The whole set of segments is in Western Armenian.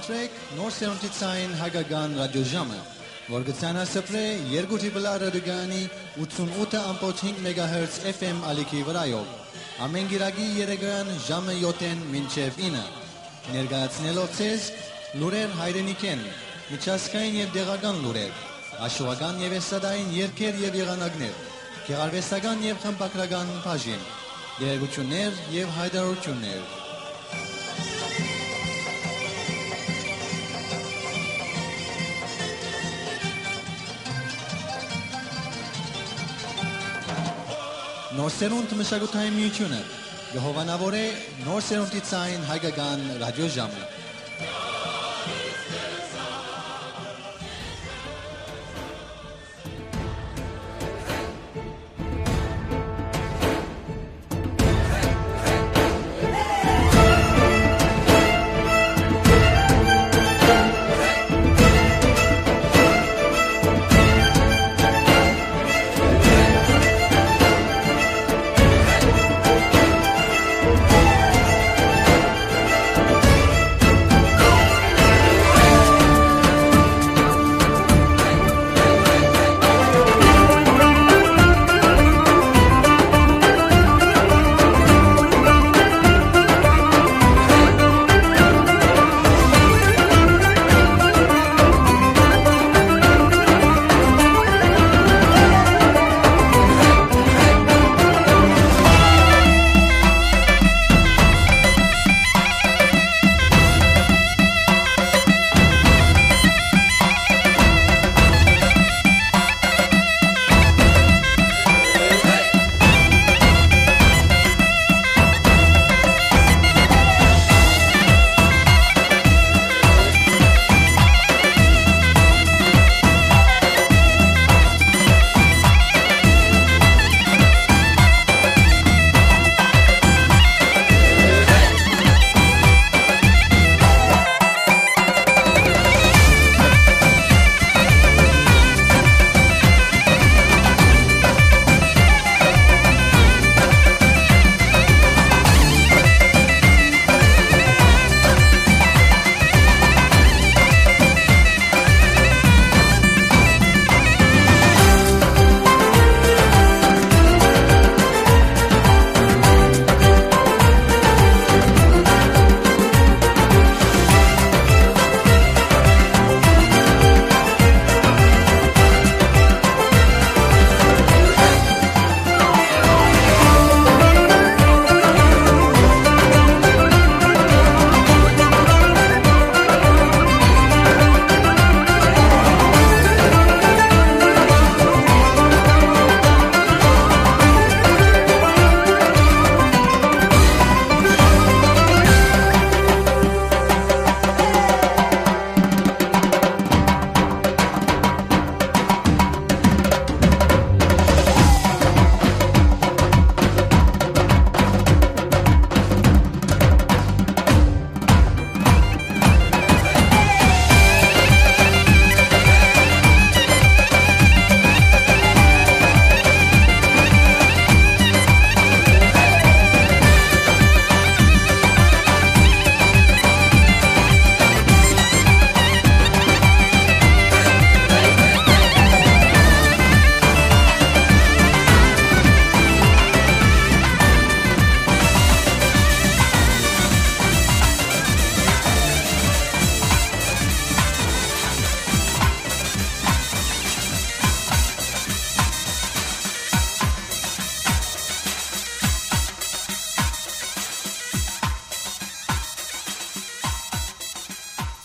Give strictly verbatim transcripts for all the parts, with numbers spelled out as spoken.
Սրեք նոր սերունդի ցային հայկական ռադիոժամը, որ կը ցանասփռէ երկու Triple R ռադիոկայանի ութսունութ ըմբոց հինգ մեգահերց F M ալիքի վրայով, ամէն կիրակի երեկոյան ժամը յոթ մինչեւ ինը, ներկայացնելով ձեզ լուրեր հայրենիքէն, միջազգային եւ տեղական լուրեր, աշուական եւ էստրադային երգեր եւ եղանակներ, գեղարուեստական եւ խմբագրական բաժին, տեղեկութիւններ եւ յայտարարութիւններ։ Նոր սերունդ մշակութային միութիւնը կը հովանաւորէ նոր սերունդի ցային հայկական ռադիոժամը։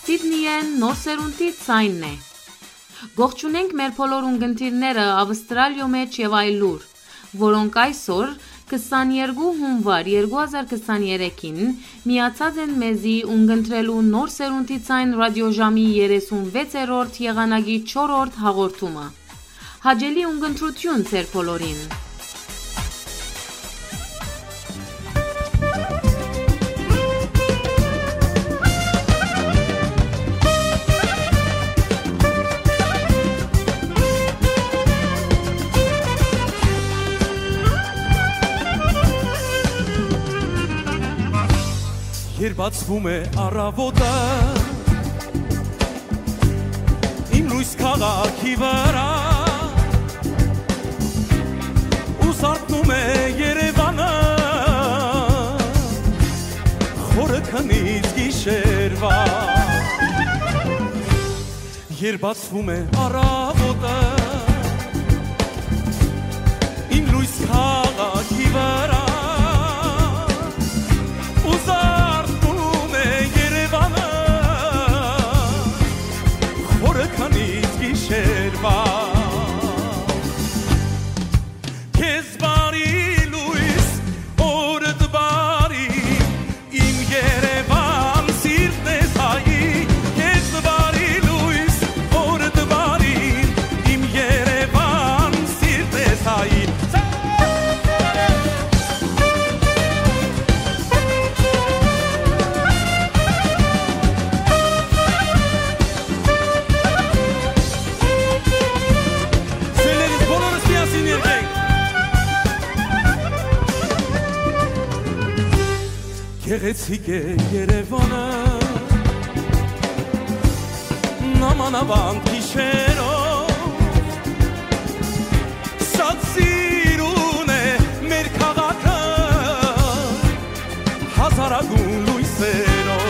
Սիդնիէն նոր սերունդի ցայնն է։ Կողջունենք մեր բոլոր ունկնդիրները Ավստրալիոյ մէջ եւ այլուր, որոնք այսօր, քսաներկու հունուար երկու հազար քսաներեքին, միացած են մեզի ունկնդրելու նոր սերունդի ցայն ռադիոժամի երեսունվեցերորդ եղանակի չորրորդ հաղորդումը։ Հաճելի ունկնդրութիւն ձեր բոլորին։ Երբ բացվում է առավոտը, Լոյս քաղաքի վրա, ու զարթնում է Երևանը, խորը քնից գիշերվա։ Երբ բացվում է առավոտը, իմ լոյս քաղաքի վրա, ու զարթնում է Երևանը, խորը քնից գիշերվա։ Քեզ բարի լոյս, օրդ բարի, իմ Երևան, սիրտն ես հայի, քեզ բարի լոյս, օրդ բարի, իմ Երևան, սիրտն ես հայի։ Սիրելիներս, բոլորս միասին երգենք։ Գեղեցիկ է Երևանը, նամանավանդ գիշերով, շատ սիրուն է մեր քաղաքը, հազարագուն լոյսերով։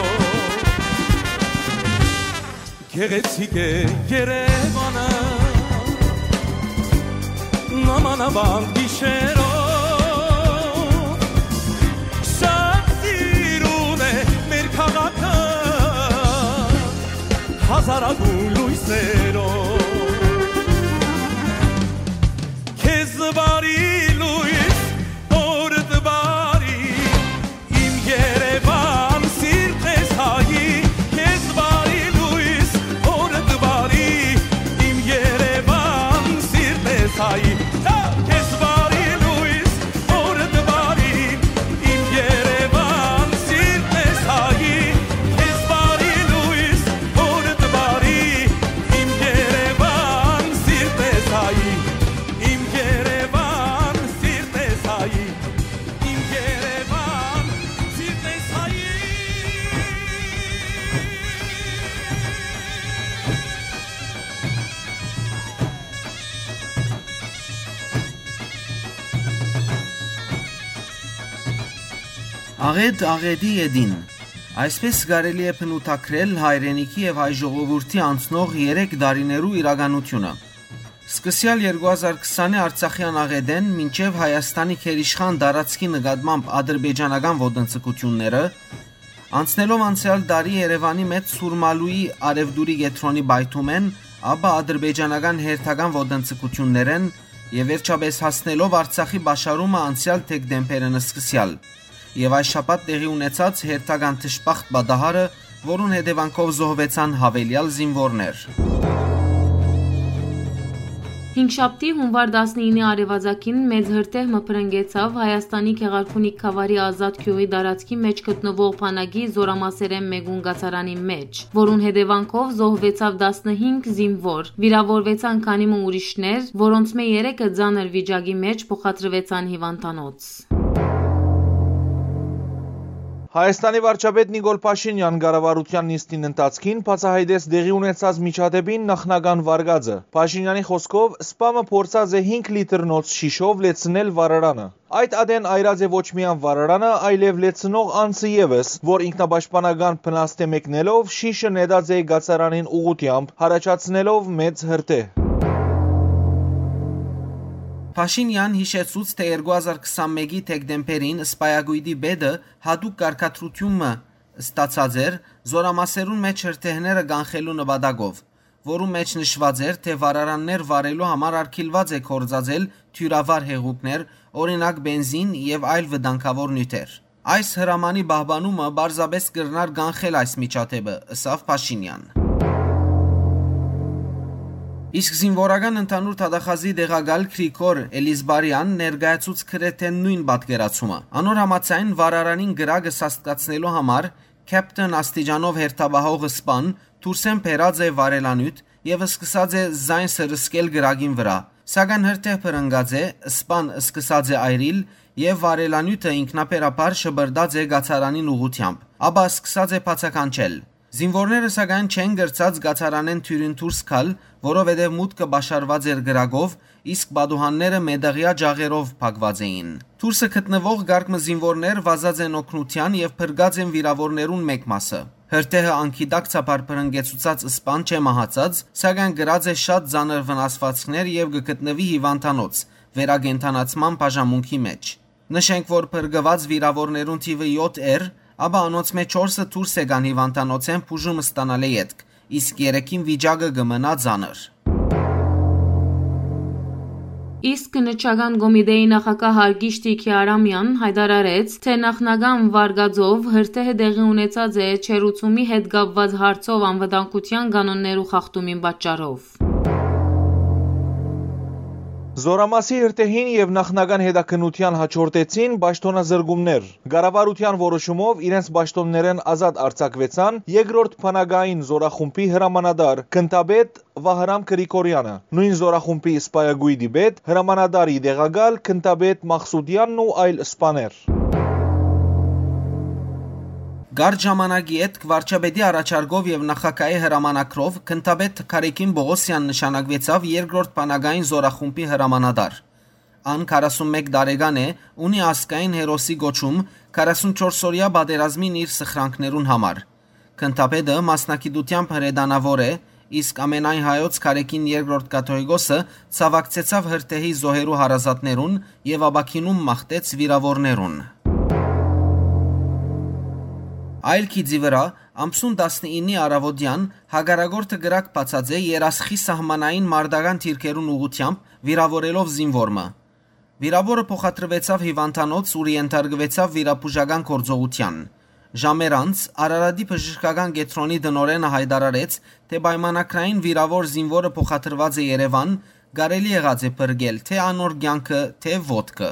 Գեղեցիկ է Երևանը, նամանավանդ գիշերով, շատ սիրուն է մեր քաղաքը, հազարագուն լոյսերով։ Քեզ բարի լոյս, օրդ բարի, իմ Երևան, սիրտն ես հայի, քեզ բարի լոյս, օրդ բարի, իմ Երևան, սիրտն ես հայի, քեզ բարի լոյս, օրդ բարի, իմ Երևան, սիրտն ես հայի, քեզ բարի լոյս, օրդ բարի, իմ Երևան, սիրտն ես հայի, իմ Երևան, սիրտն ես հայի, իմ Երևան, սիրտն ես հայի։ Աղետ աղետի ետին։ Այսպես կարելի է բնութագրել հայրենիքի եւ հայ ժողովուրդի անցնող երեք տարիներու իրականութիւնը։ Սկսեալ երկու հազար քսանի Արցախեան աղետէն մինչեւ Հայաստանի գերիշխան տարածքի նկատմամբ ադրբեջանական ոտնձգութիւնները, անցնելով անցեալ տարի Երեւանի մէջ Սուրմալուի արեւտուրի կեդրոնի պայթումէն, ապա ադրբեջանական հերթական ոտնձգութիւններէն եւ վերջապէս հասնելով Արցախի պաշարումը անցեալ դեկտեմբերէն սկսեալ եւ այս շաբաթ տեղի ունեցած հերթական դժբախտ պատահարը, որուն հետեւանքով զոհուեցան յաւելեալ զինուորներ։ Հինգշաբթի, հունուար տասնինը արեւածագին մեծ հրդեհ մը բռնկեցաւ Հայաստանի Գեղարքունիք գաւառի Ազատ գիւղի տարածքի մէջ գտնուող բանակի զօրամասերէն մէկուն կացարանին մէջ, որուն հետեւանքով զոհուեցաւ տասնհինգ զինուոր, վիրաւորուեցան քանի մը ուրիշներ, որոնցմէ երեքը ծանր վիճակի մէջ փոխադրուեցան հիւանդանոց։ Հայաստանի վարչապետ Նիկոլ Փաշինեան կառավարութեան նիստին ընթացքին բացայայտեց տեղի ունեցած միջադեպին նախնական վարկածը։ Փաշինեանի խօսքով, սպամը փորձած է հինգ լիտրնոց շիշով լեցնել վառարանը։ Այդ ատեն այրած է ոչ միայն վառարանը, այլեւ լեցնող անձը եւս, որ ինքնապաշտպանական բնասթէ մեկնելով շիշը նետած է կացարանին ուղղութեամբ, յառաջացնելով մեծ հրդեհ։ Փաշինեան յիշեցուց, թէ երկու հազար քսանմէկի դեկտեմբերին սպայակոյտի պետը յատուկ կարգադրութիւն մը ստացած էր զօրամասերուն մէջ հրդեհները կանխելու նպատակով, որուն մէջ նշուած էր, թէ վառարաններ վառելու համար արգիլուած է գործածել դիւրավառ հեղուկներ, օրինակ, պենզին եւ այլ վտանգաւոր նիւթեր։ Այս հրամանի պահպանումը պարզապէս կրնար կանխել այս միջադէպը, ըսաւ Փաշինեան։ Իսկ զինուորական ընդհանուր դատախազի տեղակալ Գրիգոր Էլիզբարեան ներկայացուց գրեթէ նոյն պատկերացումը։ Անոր համաձայն, վառարանին կրակը սաստկացնելու համար Քեփթեն աստիճանով հերթապահող սպան դուրսէն բերած է վառելանիւթ եւ սկսած է զայն սրսկել կրակին վրայ, սակայն հրդեհ բռնկած է, սպան սկսած է այրիլ եւ վառելանիւթը ինքնաբերաբար շպրտած է կացարանին ուղղութեամբ, ապա սկսած է բացականչել։ Զինուորները, սակայն, չեն կրցած կացարանէն դիւրին դուրս գալ, որովհետեւ մուտքը պաշարուած էր կրակով, իսկ պատուհանները մետաղեայ ջաղերով փակուած էին։ Դուրսը գտնուող կարգ մը զինուորներ վազած են օգնութեան եւ փրկած են վիրաւորներուն մէկ մասը։ Հրդեհը անգիտակցաբար բռնկեցուցած սպան չէ մահացած, սակայն կրած է շատ ծանր վնասուածքներ եւ կը գտնուի հիւանդանոց վերակենդանացման բաժանմունքի մէջ։ Նշենք, որ փրկուած վիրաւորներուն թիւը եօթ էր, ապա անոնց մէջ չորսը դուրս եկան հիւանդանոցէն բուժում ստանալէ ետք, իսկ երեքին վիճակը կը մնայ ծանր։ Իսկ Քննչական կոմիտէի նախագահ Հարգիշ Տիգի Արամեան յայտարարեց, թէ նախնական վարկածով հրդեհը տեղի ունեցած է չերուցումի հետ կապուած հարցով անվտանգութեան կանոններու խախտումին պատճառով։ Զօրամասի հրդեհին եւ նախնական հետաքննութեան յաջորդեցին պաշտօնազրկումներ։ Կառավարութեան որոշումով իրենց պաշտօններէն ազատ արձակուեցան երկրորդ բանակային զօրախումբի հրամանատար, գնդապետ Վահրամ Գրիգորեանը, նոյն զօրախումբի սպայակոյտի պետ, հրամանատարի տեղակալ, գնդապետ Մախսուդեանն ու այլ սպաներ։ Կարճ ժամանակի ետք վարչապետի առաջարկով եւ նախագահի հրամանագրով գնդապետ Գարեգին Պողոսեան նշանակուեցաւ երկրորդ բանակային զօրախումբի հրամանատար։ Ան քառասունմէկ տարեկան է, ունի ազգային հերոսի կոչում քառասունչորս օրեայ պատերազմին իր սխրանքներուն համար։ Գնդապետը մասնագիտութեամբ հրետանաւոր է, իսկ ամենայն հայոց Գարեգին երկրորդ կաթողիկոսը ցաւակցեցաւ հրդեհի զոհերու հարազատներուն եւ ապաքինում մաղթեց վիրաւորներուն։ Այլ գիծի վրայ, ամսուն տասնիննի առաւօտեան հակառակորդը կրակ բացած է Երասխի սահմանային մարտական դիրքերուն ուղղութեամբ, վիրաւորելով զինուոր մը։ Վիրաւորը փոխադրուեցաւ հիւանդանոց, ուր ենթարկուեցաւ վիրաբուժական գործողութեան։ Ժամեր անց Արարատի բժշկական կեդրոնի տնօրէնը յայտարարեց, թէ պայմանագրային վիրաւոր զինուորը փոխադրուած է Երեւան, կարելի եղած է փրկել թէ անոր կեանքը, թէ ոտքը։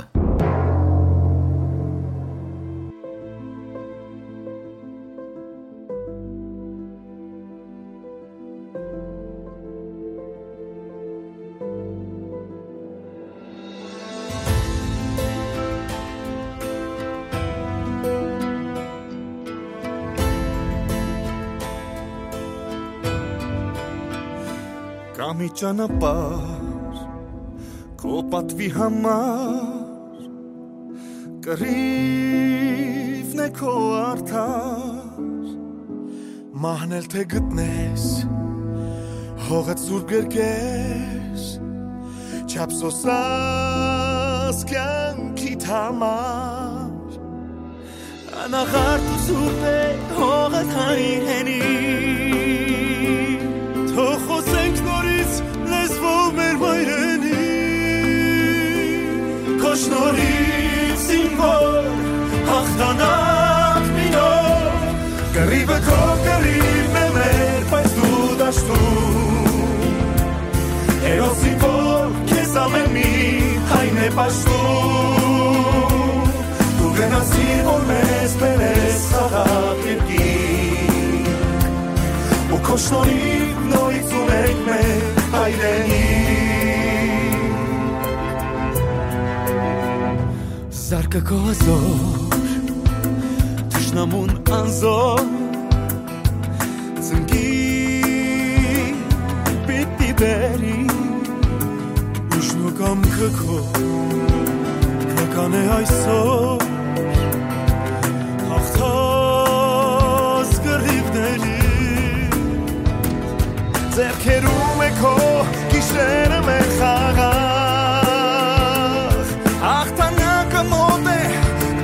Կա մի ճանապարհ քո պատուի համար, կռիվն է քո արդար, մահն էլ թէ գտնես, հողդ սուրբ կերկես, չափ սոսաս կեանքիդ համար։ Անաղարտ ու սուրբ է հողդ, հայր հենի, թող խօսենք նորից լեզվով մեր մայրենի, քո շնորհիվ զինվոր հաղթանակ մինոր, կռիվը քո կռիվն է մեր, բայց դու դաշտում, հերոս զինվոր քեզ ամէն մի հայն է պաշտում, դու գնացիր, որ մեզ բերես խաղաղ երկիր, ու քո շնորհիվ նորից ունենք մեր հայրենիք։ Զարկը քո հազոր, թշնամուն անզոր, ծնկի պիտի բերի, ուժն ու կամքը քո, քնական է այսօր, հաղթած կռիվների, ձեռքերում է քո գիշերը մեր խաղաղ, հաղթանակը մոտ է,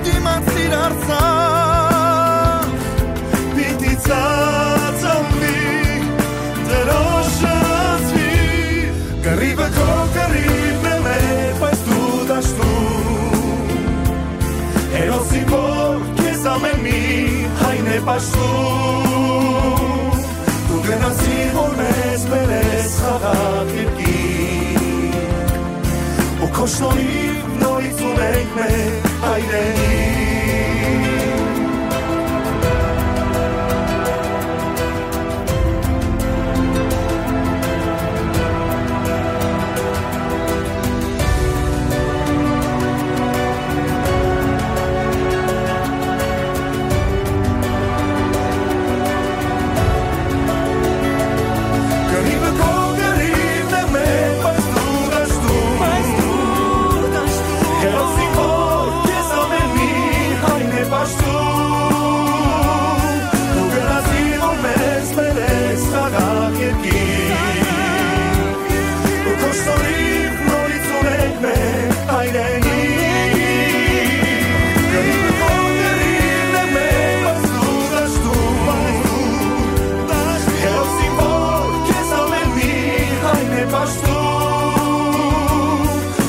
դիմացիր Արցախ, պիտի ծածանվի, դրոշը զգի, կռիվը քո կռիվն է մեր, բայց դու դաշտում, հերոս զինվոր քեզ ամէն մի հայն է պաշտում, դու գնացիր, որ մեզ բերես խաղաղ երկիր, ու քո շնորհիվ նորից ունենք մեր հայրենիք։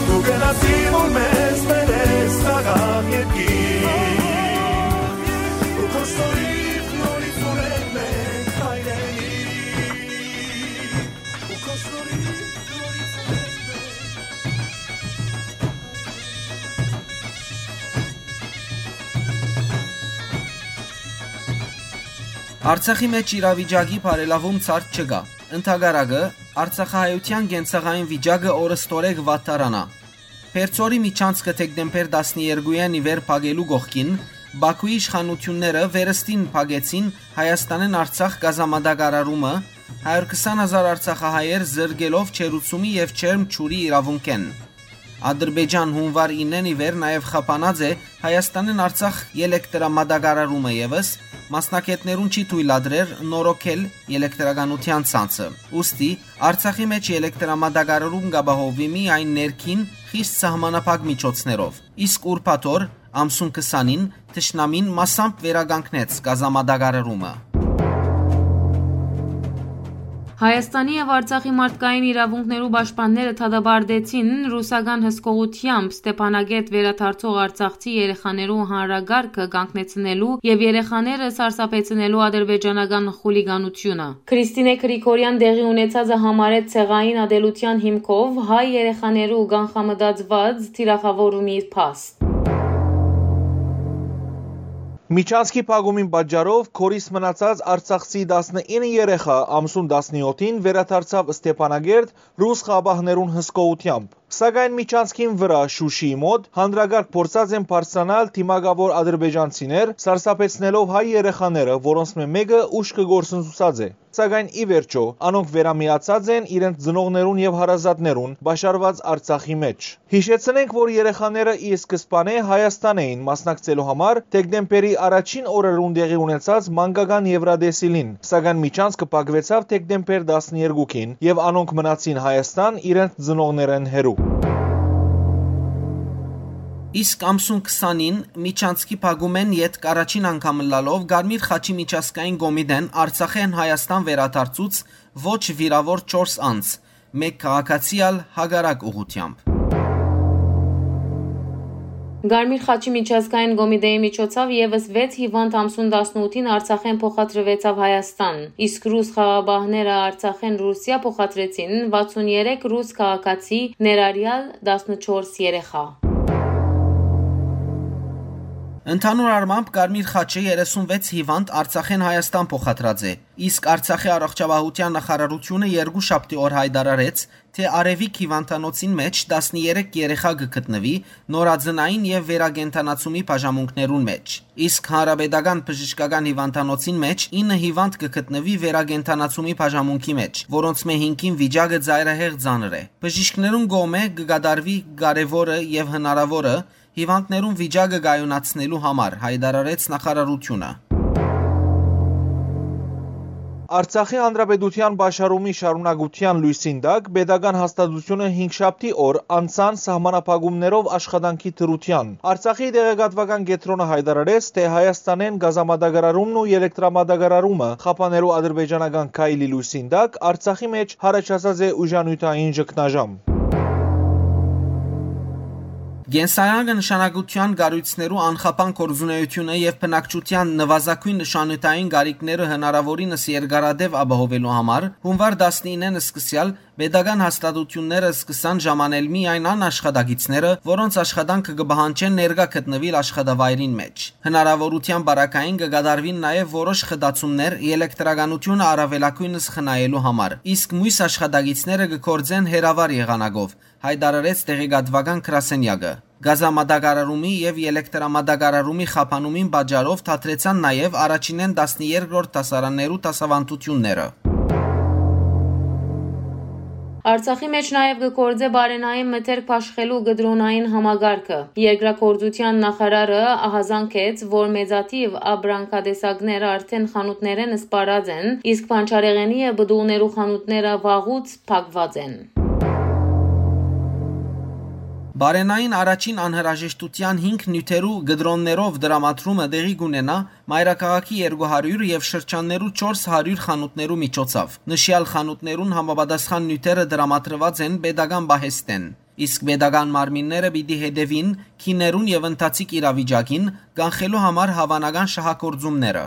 Դու գնացի, որ մեզ բերես խաղաղ երկիր, ու քո շնորհիվ նորից ունենք մենք հայրենիք, ու քո շնորհիվ նորից ունենք մենք հայրենիք։ Արցախի մէջ իրավիճակի բարելաւում ցարդ չկայ։ Ընդհակառակը, արցախահայութեան կենցաղային վիճակը օրը ստորեկ վատթարանայ։ Բերձորի միջանցքը դեկտեմբեր տասներկուին ի վեր փակելու կողքին, Բաքուի իշխանութիւնները վերստին փակեցին Հայաստանէն Արցախ գազամատակարարումը, հարիւր քսան հազար արցախահայեր զրկելով ջերուցումի եւ ջերմ ջուրի իրաւունքէն։ Ադրբեջան յունուար իննէն ի վեր նաեւ խափանած է Հայաստանէն Արցախ ելեկտրամատակարարումը եւս, մասնագէտներուն չի թոյլատրեր նորոգել ելեկտրականութեան ցանցը։ Ուստի Արցախի մէջ ելեկտրամատակարարում կ'ապահովուի միայն ներքին խիստ սահմանափակ միջոցներով, իսկ ուրբաթ օր, ամսուն քսանին, թշնամին մասամբ վերականգնեց գազամատակարարումը։ Հայաստանի եւ Արցախի մարդկային իրաւունքներու պաշտպանները դատապարտեցին ռուսական հսկողութեամբ Ստեփանակերտ վերադարձող արցախցի երեխաներու հանրակարգը կանգնեցնելու եւ երեխաները սարսափեցնելու ադրբեջանական խուլիգանությունը։ Քրիստինե Գրիգորեան տեղի ունեցածը համարեց ցեղային ատելության հիմքով հայ երեխաներու կանխամտածուած թիրախաւորումի փաստ։ Միջանցքի փակումին պատճառով կորիս մնացած արցախցի տասնինը երեխա ամսուն տասնեօթին վերադարձաւ Ստեփանակերտ ռուս խաղապահներուն հսկողութեամբ։ Սակայն միջանցքին վրայ Շուշիի մօտ հանրակարգ փորձած են բարձրանալ դիմակաւոր ադրբեջանցիներ, սարսափեցնելով հայ երեխաները, որոնցմէ մէկը ուշքը կորսնցուցած է։ Սակայն ի վերջոյ, անոնք վերամիացած են իրենց ծնողներուն եւ հարազատներուն պաշարուած Արցախի մէջ։ Յիշեցնենք, որ երեխաները ի սկզբանէ Հայաստան էին մասնակցելու համար դեկտեմբերի առաջին օրերուն տեղի ունեցած մանկական Եվրատեսիլին, սակայն միջանցքը փակուեցաւ դեկտեմբեր տասներկուին եւ անոնք մնացին Հայաստան իրենց ծնողներէն հեռու։ Իսկ ամսուն քսանին միջանցքի փակումէն ետք առաջին անգամ ըլլալով Կարմիր խաչի միջազգային կոմիտէն Արցախէն Հայաստան վերադարձուց ոչ վիրաւոր չորս անձ, մէկ քաղաքացի ալ հակառակ ուղղութեամբ։ Կարմիր խաչի միջազգային կոմիտեի միջոցաւ եւս վեց հիվանդ ամսուն տասնութին Արցախէն փոխադրուեցաւ Հայաստան, իսկ ռուս խաղապահները Արցախէն Ռուսիա փոխադրեցին վաթսուն երեք ռուս քաղաքացի, ներառյալ տասնչորս երեխա։ Ընդհանուր առմամբ Կարմիր խաչը երեսունվեց հիվանդ Արցախէն Հայաստան փոխադրած է, իսկ Արցախի առողջապահութեան նախարարութիւնը երկուշաբթի օր յայտարարեց, թէ Արեւիկ հիվանդանոցին մէջ տասներեք երեխա կը գտնուի նորածնային եւ վերակենդանացումի բաժանմունքներուն մէջ, իսկ Հանրապետական բժշկական հիվանդանոցին մէջ ինը հիվանդ կը գտնուի վերակենդանացումի բաժանմունքի մէջ, որոնցմէ հինգին վիճակը ծայրահեղ ծանր է։ Բժիշկներուն կողմէ կը կատարուի կարեւորը եւ հնարաւորը հիվանդներուն վիճակը կայունացնելու համար, յայտարարեց նախարարութիւնը։ Արցախի Հանրապետութեան պաշարումի շարունակութեան լոյսին տակ պետական հաստատութիւնը հինգշաբթի օր անցան սահմանափակումներով աշխատանքի դրութեան։ Արցախի տեղեկատուական կեդրոնը յայտարարեց, թէ Հայաստանէն գազամատակարարումն ու ելեկտրամատակարարումը խափաներու ադրբեջանական քայլի լոյսին տակ Արցախի մէջ յառաջացած է ուժանիւթային ճգնաժամ։ Կենսական նշանակութեան կառոյցներու անխափան գործունեութիւնը եւ բնակչութեան նուազագոյն նշանութային կարիքները հնարաւորինս երկարատեւ ապահովելու համար, յունուար տասնինեն սկսեալ պետական հաստատութիւնները սկսան ժամանել միայն այն աշխատակիցները, որոնց աշխատանքը կը պահանջէ ներկայ գտնուիլ աշխատավայրին մէջ։ Հնարաւորութեան պարագային կը կատարուին նաեւ որոշ խտացումներ ելեկտրականութիւնը առաւելագոյնս խնայելու համար, իսկ միւս աշխատակիցները կը գործեն հեռավար եղանակով, յայտարարեց տեղեկատուական գրասենեակը։ Գազամատակարարումի եւ ելեկտրամատակարարումի խափանումին պատճառով դադրեցան նաեւ առաջինէն տասներկրորդ դասարաններու դասաւանդութիւնները։ Արցախի մէջ նաեւ կը գործէ բարենային մթերք բաշխելու կտրոնային համակարգը։ Երկրագործութեան նախարարը ահազանգեց, որ մեծաթիւ ապրանքատեսակներ արդէն խանութներէն սպառած են, իսկ բանջարեղէնի եւ պտուղներու խանութները վաղուց փակուած են։ Պարենային առաջին անհրաժեշտութեան հինգ նիւթերու կտրոններով տրամադրումը տեղի կ'ունենայ մայրաքաղաքի երկու հարիւր եւ շրջաններու չորս հարիւր խանութներու միջոցով։ Նշեալ խանութներուն համապատասխան նիւթերը տրամադրուած են պետական պահեստէն, իսկ պետական մարմինները պիտի հետեւին գիներուն եւ ընթացիկ իրավիճակին, կանխելու համար հաւանական շահագործումները։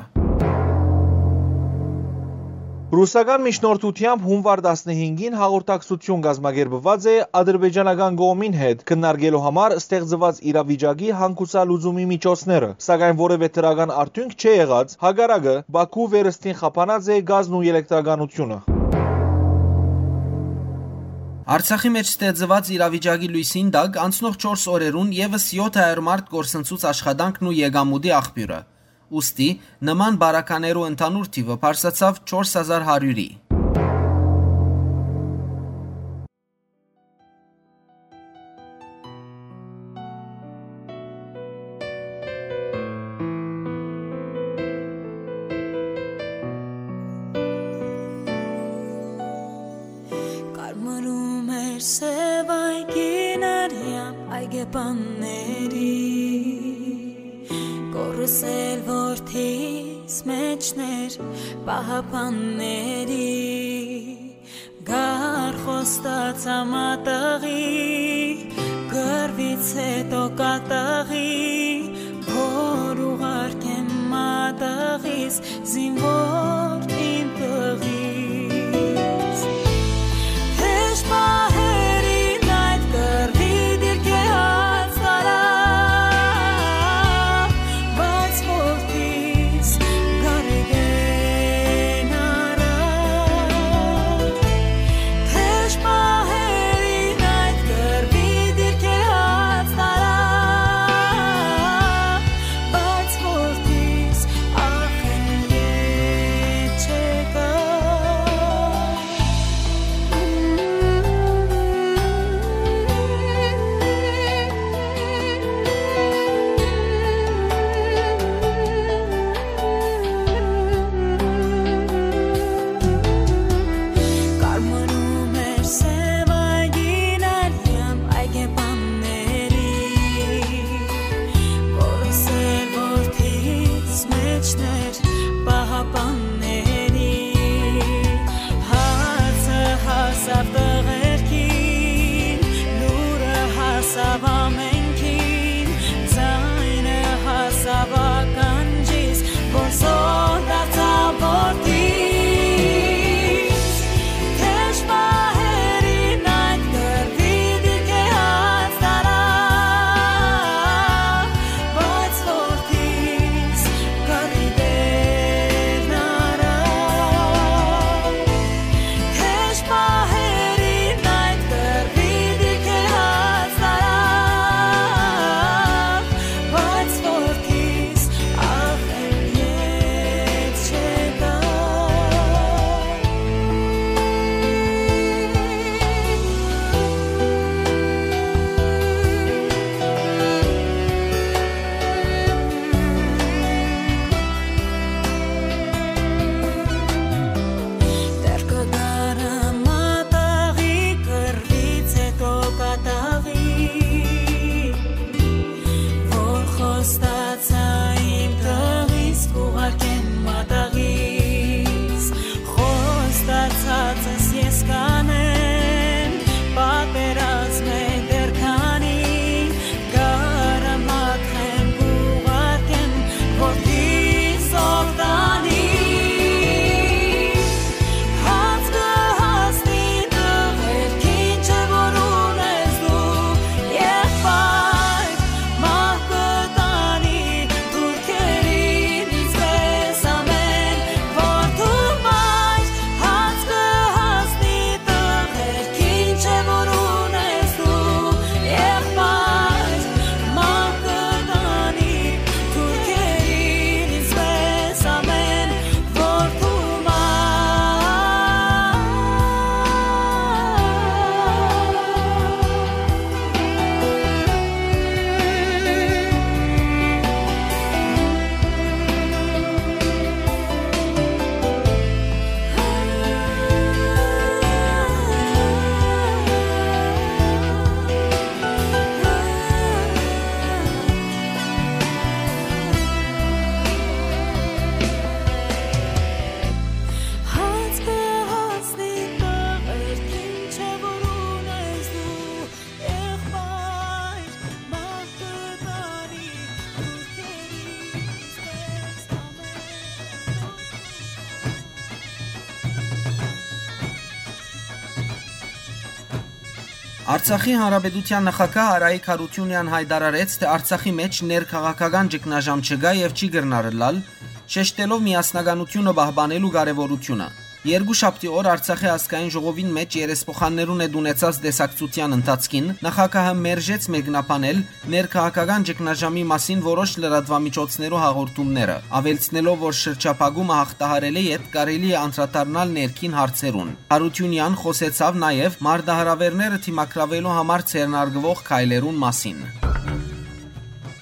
Ռուսական միջնորդութեամբ հունուար տասնհինգին հաղորդակցութիւն կազմակերպուած է ադրբեջանական կողմին հետ քննարկելու համար ստեղծուած իրավիճակի հանգուցալուծումի միջոցները, սակայն որեւէ դրական արդիւնք չէ եղած, հակառակը, Բաքու վերստին խափանած է գազն ու ելեկտրականությունը։ Արցախի մէջ ստեղծուած իրավիճակի լոյսին տակ անցնող չորս օրերուն եւս եթ հարիւր մարդ կորսնցուց աշխատանքն ու եկամուտի աղբիւրը։ Ուստի, նման պարագաներու ընդհանուր թիւը բարձրացաւ չորս հազար հարիւրի։ Կարմրում էր սեւ այգին արեան այգեպանների, կորս էլ որդիս մեջներ պահապանների, գար խոստացա մատաղի, կռվից հետո կատաղի, որ ուղարկեմ մատաղիս զինվոր իմ տղիս։ Թեժ պահերին այդ կռվի դիրքէ հաց տարա, բայց որդիս գարեգեն առա։ Թեժ պահերին այդ կռվի դիրքէ հաց տարա, բայց որդիս ախ են ետ չեկա։ Արցախի Հանրապետութեան նախագահ Արայիկ Յարութիւնեան յայտարարեց, թէ Արցախի մէջ ներքաղաքական ճգնաժամ չկայ եւ չի կրնար ըլլալ, շեշտելով միասնականութիւնը պահպանելու կարեւորութիւնը։ Երկու շաբթի օր Արցախի ազգային ժողովին մէջ երեսփոխաններուն հետ ունեցած տեսակցութեան ընթացքին նախագահը մերժեց մեկնաբանել ներքաղաքական ճգնաժամի մասին որոշ լրատուամիջոցներու հաղորդումները, աւելցնելով, որ շրջափակումը յաղթահարելէ յետ կարելի է անդրադառնալ ներքին հարցերուն։ Յարութիւնեան խօսեցաւ նաեւ մարտահրաւէրները դիմագրաւելու համար ձեռնարկուող քայլերուն մասին։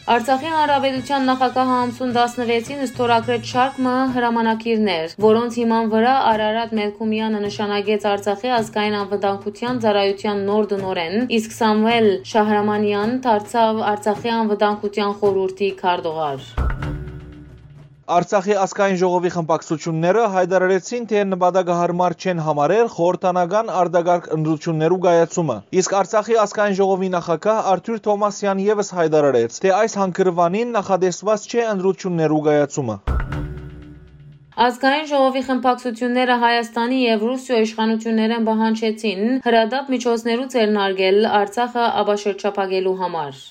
Արցախի Հանրապետութեան նախագահը ամսուն տասնեթին ստորագրեց շարք մը հրամանագիրներ, որոնց հիման վրայ Արարատ Մելքումեանը նշանակեց Արցախի ազգային անվտանգության ծառայութեան նոր տնօրէն, իսկ Սամուել Շահրամանեան դարձաւ Արցախի անվտանգության խորհուրդի քարտուղար։ Արցախի ազգային ժողովի խմբակցութիւնները յայտարարեցին, թէ նպատակը յարմար չեն համարեր խորհրդանական արտակարգ ընտրութիւններու կայացումը։ Իսկ Արցախի ազգային ժողովի նախագահ Արթուր Թովմասեան եւս յայտարարեց, թէ այս հանգրուանին նախատեսուած չէ ընտրութիւններու կայացումը։ Ազգային ժողովի խմբակցութիւնները Հայաստանի եւ Ռուսիոյ իշխանութիւններէն պահանջեցին հրատապ միջոցներու ձեռնարկել Արցախը ապաշրջափակելու համար։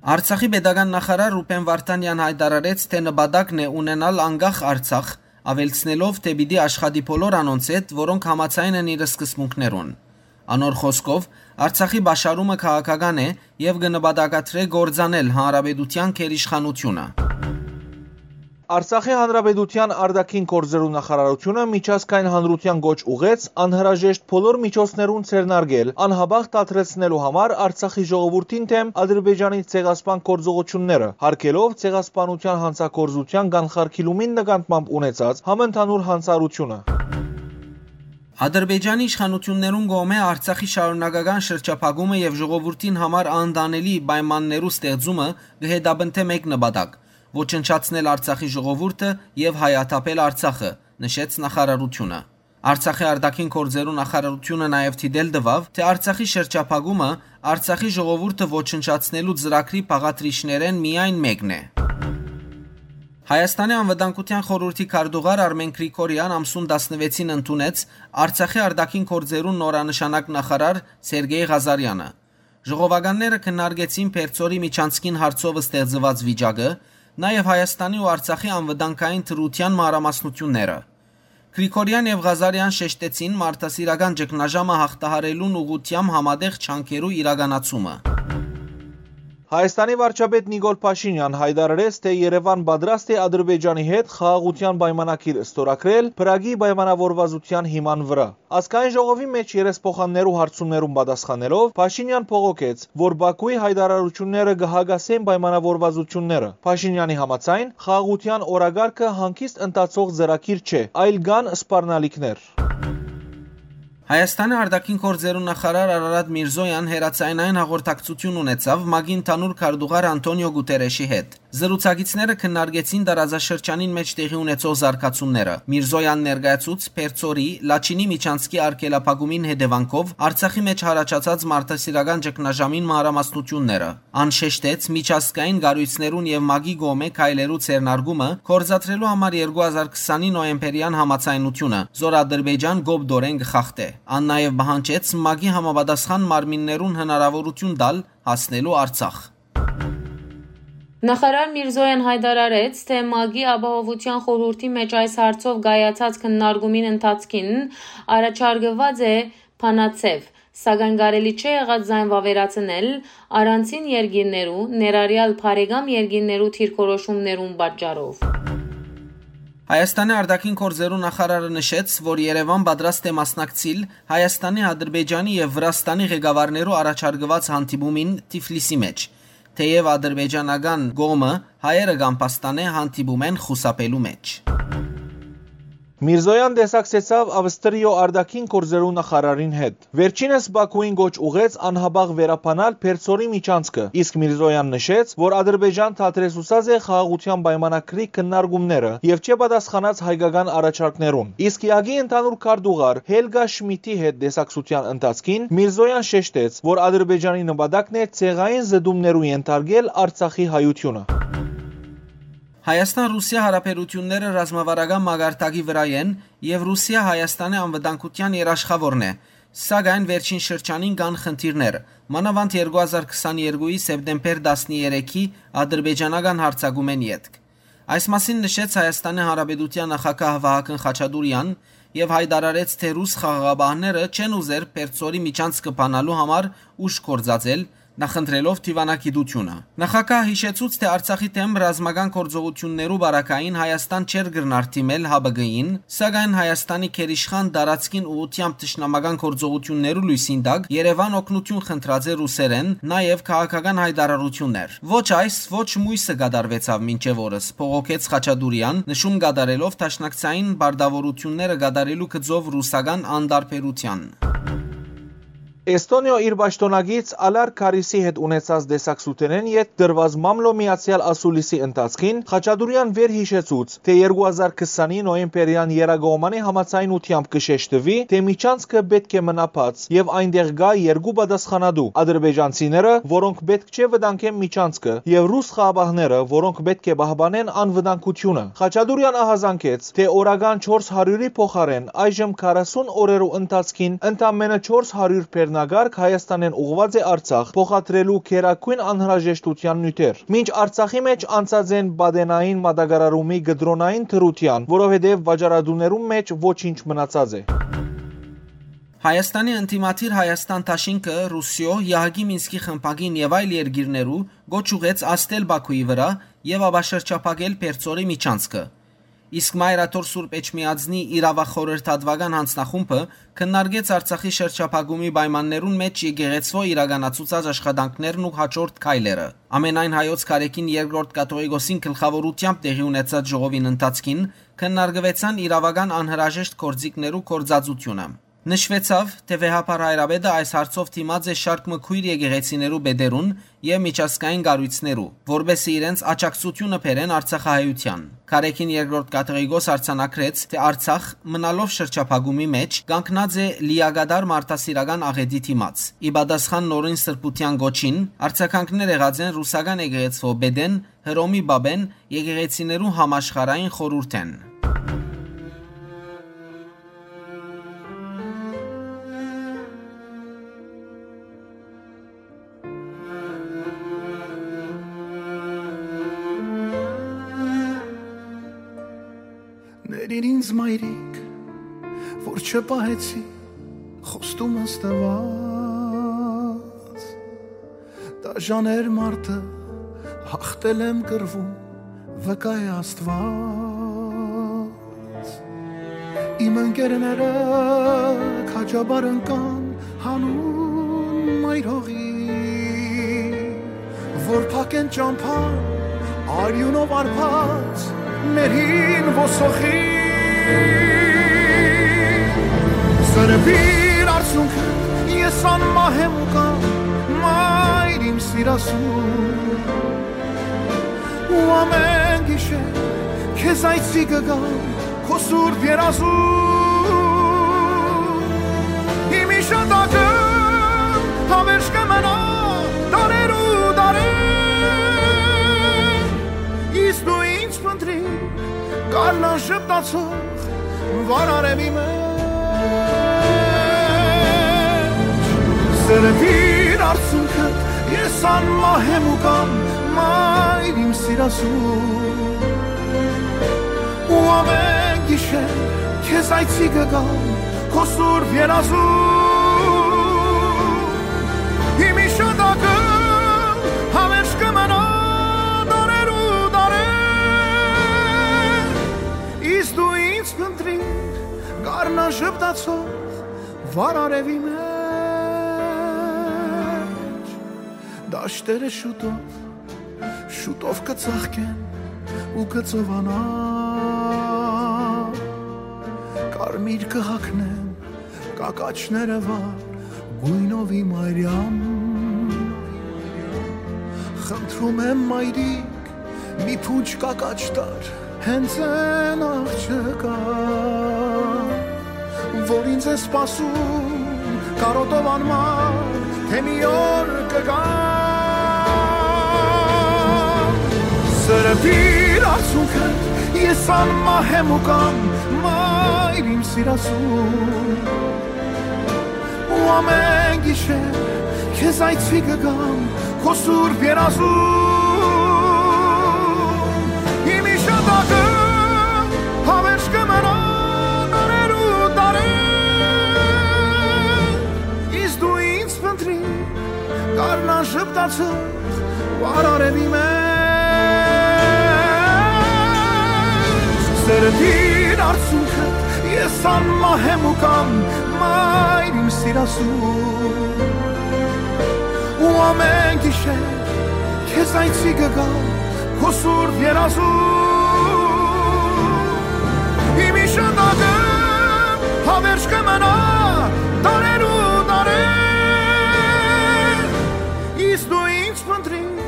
Արցախի պետական նախարար Ռուբեն Վարդանեան յայտարարեց, թէ նպատակն է ունենալ անկախ Արցախ, աւելցնելով, թէ պիտի աշխատի բոլոր անոնց հետ, որոնք համաձայն են իր սկզբունքներուն։ Անոր խօսքով, Արցախի պաշարումը քաղաքական է եւ կը նպատակադրէ կործանել հանրապետութեան գերիշխանութիւնը։ Արցախի Հանրապետութեան արտաքին գործերու նախարարութիւնը միջազգային հանրութեան կոչ ուղղեց անհրաժեշտ բոլոր միջոցներուն ձեռնարկել անհապաղ դադրեցնելու համար Արցախի ժողովուրդին դէմ Ադրբեջանի ցեղասպան գործողութիւնները, յարգելով ցեղասպանութեան յանցագործութեան կանխարգիլումին նկատմամբ ունեցած համընդհանուր յանցարարութիւնը։ Ադրբեջանի իշխանութիւններուն կողմէ Արցախի շարունակական շրջափակումը եւ ժողովուրդին համար անընդանելի պայմաններու ստեղծումը կը հետապնդէ մէկ նպատակ՝ ոչնչացնել Արցախի ժողովուրդը եւ հայաթափել Արցախը, նշեց նախարարութիւնը։ Արցախի արտաքին գործերու նախարարութիւնը նաեւ դիտել տուաւ, թէ Արցախի շրջափակումը Արցախի ժողովուրդը ոչնչացնելու ծրագրի բաղադրիչներէն միայն մէկն է։ Հայաստանի անվտանգության խորհուրդի քարտուղար Արմեն Գրիգորեան ամսուն տասնեթին ընդունեց Արցախի արտաքին գործերու նորանշանակ նախարար Սերգեյ Ղազարեանը։ Ժողովականները քննարկեցին Պերծորի միջանցքին հարցով ստեղծուած վիճակը, նաեւ Հայաստանի ու Արցախի անվտանգային դրութեան մանրամասնութիւնները։ Գրիգորեան եւ Ղազարեան շեշտեցին մարդասիրական ճգնաժամը յաղթահարելուն ուղղութեամբ համատեղ ջանքերու իրականացումը։ Հայաստանի վարչապետ Նիկոլ Փաշինեան յայտարարեց, թէ Երեւան պատրաստ է Ադրբեջանի հետ խաղաղութեան պայմանագիր ստորագրել Փրագի պայմանավորվածութեան հիման վրայ։ Ազգային ժողովի մէջ երեսփոխաններու հարցումներուն պատասխանելով՝ Փաշինեան բողոքեց, որ Բաքուի յայտարարութիւնները կը հակասեն պայմանավորվածութիւնները։ Փաշինեանի համաձայն՝ խաղաղութեան օրակարգը հանգիստ ընթացող ծրագիր չէ, այլ կան սպառնալիքներ։ Հայաստանի արտաքին գործերու նախարար Արարատ Միրզոյան հեռաձայնային հաղորդակցութիւն ունեցաւ ՄԱԿ-ի ընդհանուր քարտուղար Անթոնիո Գուտերեշի հետ։ Զրուցակիցները քննարկեցին տարածաշրջանին մէջ տեղի ունեցող զարգացումները։ Միրզոյան ներկայացուց Պերծորի, Լաչինի միջանցքի արգելափակումին հետեւանքով Արցախի մէջ յառաջացած մարդասիրական ճգնաժամին մանրամասնութիւնները։ Ան շեշտեց միջազգային կառոյցներուն եւ ՄԱԿ-ի կողմէ քայլերու ձեռնարկումը գործադրելու համար երկու հազար քսանի նոյեմբերեան համաձայնութիւնը, զոր Ադրբեջան կոպտորեն կը խախտէ։ Ան նաեւ պահանջեց ՄԱԿ-ի համապատասխան մարմիններուն հնարաւորութիւն տալ հասնելու Արցախ։ Նախարար Միրզոյան յայտարարեց, թէ ՄԱԿ-ի Ապահովութեան խորհուրդի մէջ այս հարցով կայացած քննարկումին ընթացքին առաջարկուած է բանաձեւ, սակայն կարելի չէ եղած զայն վաւերացնել առանցին երկիրներու, ներառյալ բարեկամ երկիրներու դիրքորոշումներուն պատճառով։ Հայաստանի արտաքին գործերու նախարարը նշեց, որ Երեւան պատրաստ է մասնակցիլ Հայաստանի, Ադրբեջանի եւ Վրաստանի ղեկավարներու առաջարկուած հանդիպումին Թիֆլիսի մէջ, թէեւ ադրբեջանական կողմը հայերը կամբաստանէ հանդիպումէն խուսափելու մէջ։ Միրզոյան տեսակցեցաւ Ավստրիոյ արտաքին գործերու նախարարին հետ։ Վերջինս Բաքուին կոչ ուղղեց անհապաղ վերաբանալ Պերծորի միջանցքը, իսկ Միրզոյան նշեց, որ Ադրբեջան դադրեցուցած է խաղաղութեան պայմանագրի քննարկումները եւ չէ պատասխանած հայկական առաջարկներուն։ Իսկ յակի ընդհանուր քարտուղար Հելգա Շմիդի հետ տեսակցութեան ընթացքին Միրզոյան շեշտեց, որ Ադրբեջանի նպատակն է ցեղային զտումներու ենթարկել Արցախի հայութիւնը։ Հայաստան-Ռուսիա հարաբերութիւնները ռազմավարական մակարդակի վրայ են եւ Ռուսիա Հայաստանի անվտանգութեան երաշխաւորն է, Սակայն վերջին շրջանին կան խնդիրներ, մանաւանդ երկու հազար քսաներկուի սեպտեմբեր տասներեքի ադրբեջանական յարձակումէն ետք։ Այս մասին նշեց Հայաստանի Հանրապետութեան նախագահ Վահագն Խաչատուրեան եւ յայտարարեց, թէ ռուս խաղաղապահները չեն ուզեր Պերծորի միջանցքը բանալու համար ուժ գործածել, նախընտրելով դիվանագիտությունը։ Նախագահը յիշեցուց, թէ Արցախի դէմ ռազմական գործողութիւններու պարագային Հայաստան չէր կրնար դիմել Յ Բ Գ-ին, սակայն Հայաստանի գերիշխան տարածքին ուղղութեամբ թշնամական գործողութիւններու լոյսին տակ Երեւան օգնութիւն խնդրած է ռուսերէն, նաեւ քաղաքական յայտարարութիւններ։ «Ոչ այս, ոչ մոյսը կատարուեցաւ մինչեւ օրս», բողոքեց Խաչատուրեան, նշում կատարելով դաշնակցային պարտաւորութիւնները կատարելու գծով ռուսական անտարբերութեան։ Էստոնիոյ իր պաշտօնակից Ալար Քարիսի հետ ունեցած տեսակցութենէն ետք տրուած մամլոյ միացեալ ասուլիսի ընթացքին Խաչատուրեան վեր յիշեցուց, թէ երկու հազար քսանի նոյեմբերեան եռակողմանի համաձայնութեամբ կը շեշտուի, թէ միջանցքը պէտք է մնայ բաց եւ այնտեղ կայ երկու պատասխանատու՝ ադրբեջանցիները, որոնք պէտք չէ վտանգեն միջանցքը, եւ ռուս խաղապահները, որոնք պէտք է պահպանեն անվտանգությունը։ Խաչատուրեան ահազանգեց, թէ օրական չորս հարիւրի փոխարէն այժմ քառասուն օրերու ընթացքին ընդամենը չորս հարիւր բեռնակարգ Հայաստանէն ուղղուած է Արցախ՝ փոխադրելու գերագոյն անհրաժեշտութեան նիւթեր։ Մինչ Արցախի մէջ անցած են պատենային մատակարարումի կտրոնային դրութեան, որովհետեւ վաճառատուներուն մէջ ոչինչ մնացած է։ Հայաստանի ընդդիմադիր Հայաստան դաշինքը Ռուսիոյ, Եհակի Մինսկի խմբակին եւ այլ երկիրներու կոչ ուղղեց ազդել Բաքուի վրայ եւ ապա շրջափակել Պերծորի միջանցքը։ Իսկ Մայր Աթոռ Սուրբ Էջմիածնի իրաւախորհրդատուական յանձնախումբը քննարկեց Արցախի շրջափակումի պայմաններուն մէջ եկեղեցւոյ իրականացուցած աշխատանքներն ու հաջորդ քայլերը։ Ամենայն հայոց Կարեգին Երկրորդ Կաթողիկոսին գլխաւորութեամբ տեղի ունեցած ժողովին ընթացքին քննարկուեցան իրաւական անհրաժեշտ գործիքներու գործածութիւնը։ Նշուեցաւ, թէ Վեհափառ Հայրապետը այս հարցով դիմած է շարք մը քոյր եկեղեցիներու պետերուն եւ միջազգային կառոյցներու, որպէս զի իրենց աջակցութիւնը բերեն արցախահայութեան։ Կարեգին Երկրորդ Կաթողիկոս արձանագրեց, թէ Արցախ, մնալով շրջափակումի մէջ, կանգնած է լիակատար մարդասիրական աղէտի դիմաց։ Ի պատասխան նորին սրբութեան կոչին, արձագանքներ եղած են ռուսական եկեղեցւոյ պետէն, Հռոմի պապէն, եկեղեցիներու համաշխարհային խորհուրդէն։ Ներիր ինձ, մայրիկ, որ չպահեցի խոստումս տված։ Դաժան էր մարդը, հաղթել եմ կռվում, վկայ է Աստված։ Իմ ընկերները քաջաբար ընկան հանուն մայր հողի, որ փակեն ճամբան արիունով արբած մեր հին ոսոխի։ Սրբիր արցունքը, ես անմահ եմ ու կամ, մայր իմ սիրասուն, ու ամեն գիշեր քեզ այցի կգամ քո սուրբ երազում։ Իմ իշատակը համերժ կը մնայ դարեր ու դարեր, իսկ դու ինձ փնտրիր գարնան ժպտացող վառ արեւի մեջ։ Սրբիր արցունքը, ես անմահ եմ ու կամ, մայր իմ սիրասուն, ու ամեն գիշեր քեզ այցի կգամ քո սուրբ երազում։ Իմ իշատակը համերժ կը մնայ դարեր ու դարեր, իսկ դու ինձ փնտրիր գարնան ժպտացող վառ արեւի մեջ։ Դաշտերը շուտով, շուտով կը ծաղկեն ու կը ծովանան, կարմիր կը հագնեն կակաչները վառ գոյնովի մայրյան։ Խնդրում եմ, մայրիկ, մի փունջ կակաչ տար հենց այն աղջկա, որ ինձ է սպասում կարոտով անմար, թե մի օր կգա։ Սրբիր արցունքը, ես անմահ եմ ու կամ, մայր իմ սիրասուն, Ու ամեն գիշեր քեզ այցի կգամ քո սուրբ երազում։ Իմ իշատակը հավերժ կը մնա դարերու դարեր։ Իսկ դու ինձ փնտրիր, կառնան ժպտացող վառ արեւի մեջ։ Սերտին արցունքը ես անմահ եմ ու կամ մայր իմ սիրասու։ Ու ամեն գիշեր քեզ այցի կգամ քո սուրբ երազում։ Իմ իշատակը հավերժ կը մնա դարերու դարեր։ Իսկ դու ինձ փնտրիր,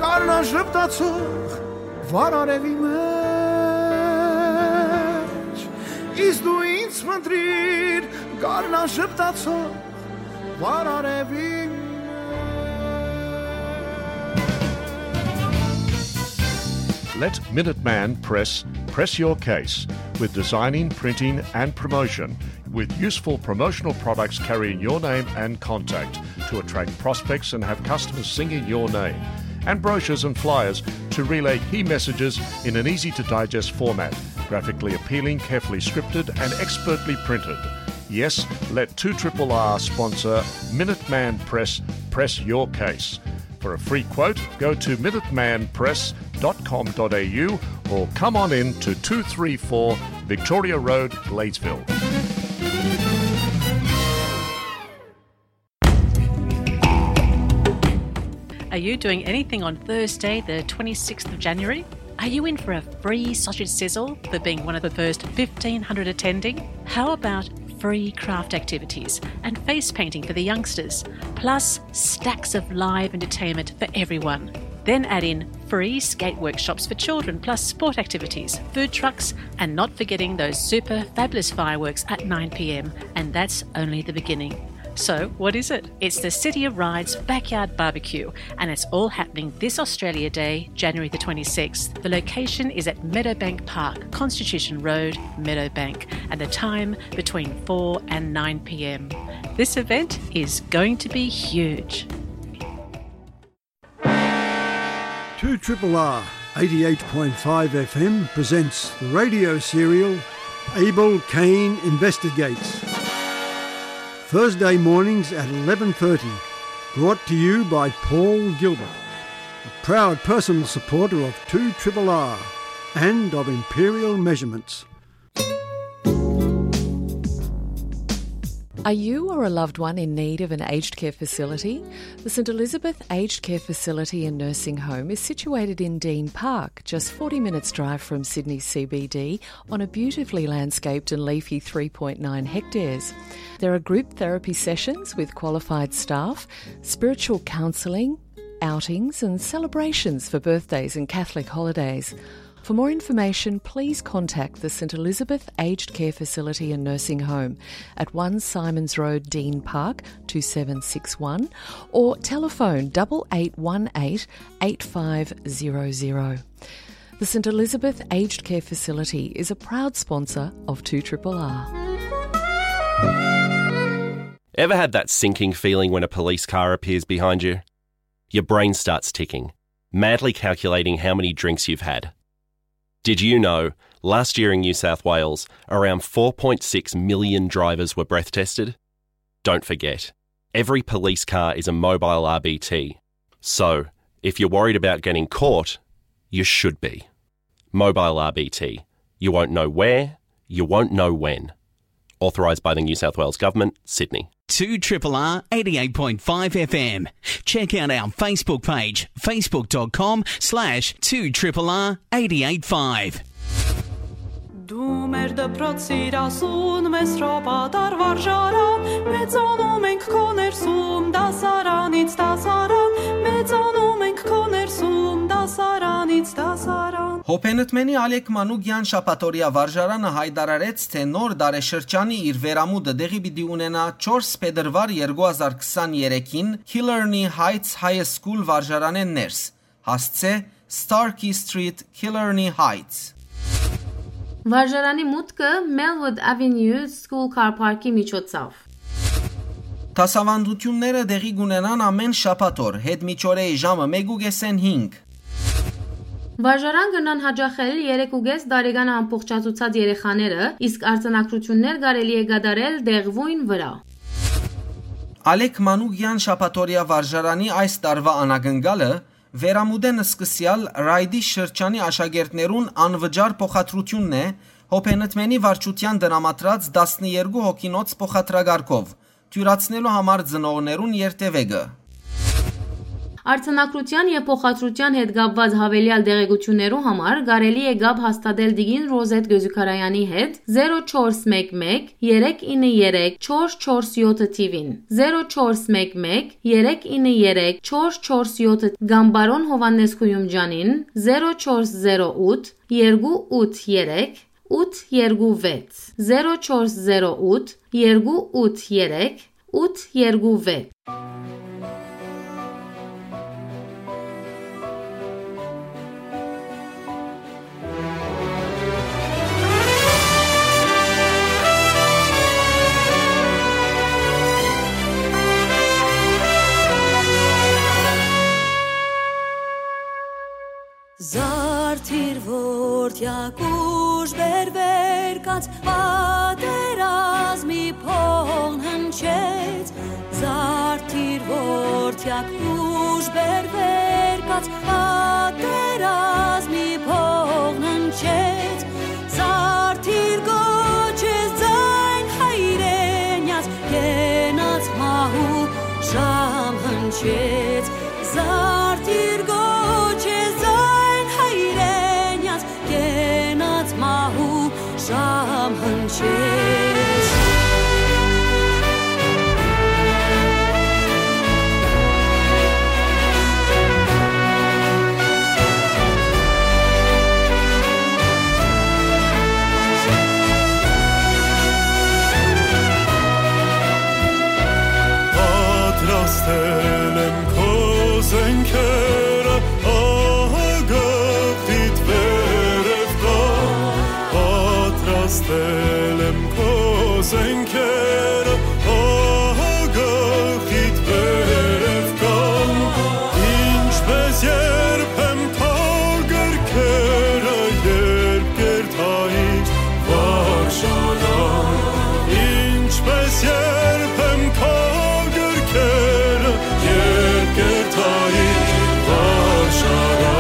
կառնան ժպտացող վառ արեւի մեջ։ Իսկ դու ինձ փնտրիր, կառնան ժպտացող վառ արեւի մեջ։ Let Minuteman Press press your case with designing, printing, and promotion, with useful promotional products carrying your name and contact to attract prospects and have customers singing your name. And brochures and flyers to relay key messages in an easy to digest format, graphically appealing, carefully scripted, and expertly printed. Yes, let two triple R sponsor Minuteman Press press your case. For a free quote, go to minuteman press dot com dot a u or come on in to two three four Victoria Road, Gladesville. Are you doing anything on Thursday, the twenty-sixth of January? Are you in for a free sausage sizzle for being one of the first fifteen hundred attending? How about free craft activities and face painting for the youngsters, plus stacks of live entertainment for everyone? Then add in free skate workshops for children, plus sport activities, food trucks, and not forgetting those super fabulous fireworks at nine p.m. And that's only the beginning. So, what is it? It's the City of Rides Backyard Barbecue, and it's all happening this Australia Day, January the twenty-sixth. The location is at Meadowbank Park, Constitution Road, Meadowbank, and the time between four and nine p.m. This event is going to be huge. Two triple R, eighty-eight point five F M presents the radio serial Abel Cain Investigates. Thursday mornings at eleven thirty, brought to you by Paul Gilbert, a proud personal supporter of two triple R and of Imperial Measurements. Are you or a loved one in need of an aged care facility? The St Elizabeth Aged Care Facility and Nursing Home is situated in Dean Park, just forty minutes' drive from Sydney C B D, on a beautifully landscaped and leafy three point nine hectares. There are group therapy sessions with qualified staff, spiritual counselling, outings and celebrations for birthdays and Catholic holidays. For more information, please contact the St Elizabeth Aged Care Facility and Nursing Home at one Simons Road, Dean Park, two seven six one, or telephone double eight one eight eight five zero zero. The St Elizabeth Aged Care Facility is a proud sponsor of two triple R. Ever had that sinking feeling when a police car appears behind you? Your brain starts ticking, madly calculating how many drinks you've had. Did you know, last year in New South Wales, around four point six million drivers were breath tested? Don't forget, every police car is a mobile R B T. So, if you're worried about getting caught, you should be. Mobile R B T. You won't know where, you won't know when. Authorised by the New South Wales Government, Sydney. Two triple R eighty-eight point five F M. Check out our Facebook page, facebook dot com slash two triple R eight eight five. Դու մեր դպրոց սիրասուն, մեզ հրապատար վարժարան, մեծանում ենք քո ներսում, դասարանից դասարան, մեծանում ենք քո ներսում, դասարանից դասարան։ Հոփենտմենի Ալեք Մանուկյան շաբաթօրեայ վարժարանը յայտարարեց, թէ նոր տարեշրջանի իր վերամուտը տեղի պիտի ունենայ չորս փետրուար երկու հազար քսանեթերթին Killarney Heights High School վարժարանէն ներս, հասցէ Starkey Street, Killarney Heights։ Վարժարանի մուտքը Melwood Avenue School Car Park-ի միջոցով։ Դասաւանդութիւնները տեղի կ'ունենան ամէն շաբաթ օր, հետ միջօրեի ժամը մէկ ու կէսէն հինգ։ Վարժարան կրնան յաճախել երեք ու կէս տարեկան ամբողջացուցած երեխաները, իսկ արձանագրութիւններ կարելի է կատարել տեղւոյն վրայ։ Ալեք Մանուկեան շաբաթօրեայ վարժարանի այս տարուայ անակնկալը վերամուտէն սկսեալ Ռայդի շրջանի աշակերտներուն անվճար փոխադրութիւնն է Հոբենտմենի վարչութեան տրամադրած տասներկու հոգինոց փոխադրակառքով, թիւրացնելու համար ծնողներուն երթեւեկը։ Արձանագրութեան եւ փոխադրութեան հետ կապուած յաւելեալ տեղեկութիւններու համար կարելի է կապ հաստատել տիկին Ռոզեթ Գոզուքարայանի հետ, զերո չորս մէկ մէկ, երեք ինը երեք, չորս չորս յոթը թիւին, զերո չորս մէկ մէկ, երեք ինը երեք, չորս չորս յոթը, կամ պարոն Յովհաննէս Գոյումճանին, զերո չորս զերո ութ, երկու ութ երեք, ութ երկու վեց, զերո չորս զերո ութ, երկու ութ երեք, ութ երկու վեց։ Զարդիր որդեակ ուժ բերվեր կաց, պատերազմի փողն հնչեց։ Զարդիր որդեակ ուժ բերվեր կաց, պատերազմի փողն հնչեց։ Զարդիր կոչեց ձայն հայրենյաց, կենաց մահու ժամ հնչեց։ Զարդիր կոչեց ձայն հայրենյաց, կենաց մահու ժամ հնչեց։ Պատրաստել եմ քո զենքերը, ահա գլխիդ վերև կա։ Պատրաստել եմ քո զենքերը, ահա գլխիդ վերև կան, ինչպես երբեմ քո գրքերը, երբ կերտայի վարժարան, ինչպես երբեմ քո գրքերը, երբ կերտայի վարժարան։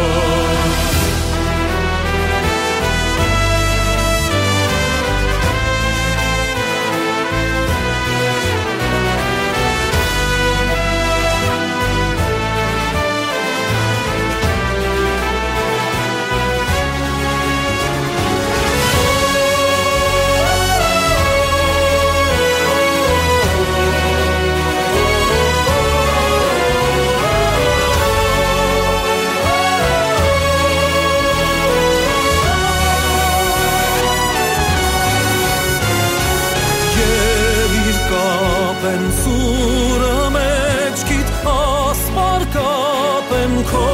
Ելիր կապեմ սուրը մեջքիդ, ասպար կապեմ քո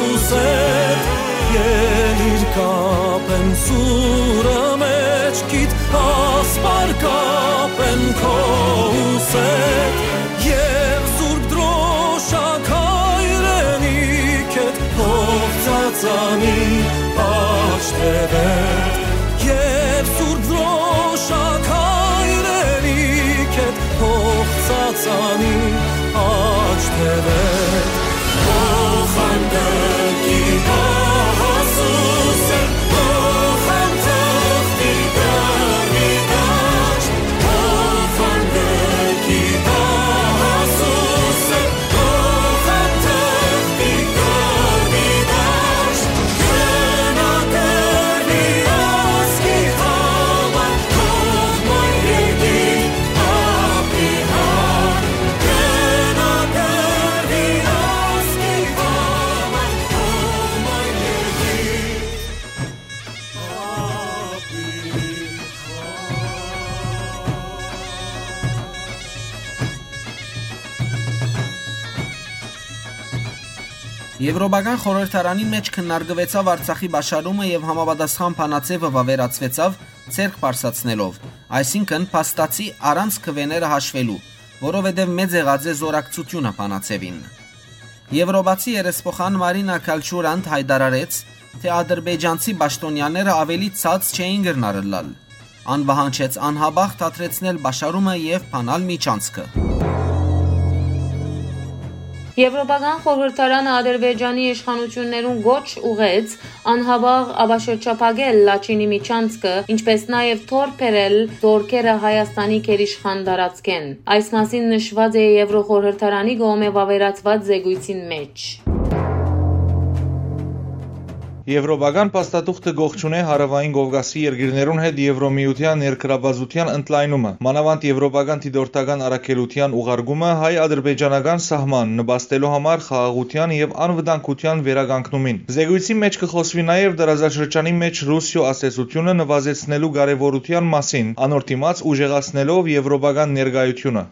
ուսեդ։ Ելիր կապեմ սուրը մեջքիդ, ասպար կապեմ քո ուսեդ։ Եւ Սուրբ Դրոշակ հայրենիքդ, հող ծածանի աջ թեւեդ, եւ Սուրբ Դրոշակ հայրենիքդ, հող ծածանի աջ թեւեդ։ Օխանդ կի գահասուսը, օխանդ թղթի գարի դաշտ, օխանդ կի գահասուսը, Եվրոպական խորհրդարանին մէջ քննարկուեցաւ Արցախի պաշարումը եւ համապատասխան բանաձեւը վաւերացուեցաւ ձեռք բարձրացնելով, այսինքն փաստացի առանց քուէները հաշվելու։ որովհետեւ մեծ եղած է զօրակցութիւնը բանաձեւին։ Եւրոպացի երեսփոխան Մարինա Քալչուրանդ յայտարարեց, թէ ադրբեջանցի պաշտոնյաները աւելի ցած չէին կրնար ըլլալ։ Ան պահանջեց անհապաղ դադրեցնել պաշարումը եւ բանալ միջանցքը։ Եվրոպական խորհրդարանը Ադրբեջանի իշխանություններուն կոչ ուղղեց անհապաղ ապաշրջափակել Լաչինի միջանցքը, ինչպէս նաեւ թոռ բերել զօրքերը Հայաստանի գերիշխան տարածքէն։ Այս մասին նշուած է Եվրոխորհրդարանի կողմէ վաւերացուած զեկոյցին մէջ։ Եվրոպական փաստաթուղթը կողջունէ Հարաւային Կովկասի երկիրներուն հետ Եվրոմիութեան ներգրաւվածութեան ընդլայնումը, մանաւանդ եվրոպական դիտորդական առաքելութեան ուղարկումը հայ-ադրբեջանական սահման նպաստելու համար խաղաղութեան եւ անվտանգութեան վերականգնումին։ Զեկոյցի մէջ կը խօսուի նաեւ տարածաշրջանի մէջ Ռուսիոյ ազդեցութիւնը նուազեցնելու կարեւորութեան մասին, անոր դիմաց ուժեղացնելով եվրոպական ներկայութիւնը։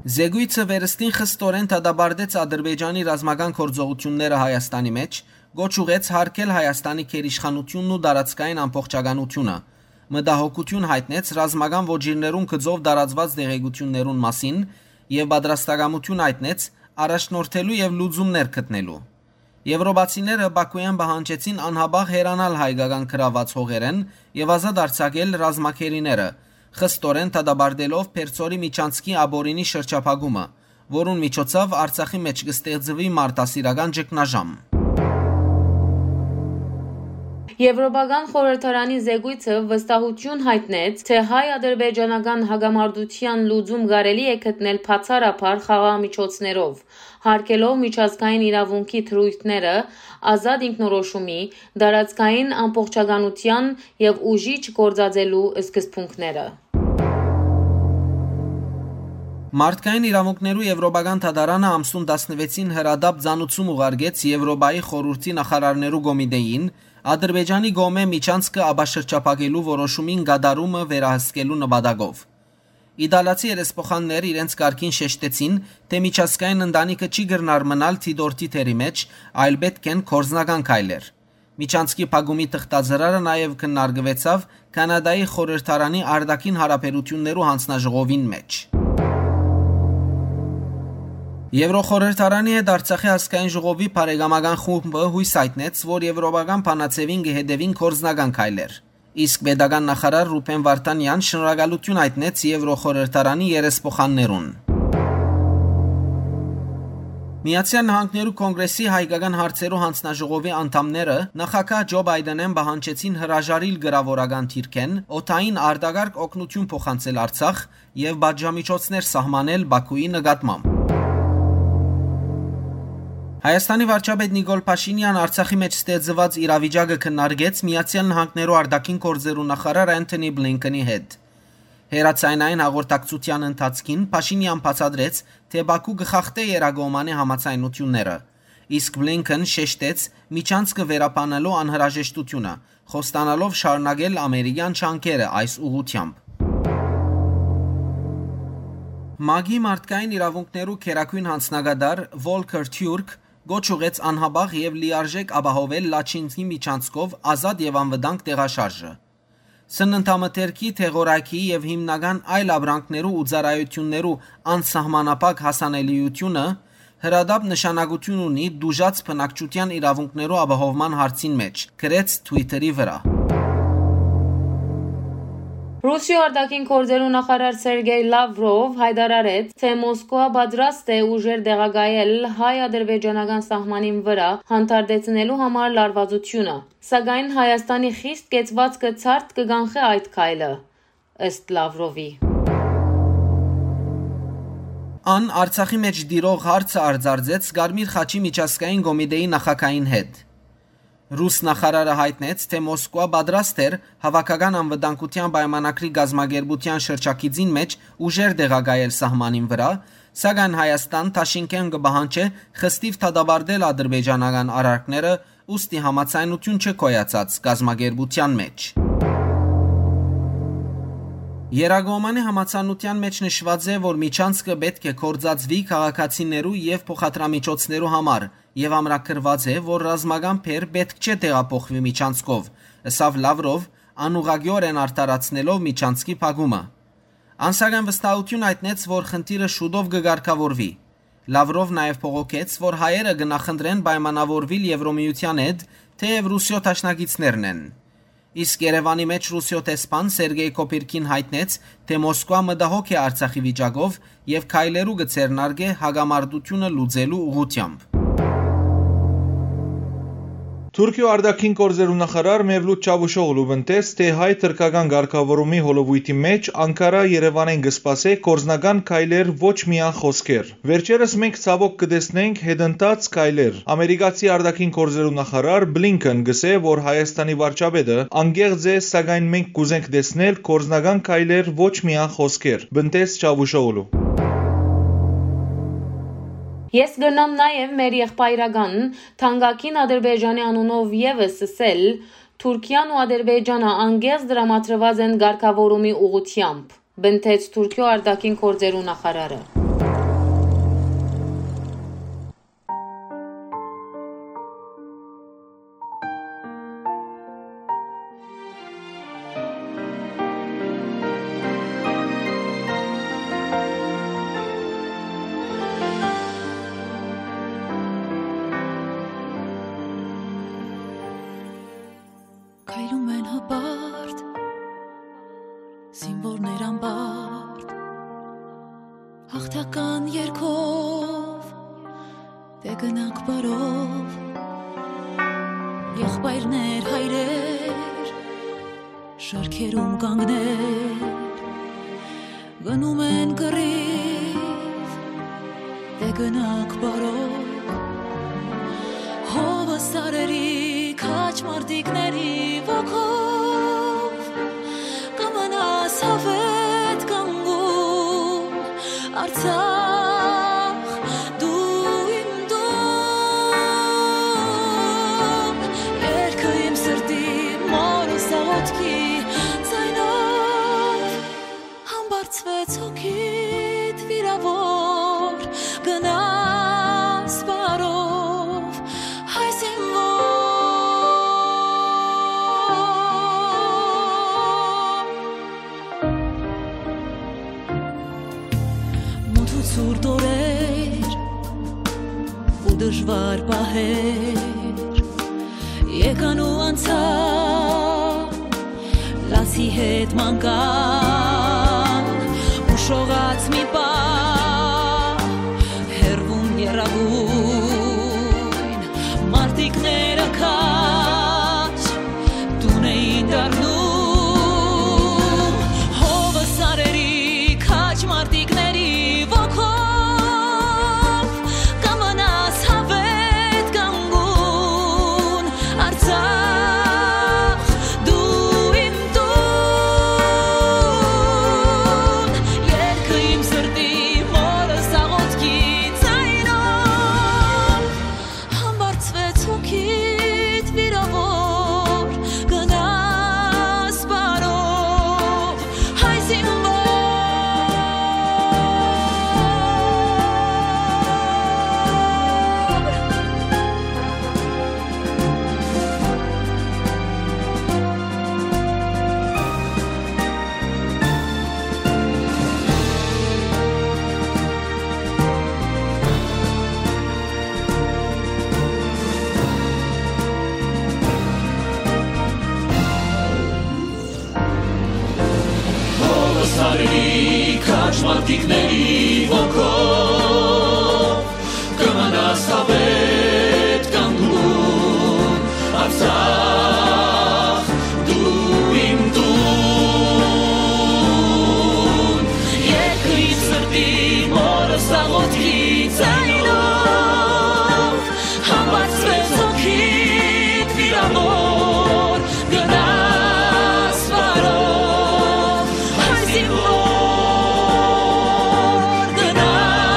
Զեկոյցը վերստին խստորեն դատապարտեց Ադրբեջանի ռազմական գործողութիւնները Հայաստանի մէջ, կոչ ուղղեց յարգել Հայաստանի գերիշխանութիւնն ու տարածքային ամբողջականութիւնը, մտահոգութիւն յայտնեց ռազմական ոճիրներուն գծով տարածուած տեղեկութիւններուն մասին եւ պատրաստակամութիւն յայտնեց առաջնորդելու եւ լուծումներ գտնելու։ Եվրոպացիները Բաքուէն պահանջեցին անհապաղ հեռանալ հայկական գրաւուած հողերէն եւ ազատ արձակել ռազմագերիները, խստորեն դատապարտելով Պերձորի միջանցքի ապօրինի շրջափակումը, որուն միջոցով Արցախի մէջ կը ստեղծուի մարդասիրական ճգնաժամ։ Եվրոպական խորհրդարանի զեկոյցը վստահութիւն յայտնեց, թէ հայ-ադրբեջանական հակամարտութեան լուծում կարելի է գտնել բացառաբար խաղաղ միջոցներով, յարգելով միջազգային իրաւունքի դրոյթները, ազատ ինքնորոշումի, տարածքային ամբողջականութեան եւ ուժի չգործածելու սկզբունքները։ Մարդկային իրաւունքներու Եվրոպական դատարանը ամսուն տասնվեցին հրատապ ծանուցում ուղարկեց Եվրոպայի խորհուրդի նախարարներու կոմիտեին Ադրբեջանի կողմէ միջանցքը ապաշրջափակելու որոշումին կատարումը վերահսկելու նպատակով։ Իտալացի երեսփոխաններ իրենց կարգին շեշտեցին, թէ միջազգային ընտանիքը չի կրնար մնալ դիտորդի դերի մէջ, այլ պէտք են գործնական քայլեր։ Միջանցքի փակումի թղթածրարը նաեւ քննարկուեցաւ Քանադայի խորհրդարանի արտաքին հարաբերութիւններու յանձնաժողովին մէջ։ Եվրոխորհրդարանի հետ Արցախի ազգային ժողովի բարեկամական խումբը յոյս յայտնեց, որ եվրոպական բանաձեւին կը հետեւին գործնական քայլեր։ Իսկ պետական նախարար Ռուբեն Վարդանեան շնորհակալութիւն յայտնեց Եվրոխորհրդարանի երեսփոխաններուն։ Միացեալ Նահանգներու Կոնկրեսի հայկական հարցերու յանձնաժողովի անդամները նախագահ Ջո Պայդենէն պահանջեցին հրաժարիլ կրաւորական դիրքէն օդային արտակարգ օգնութիւն փոխանցել Արցախ եւ պատժամիջոցներ սահմանել Բաքուի նկատմամբ։ Հայաստանի վարչապետ Նիկոլ Փաշինեան Արցախի մէջ ստեղծուած իրավիճակը քննարկեց Միացեալ Նահանգներու արտաքին գործերու նախարար Անթոնի Բլինքենի հետ։ Հեռաձայնային հաղորդակցութեան ընթացքին Փաշինեան բացատրեց, թէ Բաքու կը խախտէ երկկողմանի համաձայնութիւնները, իսկ Բլինքեն շեշտեց միջանցքը վերաբանելու անհրաժեշտութիւնը, խոստանալով շարունակել ամերիկեան ջանքերը այս ուղղութեամբ։ ՄԱԿ-ի մարդկային իրաւունքներու գերագոյն յանձնակատար Վոլքեր Թիուրք կոչ ուղղեց անհապաղ եւ լիարժէք ապահովել Լաչինի միջանցքով ազատ եւ անվտանգ տեղաշարժը։ Սննդամթերքի, դեղորայքի եւ հիմնական այլ ապրանքներու ու ծառայութիւններու անսահմանափակ հասանելիութիւնը հրատապ նշանակութիւն ունի տուժած բնակչութեան իրաւունքներու ապահովման հարցին մէջ, գրեց Twitter-ի վրայ։ Ռուսիոյ արտաքին գործերու նախարար Սերգեյ Լավրով յայտարարեց, թէ Մոսկուա պատրաստ է ուժեր տեղակայել հայ-ադրբեջանական սահմանին վրայ հանդարտեցնելու համար լարվածությունը, սակայն Հայաստանի խիստ կեցուածքը ցարդ կը կանխէ այդ քայլը, ըստ Լավրովի։ Ան Արցախի մէջ տիրող հարցը արձարծեց Կարմիր խաչի միջազգային կոմիտեի նախագահին հետ։ Ռուս նախարարը յայտնեց, թէ Մոսկուա պատրաստ էր Հաւաքական անվտանգութեան պայմանագրի կազմակերպութեան շրջագիծին մէջ ուժեր տեղակայել սահմանին վրայ, սակայն Հայաստան դաշինքէն կը պահանջէ խստիւ դատապարտել ադրբեջանական արարքները, ուստի համաձայնութիւն չէ գոյացած կազմակերպութեան մէջ։ Երկկողմանի համաձայնութեան մէջ նշուած է, որ միջանցքը պէտք է գործածուի քաղաքացիներու եւ փոխադրամիջոցներու համար, եւ ամրագրուած է, որ ռազմական բեռ պէտք չէ տեղափոխուի միջանցքով, ըսաւ Լավրով, անուղղակիօրէն արդարացնելով միջանցքի փակումը։ Ան սակայն վստահութիւն յայտնեց, որ խնդիրը շուտով կը կարգաւորուի։ Լավրով նաեւ բողոքեց, որ հայերը կը նախընտրեն պայմանաւորուիլ Եվրոմիութեան հետ, թէեւ Ռուսիոյ դաշնակիցներն են։ Իսկ Երեւանի մէջ Ռուսիոյ դեսպան Սերգեյ Կոպիրքին յայտնեց, թէ Մոսկուա մտահոգ է Արցախի վիճակով եւ քայլերու կը ձեռնարկէ հակամարտութիւնը լուծելու ուղղութեամբ։ Թուրքիոյ արտաքին գործերու նախարար Մևլութ Չավուշօղլու պնդեց, թէ հայ-թրքական կարգաւորումի հոլովոյթի մէջ Անկարա Երեւանէն կը սպասէ գործնական քայլեր, ոչ միայն խօսքեր։ Վերջերս մենք ցաւօք կը տեսնենք հետընթաց քայլեր։ Ամերիկացի արտաքին գործերու նախարար Բլինքեն կ'ըսէ, որ Հայաստանի վարչապետը անկեղծ է, սակայն մենք կ'ուզենք տեսնել գործնական քայլեր, ոչ միայն խօսքեր, պնդեց Չավուշօղլու։ Ես կրնամ նաեւ մեր եղբայրական թանկագին Ադրբեջանի անունով եւս ըսել, Թուրքիան ու Ադրբեջանը անկեղծ տրամադրուած են կարգաւորումի ուղղութեամբ, պնդեց Թուրքիոյ արտաքին գործերու նախարարը։ Քայլում են հպարտ, զինվորներ անպարտ, հաղթական երգով, դե գնանք բարով, եղբայրներ, հայրեր, շարքերում կանգնել, գնում են կռիվ, դե գնանք բարով, հովը սարերի քաջ մարտիկների ոգով, կը մնաս հավետ կանգուն, Արցախ, դու իմ տուն, երկը իմ սրտի մորս աղոթքի ձայնով, համբարձվեց հոգիդ վիրաւոր, գնաս բարով, հայ զինվոր։ Մութ ու ցուրտ օրեր ու դժուար պահեր եկան ու անցան, լացի հետ մանկան, ուշողած մի պահ, հեռվում եռագույն մարտիկները քաջ տուն էին դառնում, հովը սարերի քաջ մարտիկների ոգով, կը մնաս հավետ կանգուն, Արցախ, դու իմ տուն, երկը իմ սրտի մորս աղոթքի ձայնով, համբարձվեց հոգիդ վիրաւոր, գնաս բարով, հայ զինվոր։ Հովս արի քաջ մարտիկների ոգով, կը մնաս հավետ կանգուն, Արցախ, դու իմ տուն, երկը իմ սրտի մորս աղոթքի ձայնով, համբարձվեց հոգիդ վիրաւոր, գնաս բարով, հայ զինվոր, գնաս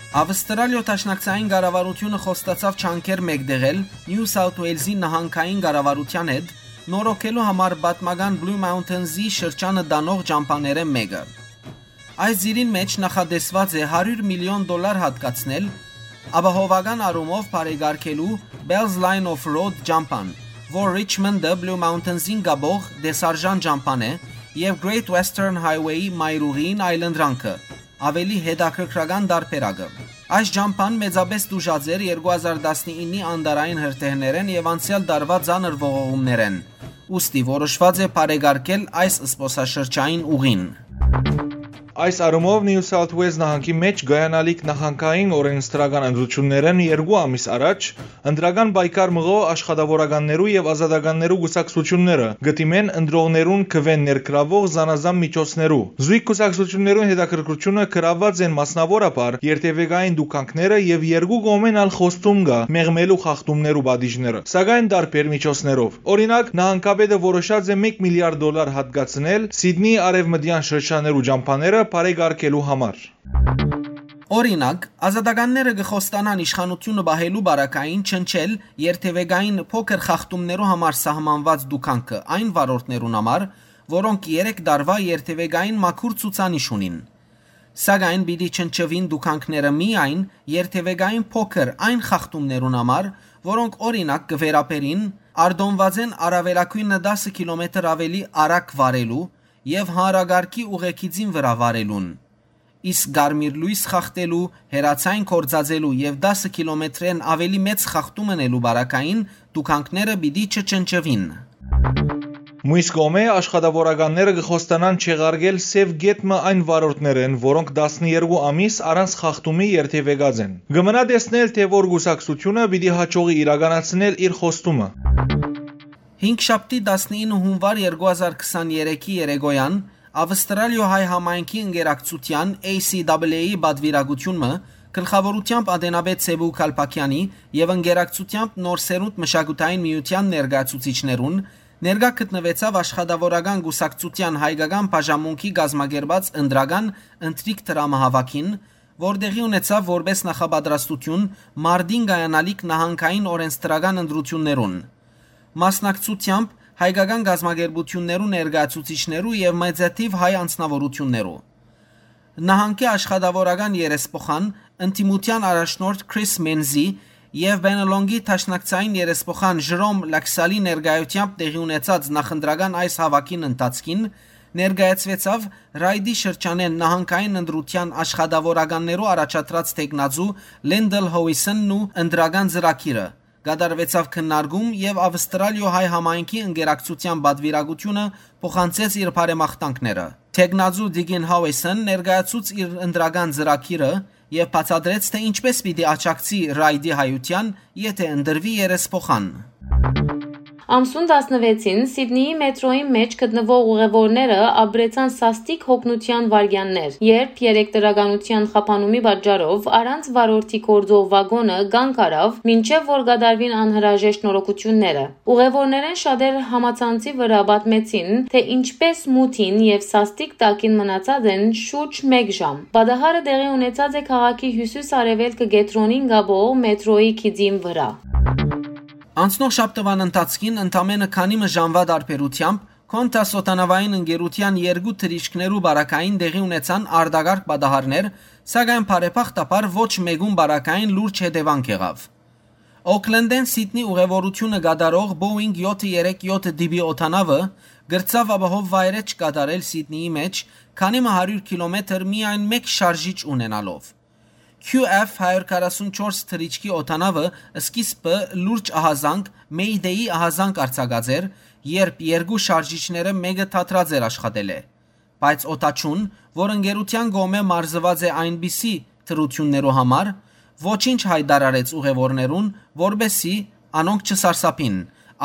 Ավստրալիոյ Դաշնակցային կառավարութիւնը խոստացաւ ջանքեր մէկտեղել Նիու Սաութ Ուէյլզի նահանգային կառավարութեան հետ նորոգելու համար պատմական Բլու Մաունթենզի շրջանը տանող ճամբաներէն մէկը։ Այս ծիրին մէջ նախատեսուած է հարիւր միլիոն դոլար յատկացնել ապահովական առումով բարեկարգելու Bell's Line of Road ճամբան, որ Ռիչմոնտը Բլու Մաունթենզին կապող տեսարժան ճամբան է, եւ Great Western Highway-ի մայրուղիին այլընտրանքը, աւելի հետաքրքրական տարբերակը։ Այս ճամբան մեծապէս տուժած էր երկու հազար տասնիննի անտառային հրդեհներէն եւ անցեալ տարուայ ծանր ողողումներէն, ուստի որոշուած է բարեկարգել այս զբօսաշրջային ուղին։ Այս առումով Նիու Սաութ Ուէյլզ նահանգի մէջ կայանալիք նահանգային օրէնսդրական ընտրութիւններէն երկու ամիս առաջ ընտրական պայքար մղող աշխատաւորականներու եւ ազատականներու կուսակցութիւնները կը դիմեն ընտրողներուն քուէն ներգրաւող զանազան միջոցներու։ Զոյգ կուսակցութիւններուն հետաքրքրութիւնը գրաւուած են մասնաւորաբար երթեւեկային տուգանքները եւ երկու կողմէն ալ խոստում կայ մեղմելու խախտումներու պատիժները, սակայն տարբեր միջոցներով։ Օրինակ, նահանգապետը որոշած է մէկ միլիարդ դոլար յատկացնել Սիդնիի արեւմտեան շրջաններու ճամբաները բարեկարգելու համար։ Օրինակ, ազատականները կը խոստանան իշխանութիւնը պահելու պարագային չնչել երթեւեկային փոքր խախտումներու համար սահմանուած տուգանքը այն վարորդներուն համար, որոնք երեք տարուայ երթեւեկային մաքուր ցուցանիշ ունին։ Սակայն պիտի չնչուին տուգանքները միայն երթեւեկային փոքր այն խախտումներուն համար, որոնք, օրինակ, կը վերաբերին արտոնուածէն առաւելագոյնը տասը կիլոմետր աւելի արագ վարելու եւ հանրակարգի ուղեգիծին վրայ վարելուն։ Իսկ կարմիր լոյս խախտելու, հեռաձայն գործածելու եւ տասը կիլոմետրէն աւելի մեծ խախտում ընելու պարագային տուգանքները պիտի չչնչուին։ Մյուս կողմէ, աշխատաւորականները կը խոստանան չեղարկել սեւ կետ մը այն վարորդներէն, որոնք տասներկու ամիս առանց խախտումի երթեւեկած են։ Կը մնայ տեսնել, թէ որ կուսակցութիւնը պիտի յաջողի իրականացնել իր խոստումը։ Հինգշաբթի, տասնինը հունուար երկու հազար քսաներեքի երեկոյան Ավստրալիոյ հայ համայնքի ընկերակցութեան A C W A-ի պատուիրակութիւնը գլխաւորութեամբ ատենապետ Սեւու Քալփաքեանի եւ ընկերակցութեամբ Նոր Սերունդ մշակութային միութեան ներկայացուցիչներուն ներկայ գտնուեցաւ աշխատաւորական կուսակցութեան հայկական բաժանմունքի կազմակերպած ընտրական ընթրիք դրամահաւաքին, որ տեղի ունեցաւ որպէս նախապատրաստութիւն մարտին կայանալիք նահանգային օրէնսդրական ընտրութիւններուն, մասնակցութեամբ հայկական կազմակերպութիւններու ներկայացուցիչներու եւ մեծաթիւ հայ անձնաւորութիւններու։ Նահանգի աշխատաւորական երեսփոխան, ընդդիմութեան առաջնորդ Քրիս Մենզի եւ Բենելոնկի դաշնակցային երեսփոխան Ժրոմ Լաքսալի ներկայութեամբ տեղի ունեցած նախընտրական այս հաւաքին ընթացքին ներկայացուեցաւ Ռայդի շրջանէն նահանգային ընտրութեան աշխատաւորականներու առաջադրած թեկնածու Լենդել Հոյսընն ու ընտրական ծրագիրը, կատարուեցաւ քննարկում եւ Ավստրալիոյ հայ համայնքի ընկերակցութեան պատուիրակութիւնը փոխանցեց իր բարեմաղթանքները։ Թեկնածու Տիգին Հաուեսն ներկայացուց իր ընտրական ծրագիրը եւ բացատրեց, թէ ինչպէս պիտի աջակցի Ռայդի հայութեան, եթէ ընտրուի երեսփոխան։ Ամսուն տասնվեցին Սիդնիի մետրոյի մէջ գտնուող ուղեւորները ապրեցան սաստիկ հոգնութեան վայրկեաններ, երբ երեք դրականութեան խափանումի պատճառով առանց վարորդի գործող վագոնը կանգ առաւ, մինչեւ որ կատարուին անհրաժեշտ նորոգութիւնները։ Ուղեւորներէն շատեր համացանցի վրայ պատմեցին, թէ ինչպէս մութին եւ սաստիկ տակին մնացած են շուրջ մէկ ժամ։ Պատահարը տեղի ունեցած է քաղաքի հիւսիս-արեւելքը կեդրոնին կապող մետրոյի գիծին վրայ։ Անցնող շաբթուան ընթացքին ընդամենը քանի մը ժամուայ տարբերութեամբ Qantas օդանաւային ընկերութեան երկու թռիչքներու պարագային տեղի ունեցան արտակարգ պատահարներ, սակայն բարեբախտաբար ոչ մէկուն պարագային լուրջ հետեւանք եղաւ։ Օքլենդէն Սիդնի ուղեւորութիւնը կատարող Boeing յոթը երեք յոթ տիպի օդանաւը կրցաւ ապահով վայրէջք կատարել Սիդնիի մէջ քանի մը հարիւր կիլոմետր միայն մէկ շարժիչ ունենալով։ Q F հարիւր քառասունչորս թռիչքի օդանաւը սկիզբը լուրջ ահազանգ, Mayday-ի ահազանգ արձակած էր, երբ երկու շարժիչները մէկը դադրած էր աշխատելէ։ Բայց օդաչուն, որ ընկերութեան կողմէ մարզուած է այնպիսի թռութիւններու համար, ոչինչ յայտարարեց ուղեւորներուն, որպէսզի անոնք չսարսափին,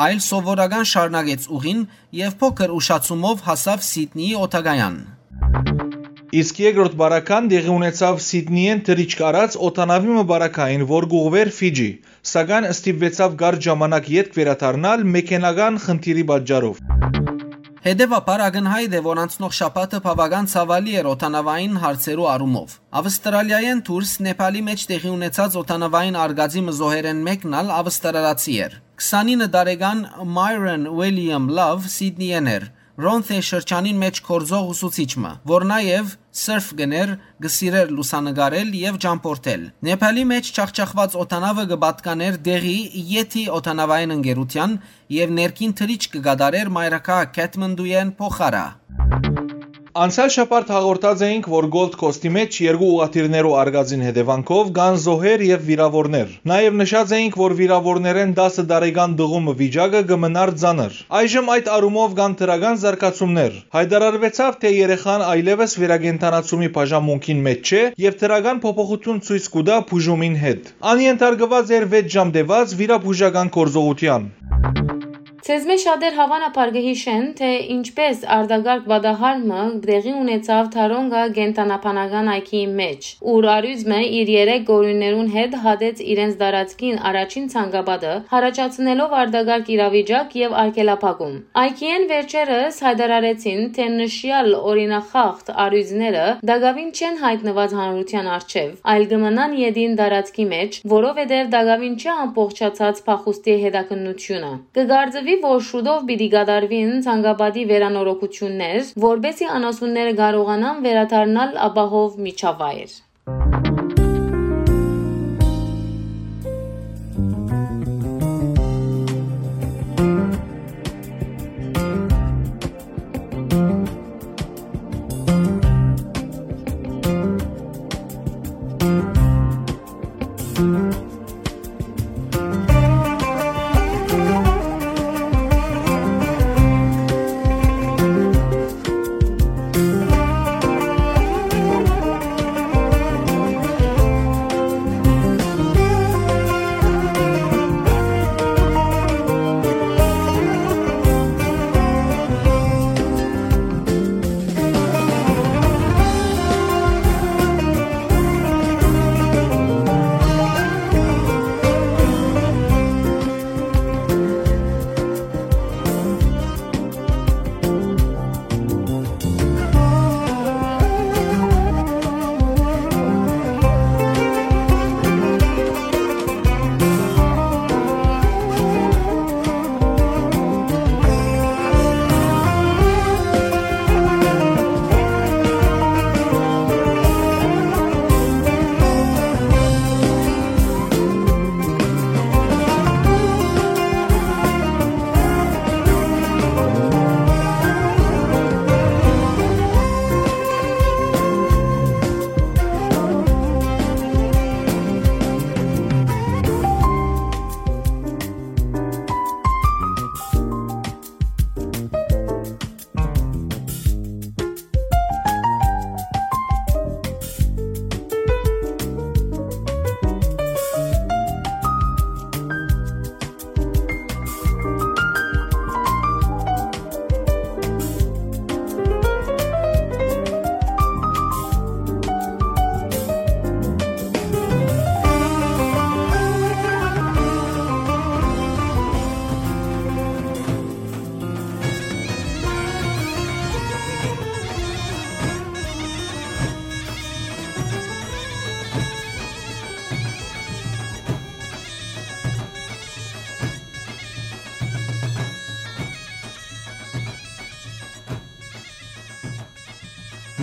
այլ սովորական շարունակեց ուղին եւ փոքր ուշացումով հասաւ Սիդնիի օդակայան։ Իսկ երկրորդ պարագան տեղի ունեցաւ Սիդնիէն թռիչք առած օդանաւի մը պարագային, որ կ'ուղղուէր Ֆիջի, սակայն ստիպուեցաւ կարճ ժամանակ ետք վերադառնալ մեքենական խնդիրի պատճառով։ Հետեւաբար, ակնյայտ է, որ անցնող շաբաթը բաւական ցաւալի էր օդանաւային հարցերու առումով։ Ավստրալիայէն դուրս Նեփալի մէջ տեղի ունեցած օդանաւային արգածի մը զոհերէն մէկն ալ ավստրալացի էր։ Քսանինը տարեկան Myron William Love Սիդնիէն էր, Ռոնթե շրջանին մէջ գործող ուսուցիչ մը, որ նաեւ սըրֆ կ'ընէր, կը սիրէր լուսանկարել եւ ճամբորդել։ Նեփալի մէջ ջախջախուած օդանաւը կը պատկանէր տեղի եթի օդանաւային ընկերութեան եւ ներքին թռիչք կը կատարէր մայրաքաղաք Քեթմանդուէն Փոխարա։ Անցեալ շաբաթ հաղորդած էինք, որ Gold Coast-ի մէջ երկու ուղղաթիռներու արգածին հետեւանքով կան զոհեր եւ վիրաւորներ։ Նաեւ նշած էինք, որ վիրաւորներէն տասը տարեկան տղու մը վիճակը կը մնար ծանր։ Այժմ այդ առումով կան դրական զարգացումներ։ Յայտարարուեցաւ, թէ երեխան այլեւս վերակենդանացումի բաժանմունքին մէջ չէ եւ դրական փոփոխութիւն ցոյց կու տայ բուժումին հետ։ Ան ենթարկուած էր վեց ժամ տեւած վիրաբուժական գործողութեան։ Ձեզմէ շատեր հաւանաբար կը յիշեն, թէ ինչպէս արտակարգ պատահար մը տեղի ունեցաւ Թարոնկա կենդանաբանական այգիի մէջ, ուր առիւծ մը իր երեք կորուններուն հետ հատեց իրենց տարածքին առաջին ցանկապատը, յառաջացնելով արտակարգ իրավիճակ եւ արգելափակում։ Այգիէն վերջերս յայտարարեցին, թէ նշեալ օրինախախտ առիւծները տակաւին չեն յայտնուած հանրութեան առջեւ, այլ կը մնան ետին տարածքի մէջ, որովհետեւ տակաւին չէ ամբողջացած փախուստի հետաքննութիւնը։ Կը կարծուի, որ շուտով պիտի կատարուին ցանկապատի վերանորոգութիւններ, որպէսզի անասունները կարողանան վերադառնալ ապահով միջավայր։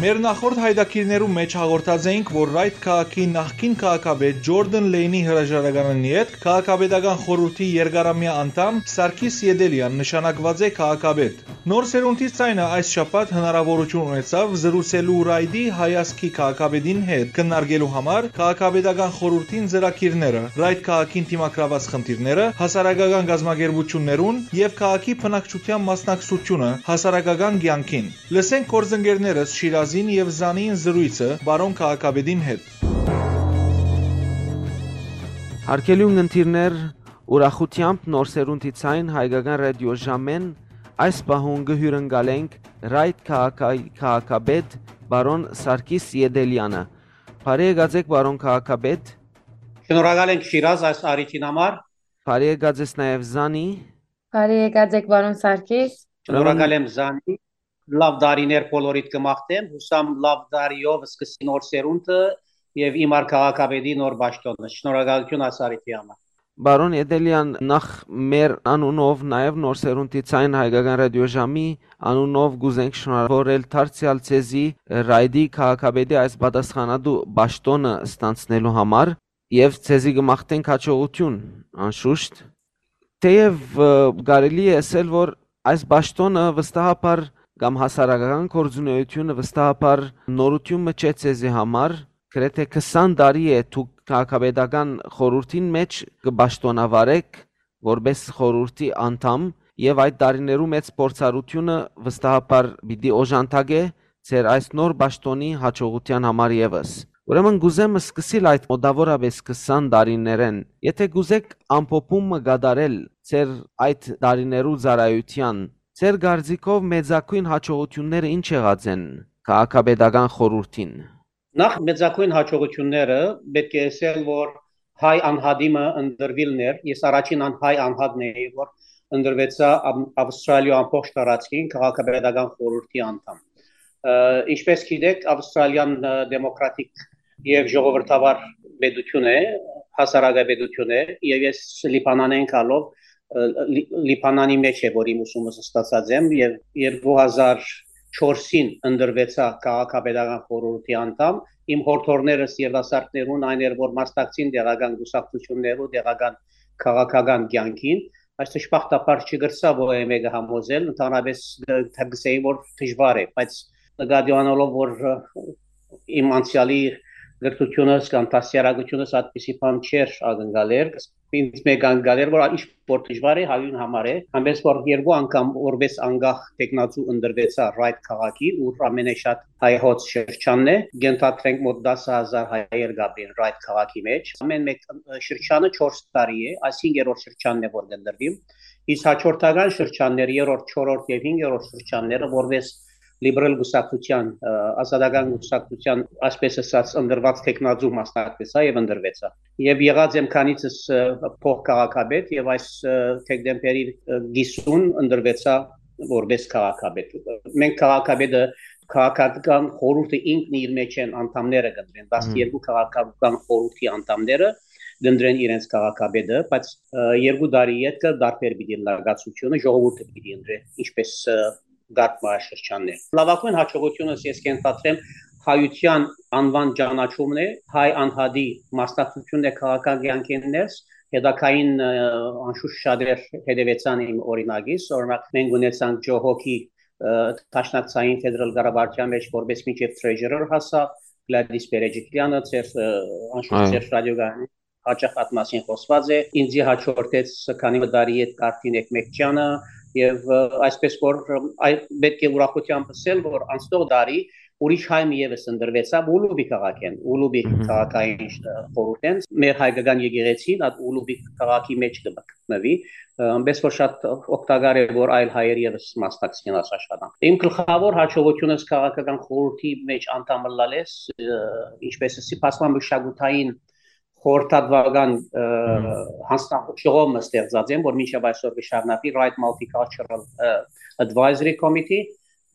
Մեր նախորդ հայտագիրներու մէջ հաղորդած էինք, որ Ռայթ քաղաքի նախկին քաղաքապետ Ջորդան Լեյնի հրաժարականին ետք քաղաքապետական խորհուրդի երկարամեայ անդամ Սարգիս Ետելեան նշանակուած է քաղաքապետ։ Նոր սերունդի ձայնը այս շաբաթ հնարաւորութիւն ունեցաւ զրուցելու Ռայթի հայազգի քաղաքապետին հետ, քննարկելու համար քաղաքապետական խորհուրդին ծրագիրները, Ռայթ քաղաքին դիմագրաված խնդիրները, հասարակական կազմակերպություններուն եւ քաղաքի բնակչության մասնակցությունը հասարակական կեանքին։ Լսենք գործընկերներս Շիրազին եւ Զանին զրոյցը պարոն քաղաքապետին հետ։ Հարգելի ունգընտիրներ, ուրախութեամբ Նոր սերունդի ցայն հայկական ռադիո ժամեն այս պահուն կը հիւրընկալենք Ռայթ քաղաքայի քաղաքապետ պարոն Սարգիս Ետելեանը։ Բարի եկած եք, պարոն քաղաքապետ։ Շնորհակալ ենք, Շիրազ, այս առիթին համար։ Բարի եկած ես նաև, Զանի։ Բարի եկած եք, պարոն Սարգիս։ Շնորհակալ եմ, Զանի։ Լաւ տարիներ բոլորիդ կը մաղթեմ, յուսամ լաւ տարիով սկսի նոր սերունդը եւ իմ ար քաղաքապետի նոր պաշտոնը։ Շնորհակալություն ասարիթի համար։ Պարոն Էտելեան, նախ մեր անունով, նաեւ Նոր Սերունդի Ձայն Հայկական Ռադիոժամի անունով կ'ուզենք շնորհավորել դարձեալ ձեզի Ռայդի քաղաքապետի այս պատասխանատու պաշտոնը ստանցնելու համար եւ ձեզի կը մաղթենք հաջողություն, անշուշտ։ Թեեւ, ը, կարելի է ասել, որ այս պաշտոնը վստահաբար կամ հասարակական գործունեությունը վստահաբար նորութիւն մը չէ ձեզի համար, գրեթէ քսան տարի է դուք քաղաքապետական խորհրդին մէջ կը պաշտոնավարէք որպէս խորհրդի անդամ, եւ այդ տարիներու մեծ փորձառութիւնը վստահաբար պիտի օժանդակէ ձեր այս նոր պաշտոնի հաջողութեան համար եւս։ Ուրեմն կ'ուզեմ սկսիլ այդ մոտաւորապէս քսան տարիներէն։ Եթէ կ'ուզէք ամփոփում մը կատարել ձեր այդ տարիներու ծառայութեան, ձեր կարծիքով մեծագոյն հաջողութիւնները ի՞նչ եղած են քաղաքապետական խորհրդին։ Նախ, մեծագոյն հաջողութիւնները պէտք է ըսել, որ հայ անհատի մը ընտրուիլն էր։ Ես առաջին ան-, հայ անհատն էի, որ ընտրուեցայ Ամ-, Ավստրալիոյ ամբողջ տարածքին քաղաքապետական խորհրդի անդամ։ Ը, ինչպես գիտեք, Ավստրալիան, ը, դեմոկրատիկ եւ ժողովրդավար պետություն է, հասարակապետություն է, եւ ես Լիբանանէն գալով, ը, Լի-, Լիբանանի մէջ է, որ իմ ուսումս ստացած եմ, եւ երկու հազար չորսին ընտրուեցայ քաղաքապետական խորհրդի անդամ։ Իմ հորդորներս երիտասարդներուն այն էր, որ մասնակցին տեղական կուսակցութիւններու, տեղական քաղաքական կեանքին։ Այս դժբախտաբար չկրցայ որեւէ մեկը համոզել, ընդհանրապես, ը, կսեի, որ դժուար է, բայց նկատի ունենալով, որ, ը, իմ անցեալի կրթությունս կամ դաստիարակությունս այդպիսի բան չէր ակնկալեր, ինձ մէկ ակնկալեր, որ ինչ որ դժուար է, հայուն համար է, այնպես որ երկու անգամ որպես անկախ թեկնածու ընտրուեցայ Ռայդ քաղաքի, ուր ամենաշատ հայոց շրջանն է, կ'ընդհանրենք մոտ տասը հազար հայեր կ'ապրին Ռայդ քաղաքի մէջ։ Ամեն մէկ, ը, շրջանը չորս տարի է, այս հինգերորդ շրջանն է, որ կ'ընտրուի։ Իսկ հաջորդական շրջաններ, երրորդ, չորրորդ եւ հինգերորդ շրջանները, որպես լիբերալ կուսակցության, ը, ազատական կուսակցության, այսպես ասած, ընտրուած թեկնածու մասնակցեցայ եւ ընտրուեցայ։ Եւ եղած եմ քանիցս, ը, փոխ քաղաքապետ եւ այս, ը, դեկտեմբերի, ը, կիսուն ընտրուեցայ որպես քաղաքապետ։ Մենք քաղաքապետը, քաղաքական խորհուրդը ինքն իր մեջ են անդամները կընտրեն, Մհմ։ տասներկու քաղաքական խորհրդի անդամները կընտրեն իրենց քաղաքապետը, բայց, ը, երկու տարի ետքը դարբեր պիտի ըլլայ կացությունը, ժողովուրդը պիտի ընտրէ, ինչպես, ը, կարգ մահաշրջանն է։ Լավագույն հաջողությունս ես կ'ընդհանրեմ հայության անուան ճանաչումն է, հայ անհատի մասնակցությունն է քաղաքական կեանքին ներս, հետագային, ը, անշուշտ շատեր հետևեցան իմ օրինակիս, օրինակ մենք ունեցանք Ջո Հոքի, ը, դաշնակցային ֆեդերալ կառավարության մեջ որպես մինչեւ treasurer հասա, Գլադիս Պերեջիկլյանը, ձեր, ը, անշուշտ Այո։ ձեր ռադիոգարանի հաճախ այդ մասին խոսված է, ինձի հաջորդեց քանի մը տարի հետ Կարթին Էկմեկջյանը, եւ, ը, այսպես որ, ը, այ պետք է ուրախությամբ ասել, որ անցնող տարի ուրիշ հայ մի եւս ընտրվեցաւ Ուլուբի քաղաքէն, Ուլուբի Մհմ։ քաղաքային, ը, խորհուրդէն, մեր հայկական եկեղեցին այդ Ուլուբի քաղաքի մեջ կը գտնուի, ը, այնպես որ շատ օգտակար է, որ այլ հայեր եւս մասնակցին այս աշխատանք։ Իմ գլխավոր հաջողությունս քաղաքական խորհրդի մեջ անդամ ըլլալես, ը, ինչպես ասի, բազմամշակութային խորհրդատուական, ը, Մհմ։ հանձնաժողով մը ստեղծած եմ, որ մինչեւ այսօր կը շարունակի Right Multicultural, ը, Advisory Committee,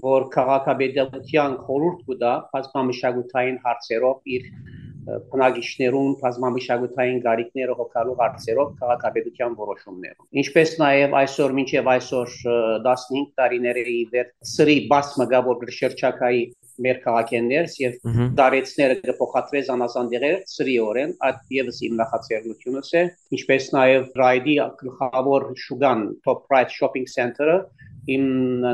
որ քաղաքապետության խորհուրդ կու տայ բազմամշակութային հարցերով իր, ը, բնակիչներուն բազմամշակութային կարիքները հոգալու հարցերով քաղաքապետության որոշումներով։ Ինչպես նաեւ այսօր, մինչեւ այսօր, ը, տասնհինգ տարիներ է ի վեր սրի բաց մը կայ, որ կը շրջագայի մեր քաղաքէն ներս եւ Մհմ։ դարեցները կը փոխադրէ զանազան դեղեր սրիօրէն, այդ եւս իմ նախաձեռնությունս է, ինչպես նաեւ Ռայդի գլխավոր շուկան Top Right Shopping Center-ը իմ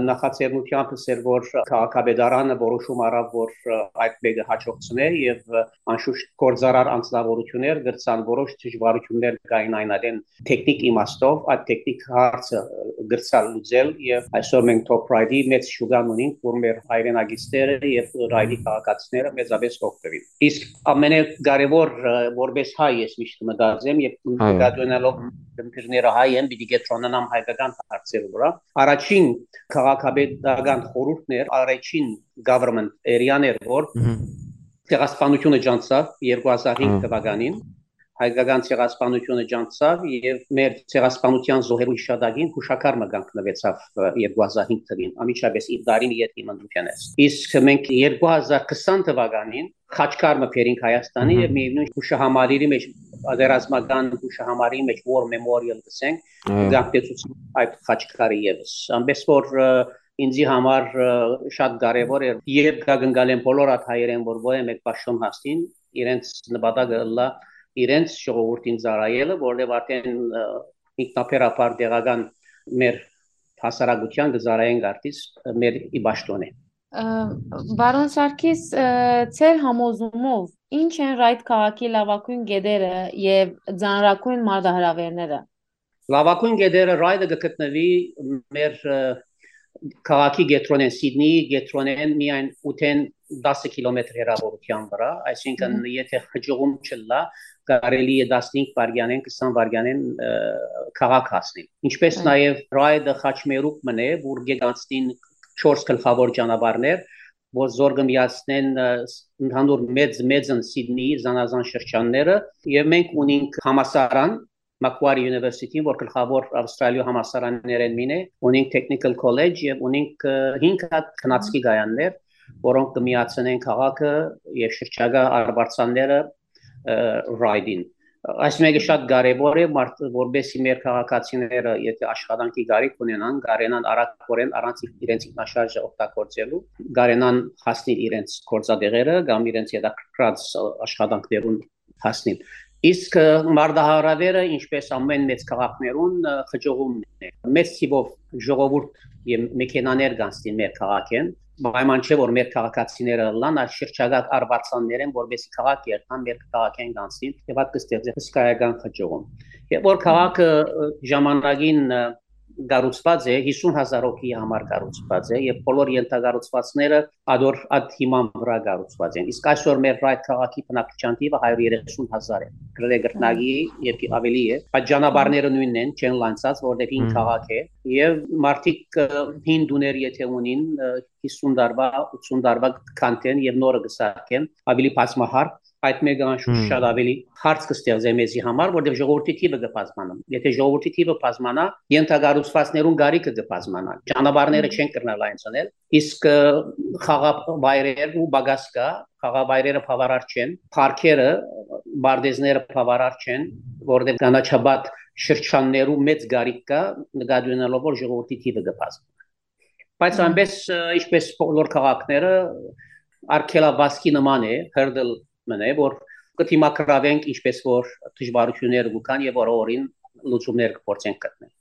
նախաձեռնությամբ էր, որ քաղաքապետարանը որոշում առավ, որ, ը, այդ մեկը հաջողցնէ եւ, ը, անշուշտ գործարար անձնավորություններ կրցան որոշ դժվարություններ կային այն ատեն տեխնիկ իմաստով, այդ տեխնիկ հարցը, ը, կրցալ լուծել եւ այսօր մենք Top Right-ի մեծ շուկան ունենք, որ մեր հայրենակիցները եւ Ռայդի Մհմ։ քաղաքացիները մեծապես կօգտվին։ Իսկ ամենակարևոր, ը, որպես հայ ես միշտ մտածեմ եւ Այո։ նկատի ունենալով դեմպիրները հայ են, պիտի կետրոնանամ հայկական հարցերու վրա։ Առաջին քաղաքապետական խորհուրդներ, առաջին government area-ներ, որ Մհմ։ ցեղասպանությունը ջանցաւ երկու հազար հինգ Այո։ թվականին, հայկական ցեղասպանութիւնը ջանցցաւ եւ մեր ցեղասպանութեան զոհերու յիշատակին յուշակար մը կանգնուեցաւ երկու հազար հինգ թվին, անմիջապէս իր տարին յետին մնդուկենէս։ Իսկ մենք երկու հազար քսան թվականին խաչքար մը բերինք Հայաստանի Ահա։ Եւ միևնույն յուշահամալիրի մեջ, պատերազմական յուշահամալիրի մեջ War Memorial կսենք, Այո։ Կանգնեցուցին այդ խաչքարը եւս։ Ամենէս որ, ը, ինձի համար, ը, շատ կարեւոր էր, երբ կա կնկալեմ բոլոր այդ հայերեն, որ որևէ մեկ պաշտոն հասնին, իրենց նպատակը ըլլայ իրենց ժողովուրդին ծառայելը, որտեղ արդեն, ը, ինքնաբերաբար տեղական մեր հասարակութեան կը ծառայենք արդիս մեր ի պաշտոնէ։ Ը, պարոն Սարգիս, ը, ձեր համոզումով ի՞նչ են Ռայդ քաղաքի լավագույն կետերը եւ ծանրագույն մարտահրաւերները։ Լավագույն կետերը Ռայդը կը գտնուի մեր, ը, քաղաքի կեդրոնէն, Սիդնիի կեդրոնէն միայն ութեն տասը կիլոմեթր հեռավորության վրա, այսինքն՝ Մհմ։ Եթե խճուղում չլա, կարելի է տասնհինգ վայրկյանեն, քսան վայրկյանեն, ը, քաղաք հասնիլ։ Ինչպես Այո։ Նաեւ Ռայդը խաչմերուկ մըն է, որ գեգանցնին չորս գլխավոր ճանապարհներ, որ զոր կը միացնեն, ը, ս-, ընդհանուր մեծ, մեծն Սիդնիի զանազան շրջանները, եւ մենք ունենք համասարան, Macquarie University, որ գլխավոր Ավստրալիոյ համասարաններէն մին է, ունենք Technical College եւ ունենք, ը, հինգ հատ քնածքի կայաններ, որոնք կը միացնեն քաղաքը եւ շրջակայ արվարձանները, ը, Ռայդին։ Այս մեկը շատ կարեւոր է, մարդ-, որպեսզի մեր քաղաքացիները, եթե աշխատանքի կարիք ունենան, կարենան արագորեն, առանց իրենց ինքնաշարժը օգտագործելու, կարենան հասնիլ իրենց գործատեղերը կամ իրենց հետաքրքրած աշխատանքներուն հասնիլ։ Իսկ, ը, մարտահրաւերը, ինչպես ամեն մեծ քաղաքներուն, ը, խճուղումն է։ Մեծ թիվով ժողովուրդ եւ մեքենաներ կանցնին մեր քաղաքէն, պայման չէ, որ մեր քաղաքացիները ըլլան, այս շրջակայ արվարձաններէն, որպեսզի քաղաք երթան, մեր քաղաքէն կանցնին, եւ այդ կստեղծի հսկայական խճուղում։ Եւ որ քաղաքը, ը, ժամանակին, ը, կառուցուած է, հիսուն հազար հոգի համար կառուցուած է, եւ բոլոր ենթակառուցվածքները ադոր այդ հիման վրա կառուցուած են։ Իսկ այսօր մեր այդ քաղաքի բնակչության թիվը հարյուր երեսուն հազար է, գրեթե կրկնակի եւ ավելի է։ Այդ ճանապարհները նոյնն են, չեն լանցած, որտեղ հին Հմ։ Քաղաք է, եւ մարդիկ, ը, հին տուներ եթե ունին, ը, հիսուն տարուա, ութսուն տարուա կանթեն եւ նորը կը սարքեն, ավելի բազմահարկ, այդ մեկը անշուշտ Հմ։ Շատ ավելի հարց կստեղծե մեզի համար, որտեղ ժողովրդի թիվը կը բազմանա։ Եթե ժողովրդի թիվը բազմանա, ենթակառուցվածքներուն գարիքը կը բազմանա, ճանապարհները Հմ։ Չեն կրնալ այն ցնել, իսկ, ը, խաղավայրերու պակաս կա, խաղավայրերը բավարար չեն, պարկերը, պարտեզները բավարար չեն, որտեղ կանաչապատ շրջաններու մեծ գարիք կա, նկատի ունենալով, որ ժողովրդի թիվը կը բազմանա։ Բայց Հմ։ Այնպես, ը, ինչպես բոլոր քաղաքները, արգելավազքի նման է, հրդլ մն է, որ կը դիմագրավենք, ինչպես որ դժվարությունները կու կան եւ որ օրին լուծումներ կը փորձենք գտնել։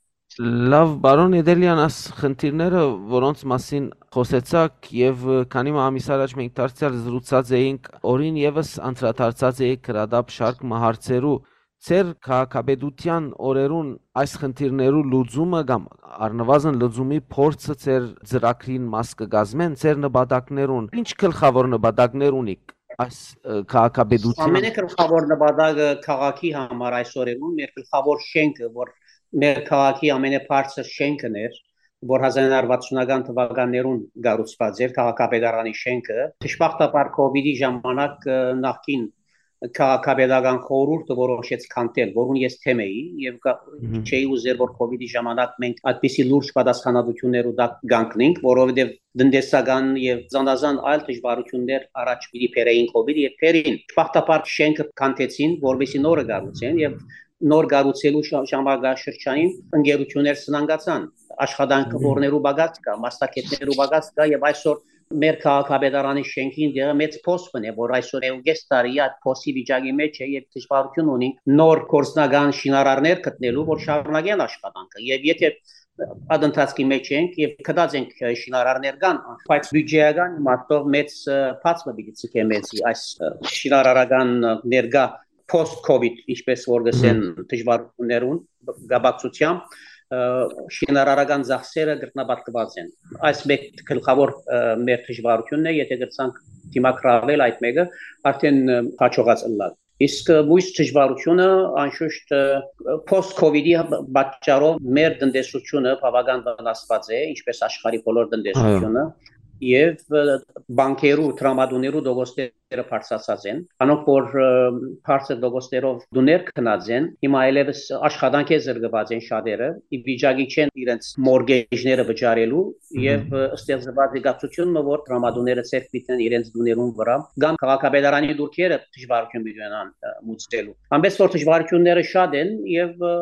Լավ, պարոն Էդելեան, աս խնդիրները, որոնց մասին խօսեցաք, եւ, ը, քանի մը ամիս առաջ մենք դարձեալ զրուցած էինք, օրին եւս անդրադարձած էիք գրադապ շարք մը հարցերու, ձեր քաղաքապետութեան օրերուն այս խնդիրներու լուծումը կամ առնվազն լուծումի փորձը ձեր ծրագրին մաս կը կազմեն, ձեր նպատակներուն, ինչ գլխավոր նպատակներ ունիք այս, ը, քաղաքապետութեան։ Ամենեգլխավոր նպատակը քաղաքի համար այս օրերուն, մեր գլխավոր շենքը, որ մեր քաղաքի ամենաբարձր շենքն էր, որ հազար նոյ հարյուր վաթսունական թվականներուն կառուցուած էր, քաղաքապետարանի շենքը, դժբախտաբար COVID-ի ժամանակ, ը, նախկին քաղաքապետական խորհուրդը որոշեց քանդել, որուն ես թեմ էի եւ կա-, Մհմ։ Չէի ուզեր, որ COVID-ի ժամանակ մենք այդպիսի լուրջ պատասխանատուություններու տակ կանգնենք, որովհետեւ տնտեսական եւ զանազան այլ դժվարություններ առաջ պիտի բերեին COVID-ը եւ բերին։ Դժբախտաբար շենքը քանդեցին, որպեսզի նորը կառուցեն, եւ նոր կառուցելու շա-, ժամանակաշրջանին ընկերություններ սնանկացան, աշխատանք Մհմ։ Որներու պակաս կա, մասնագետներու պակաս կա, եւ այսօր մեր քաղաքապետարանի շենքին դերը մեծ փոս մնե, որ այսօր է ու կես տարի այդ փոսի վիճակի մեջ է եւ դժվարություն ունի նոր գործնական շինարարներ գտնելու, որ շարունակեն աշխատանքը։ Եւ եթե այդ ընթացքի մեջ ենք եւ գտած ենք, ը, շինարարներ կան, բայց բյուջեական իմաստով մեծ, ը, բաց մը պիտի ցկե մեզի այս, ը, շինարարական, ը, ներկա post-COVID, ինչպես որ գսեն Մհմ։ Դժվարություններուն կապակցությամբ, ը, շինարարական ծախսերը կրկնապատկված են։ Այս մեկ գլխավոր, ը, մեր դժվարությունն է, եթե կրցանք դիմագրավել այդ մեկը, արդեն, ը, հաջողած ըլլալ։ Իսկ, ը, մյուս դժվարությունը, անշուշտ, ը, post-COVID-ի պատճառով մեր տնտեսությունը բավական վնասված է, ինչպես աշխարհի բոլոր տնտեսությունը, Այո։ Եւ, ը, բանկերու, տրամադուներու դոգոստեր տոկոսները բարձրացած են։ Անոնք որ, ը, բարձր տոկոսներով տուներ գնած են, հիմա այլևս աշխատանքէ զրկուած են շատերը, ի վիճակի չեն իրենց մորգեջները վճարելու, եւ, ը, ստեղծված եկացութիւնը որ դրամատուները ձեռք պիտի իրենց տուներուն վրա, կամ քաղաքապետարանի դուրքերը դժվարութիւն պիտի ունենան, ը, մուծելու։ Այնպես որ դժվարութիւնները շատ են, եւ, ը,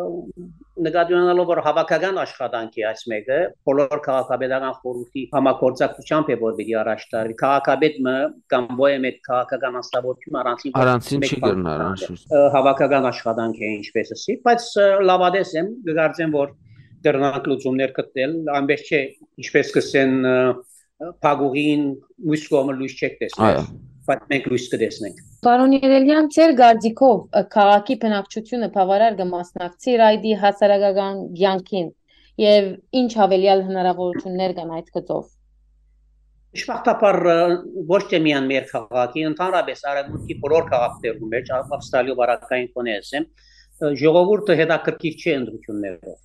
նկատի ունենալով որ հավաքական աշխատանք է այս մեկը, բոլոր քաղաքապետական խորհուրդի համագործակցությամբ է որ պիտի առաջ տարվի, քաղաքապետ մը կամ ոյեմ այդ քաղաքական անձնավորություն առանցին որ Առանցին մեկ չի բան կրնար, անշուշտ։ Ը, հավաքական աշխատանք է, ինչպես ասի, բայց, ը, լաւատես եմ, կգարձեմ որ կրնանք լուծումներ գտնել, այնպես չէ, ինչպես կսեն, ը, փակուղին մյուս կողմը լոյս չեք տեսներ, Այո։ բայց մենք լոյս կտեսնենք։ Պարոն Երելեան, ձեր կարծիքով, ը, քաղաքի բնակչությունը բավարար կը մասնակցի Ռայդի հասարակական կյանքին, եւ ինչ աւելեալ հնարաւորութիւններ կան այդ գծով։ Դժբախտաբար, ը, ոչ թե միայն մեր քաղաքի, ընդհանրապես արևմուտքի բոլոր քաղաքներու մեջ, Ա-, Ավստրալիոյ բարակային կոնե ասեմ, ը, ժողովուրդը հետաքրքիր չէ ընտրութիւններով։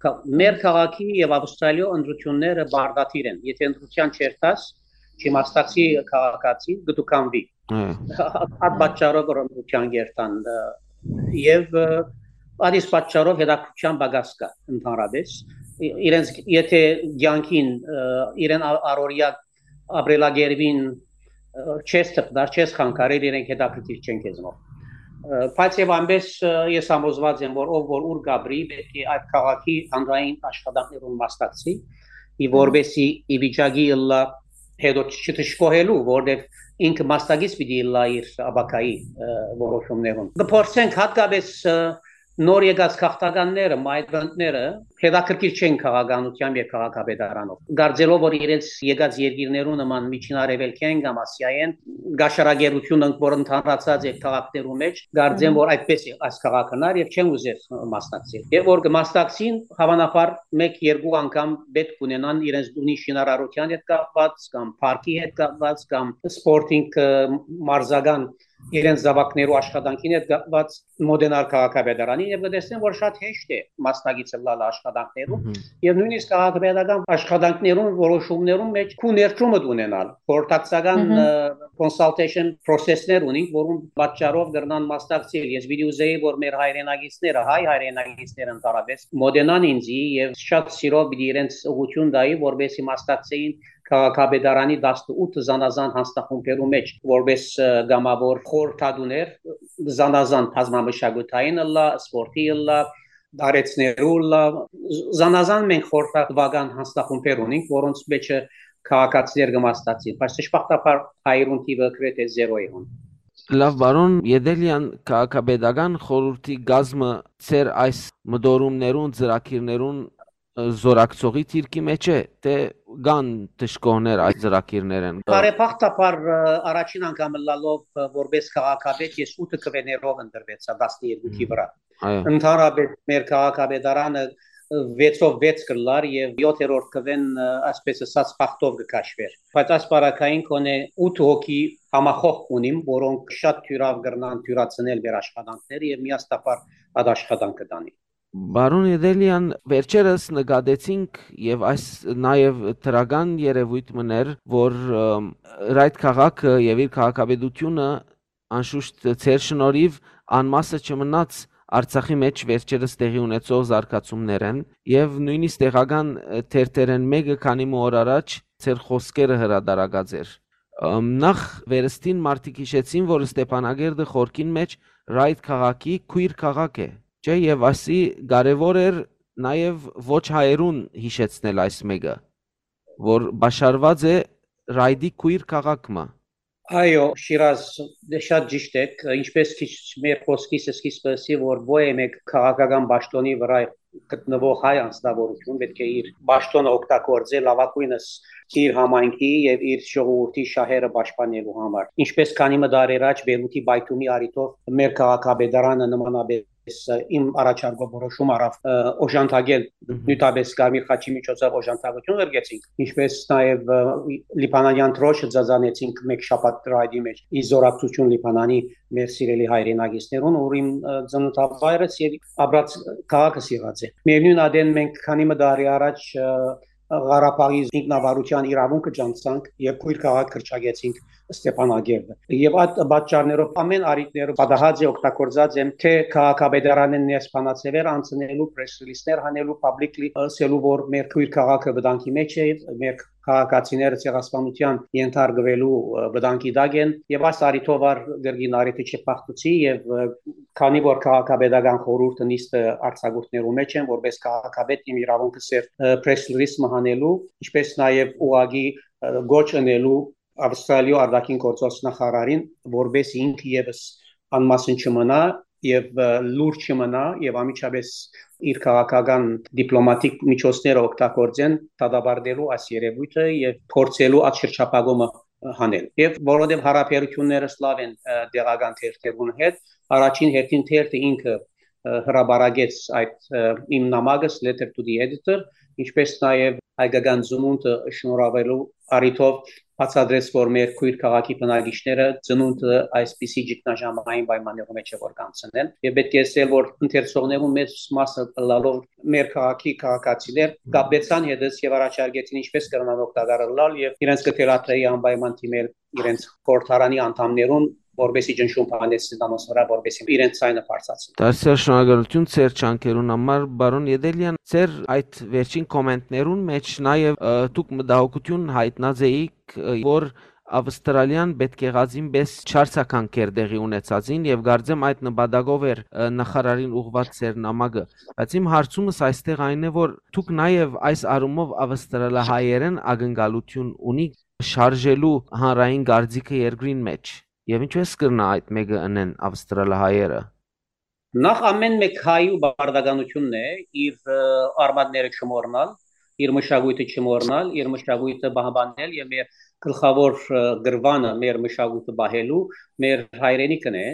Կա-, մեր քաղաքի եւ Ավստրալիոյ ընտրութիւնները բարդաթիր են։ Եթե ընտրութեան չերթաս, չիմաստացի քաղաքացի, կդուքանվի։ Հա։ Այդ պատճառով որ ընտրութեան երթան, ը, եւ, ը, այդ իսկ պատճառով հետաքրքրության պակաս կա ընդհանրապես։ Ի-, իրենց, եթե կյանքին, ը, իրեն ա-, առօրյա ապրելակերպին, ը, չես թփնար, չես խանգարել, իրենք հետաքրքիր չեն քեզնով։ Ը, բայց եւ այնպես, ը, ես համոզված եմ որ ով որ ուր կապրի, պետք է այդ քաղաքի հանրային աշխատանքներուն մասնակցի, ի որպեսի ի վիճակի ըլլա հետո չդժկոհելու, որտեւ ինքը մասնակից պիտի ըլլա իր ապագայի, ը, որոշումներուն։ Կփորձենք հատկապես, ը, նոր եկած քաղաքականները, migrant-ները հետաքրքիր չեն քաղաքականությամբ եւ քաղաքապետարանով, կարծելով որ իրենց եկած երկիրներու նման Միջին Արեւելքեն կամ Ասիայեն գաշարագերութիւն ընդ որ ընդհանրացած է քաղաքներու մեջ, կարծեմ Մհմ։ որ այդպես է այս քաղաքն ար եւ չեն ուզեր մասնակցել։ Եւ որ կմասնակցին, հավանաբար մեկ-երկու անգամ պետք ունենան իրենց տունի շինարարութեան հետ կապված կամ պարկի հետ կապված կամ սպորտինգ, ը, մարզական իրենց զաւակներու աշխատանքին հետ կապված մոտենալ քաղաքապետարանին եւ կտեսնեն որ շատ հեշտ է մասնակից ըլլալ աշխատանքներուն Մհմ։ եւ նույնիսկ քաղաքապետական աշխատանքներուն որոշումներուն մեջ քու ներդրումը ունենալ, խորհրդակցական, Մհմ։ ը, consultation process-ներ ունենք, որուն պատճառով կրնան մասնակցել։ Ես պիտի ուզեի որ մեր հայրենակիցները, հայ հայրենակիցները ընդհանրապես մոտենան ինձի եւ շատ սիրով պիտի իրենց ուղղություն տայի որպեսի մասնակցեին քաղաքապետարանի տասնութ զանազան հանձնախումբերու մեջ որպես, ը, կամավոր խորհրդատուներ, զանազան բազմամշակութային ըլլա, սպորտի ըլլա, դարեցներու ըլլա, զանազան մենք խորհրդատուական հանձնախումբեր ունենք, որոնց մեջը քաղաքացիներ կմասնակցին, բայց դժբախտաբար հայերուն թիվը գրեթե զերո է հոն։ Լավ, պարոն Եդելեան, քաղաքապետական խորհրդի գազմը ձեր այս մտորումներուն, ծրագիրներուն, ը, զորակցողի դիրքի մեջ է, թէ կան դժկոհներ այս ծրագիրներէն։ Բարեբախտաբար, ը, առաջին անգամ ըլլալով, ը, որպես քաղաքապետ, ես ութ քվեներով ընտրվեցա տասներկուքի Մհմ։ վրա։ Այո։ Ընդհանրապես մեր քաղաքապետարանը, ը, վեցով վեց կլար եւ յոթերորդ քվեն, ը, այսպես ասած, բախտով կքաշվեր։ Բայց այս պարագային կոնե ութ հոգի համախոհ ունիմ, որոնք շատ թիւրաւ կրնան թիւրացնել մեր աշխատանքները եւ միաստապար այդ աշխատանքը տանի։ Պարոն Եդելեան, վերջերս նկատեցինք եւ այս նաեւ դրական երևոյթ մներ, որ, ըմ, Ռայդ քաղաքը եւ իր քաղաքապետությունը անշուշտ ձեր շնորհիվ անմասը չմնաց Արցախի մեջ վերջերս տեղի ունեցող զարգացումներէն եւ նույնիսկ տեղական, ը, թերթերէն մեկը քանի մը օր առաջ ձեր խոսքերը հրատարակած էր։ Ըմ, նախ վերստին մարդիկ հիշեցին, որ Ստեփանակերտը խորքին մեջ Ռայդ քաղաքի քույր քաղաք է, չէ՞, եւ ասի կարեւոր էր նաեւ ոչ հայերուն հիշեցնել այս մեկը, որ բաշարված է Ռայդի քույր քաղաք մը։ Այո, Շիրազ, դե շատ ճիշտ եք, ինչպես քիչ մեր խոսքիս սկիզբը ասի, որ ոյ մէկ քաղաքական պաշտոնի վրա գտնվող հայ անձնավորություն պետք է իր պաշտոնը օգտագործի լավագույնս իր համայնքի եւ իր ժողովուրդի շահերը պաշտպանելու համար։ Ինչպես քանի մը դարեր առաջ Բեյրութի պայթումի առիթով մեր քաղաքապետարանը նմանապես, ը, իմ առաջարկով որոշում առավ, ը, օժանդակել, Մհմ։ նյութապես Կարմիր խաչի միջոցով օժանդակություն ղրկեցինք, ինչպես նաեւ, ը, լիբանանյան դրոշը ձազանեցինք մեկ շաբաթ Ռայդի մեջ, ի զորակցություն Լիբանանի մեր սիրելի հայրենակիցներուն, որ իմ, ը, ծննդավայրս եւ ապրած քաղաքս եղած է։ Միևնույն ադեն մենք քանի մը տարի առաջ, ը, Ղարաբաղի ինքնավարության իրավունքը ճանչցանք եւ քույր քաղաք կրճակեցինք Ստեփանակերտը։ Եւ այդ պատճառներով, ամեն առիթներով պատահած է, օգտագործած եմ, թե քաղաքապետարանէն ներս բանաձեւեր անցնելու, պրես ռիլիզներ հանելու, պաբլիկլի ասելու, որ մեր քոյր քաղաքը վտանգի մեջ է, մեր քաղաքացիները ցեղասպանութեան ենթարկուելու, ը, վտանգի տակ են, եւ այս առիթով ար կրկին առիթը չփախտուցի, եւ, ը, քանի որ քաղաքապետական խորհուրդը նիստը արձակուրդներու մեջ են, որպես քաղաքապետ իմ իրավունքը սեր, ը, պրես ռիլիզ մը հանելու, ինչպես նաեւ ուղղակի, ը, գոչ ընելու Ավստրալիոյ արտաքին գործոց նախարարին, որպեսզի ինքը եւս անմասն չմնա եւ, ը, լուր չմնա եւ անմիջապես իր քաղաքական դիպլոմատիկ միջոցները օգտագործեն դատապարտելու այս երևույթը եւ փորձելու այդ շրջափակումը հանել։ Եւ որովհետեւ հարաբերություններս լաւ են, ը, տեղական թերթերուն հետ, առաջին հերթին թերթը ինքը, ը, հրապարակեց այդ, ը, իմ նամակս, Letter to the Editor, ինչպես նաեւ հայկական ծնունդը շնորհաւելու առիթով բացատրեց, որ մեր քոյր քաղաքի բնակիչները ծնունդը այսպիսի ճգնաժամային պայմաններու մեջ է որ կանցնեն։ Եւ պէտք է ասել, որ ընթերցողներուն մեծ մասը ըլլալով մեր քաղաքի քաղաքացիներ կապեցան հետս եւ առաջարկեցին ինչպես կրնան օգտակար ըլլալ եւ իրենց կը թելադրեի անպայման դիմել իրենց խորհրդարանի անդամներուն, որպեսզի ճնշում բանեցնեն անոնց վրա, որպեսզի իրենց ձայնը բարձրացնեն։ Դարձյալ շնորհակալություն ձեր ջանքերուն համար, պարոն Եդելեան։ Ձեր այդ վերջին կոմենտներուն մեջ նաեւ, ը, դուք մտահոգութիւն յայտնած էիք, ը, որ Ավստրալիան պէտք եղածին պէս չարձագանքեր տեղի ունեցածին, եւ կարծեմ այդ նպատակով էր, ը, նախարարին ուղղուած ձեր նամակը։ Բայց իմ հարցումս այստեղ այն է, որ դուք նաեւ այս առումով ավստրալահայերեն ակնկալութիւն ունիք շարժելու հանրային կարծիքը երկրին մեջ, եւ ինչպես կրնայ այդ մէկը ընեն ավստրալահայերը։ Նախ ամեն մէկ հայու պարտականութիւնն է իր, ը, արմատները չմոռնալ, իր մշակոյթը չմոռնալ, իր մշակոյթը պահպանել եւ մեր գլխաւոր, ը, գրվանը, մեր մշակոյթը պահելու, մեր հայրենիքն է,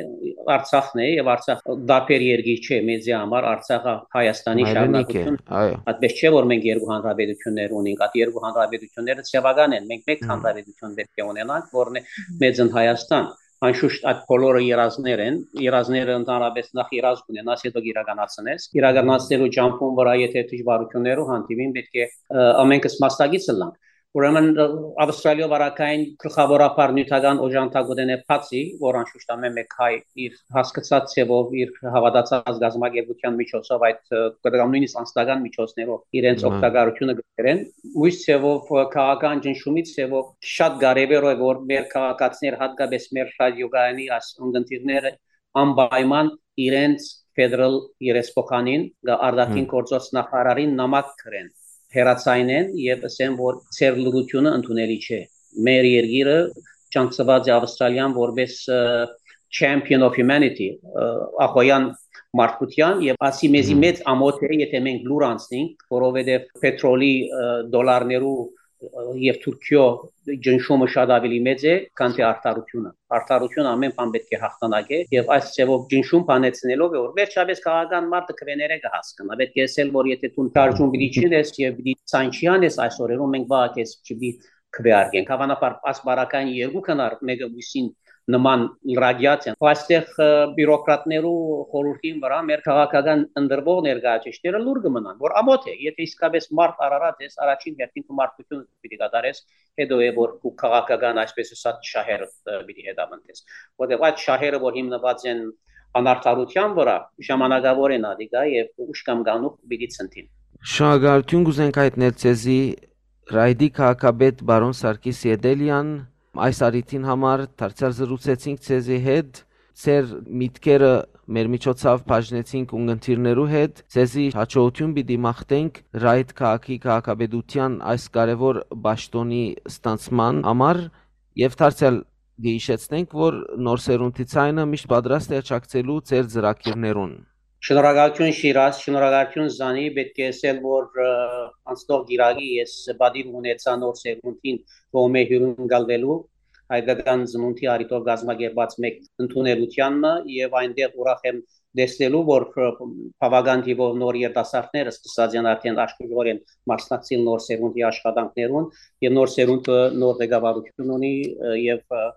Արցախն է, եւ Արցախ տարբեր երկիր չէ, մեզի համար Արցախը Հայաստանի Հայրենիք է, շարունակություն։ Այո։ Այդպես չէ, որ մենք երկու հանրապետություններ ունենք, այդ երկու հանրապետությունները ձեւական են, մենք մեկ Հմ։ հանրապետություն պէտք է ունենանք, որն է Մեծն Հայաստան։ Անշուշտ այդ բոլորը երազներ են, երազները ընդհանրապես նախ երազ կունենաս, հետո կիրականացնես։ Իրականացնելու ճամփուն վրա եթե դժվարություններու հանդիպին, պէտք է, ը, ամենքս մասնակից ըլլանք։ Ուրեմն, ը, Ավստրալիոյ վարակային գլխավորաբար նիւթական օժանդակութենէ բացի, որ անշուշտ ամեն մէկ հայ իր հասկցած ձեւով, իր հաւատացած գազམ ակերպութեան միջոցով, այդ, ը, կամ նոյնիսկ անձնական միջոցներով իրենց Մա։ օգտակարությունը կրեն, մյուս ձեւով, ը, քաղաքական ճնշումի ձեւով շատ կարեւոր է, որ մեր քաղաքացիներ, հատկապես մեր ռադիոկայանի այս ունգընտիրները անպայման իրենց ֆեդերալ երեսփոխանին, գա արտաքին Հմ։ գործոց նախարարին նամակ գրեն, հեռացայնեն եւ ասեն, որ ձեր լրությունը ընդունելի չէ։ Մեր երկիրը ճանչցուած է Ավստրալիան որպես, ը, champion of humanity, ը, ախոյան մարդկության, եւ ասի մեզի Հմ։ մեծ ամոթ է, եթե մենք լուր անցնենք, որովհետեւ պետրոլի, ը, դոլարներու, ը, եւ Թուրքիոյ ճնշումը շատ ավելի մեծ է, քան թե արդարությունը։ Արդարությունը ամեն բան պէտք է հաղթանակի, եւ այս ձեւով ճնշում բանեցնելով է, որ վերջապես քաղաքական մարդը քվեները կը հասկնայ։ Պէտք է ասել, որ եթե դու շարժում պիտի չընես եւ պիտի ցանչի անես այս օրերուն, մենք վաղը քեզ չպիտի քվեարկենք։ Հավանաբար այս պարագային երկու քնար մէկը մյուսին նման լրագյաց են։ Այստեղ, ը, բիուրոկրատներու խորհրդին վրա մեր քաղաքական ընտրվող ներկայացուցիչները լուր կը մնան, որ ամոթ է, եթե իսկապես մարդ արարած ես, առաջին հերթին քու մարդկությունը պիտի կատարես, հետո է, որ քու քաղաքական, այսպես ասած, շահերը, ը, պիտի հետապնդես։ Որտեղ այդ շահերը, որ հիմնված են անարդարության վրա, ժամանակավոր են ադիկա եւ ուշ կամ գանուխ պիտի ցնդին։ Շնորհակալություն կուզենք հայտնել ձեզի, Ռայդի քաղաքապետ պարոն Սարգիս Եդելեան, այս առիթին համար դարձյալ զրուցեցինք ձեզի հետ, ձեր միտքերը մեր միջոցով բաժնեցինք ունգընտիրներու հետ, ձեզի հաջողություն պիտի մաղթենք Ռայդ քաղաքի քաղաքապետության այս կարևոր պաշտոնի ստանցման համար, եւ դարձյալ կը հիշեցնենք, որ Նոր Սերունդի Ցայնը միշտ պատրաստ է աջակցելու ձեր ծրագիրներուն։ Շնորհակալություն Շիրազ, շնորհակալություն Զանի, պէտք է ասել, որ, ը, անցնող գիրագի ես պատիվ ունեցա Նոր Սերունդին կողմէ հյուրընկալվելու հայկական ծնունդի առիթով կազմակերպած մեկ ընդունելութեանը, եւ այնտեղ ուրախ եմ տեսնելու, որ, ը, բավական թիվով նոր երիտասարդներ սկսած են արդեն աշխուժորեն մասնակցել Նոր Սերունդի աշխատանքներուն, եւ Նոր Սերունդը նոր ղեկավարություն ունի, ը, եւ, ը,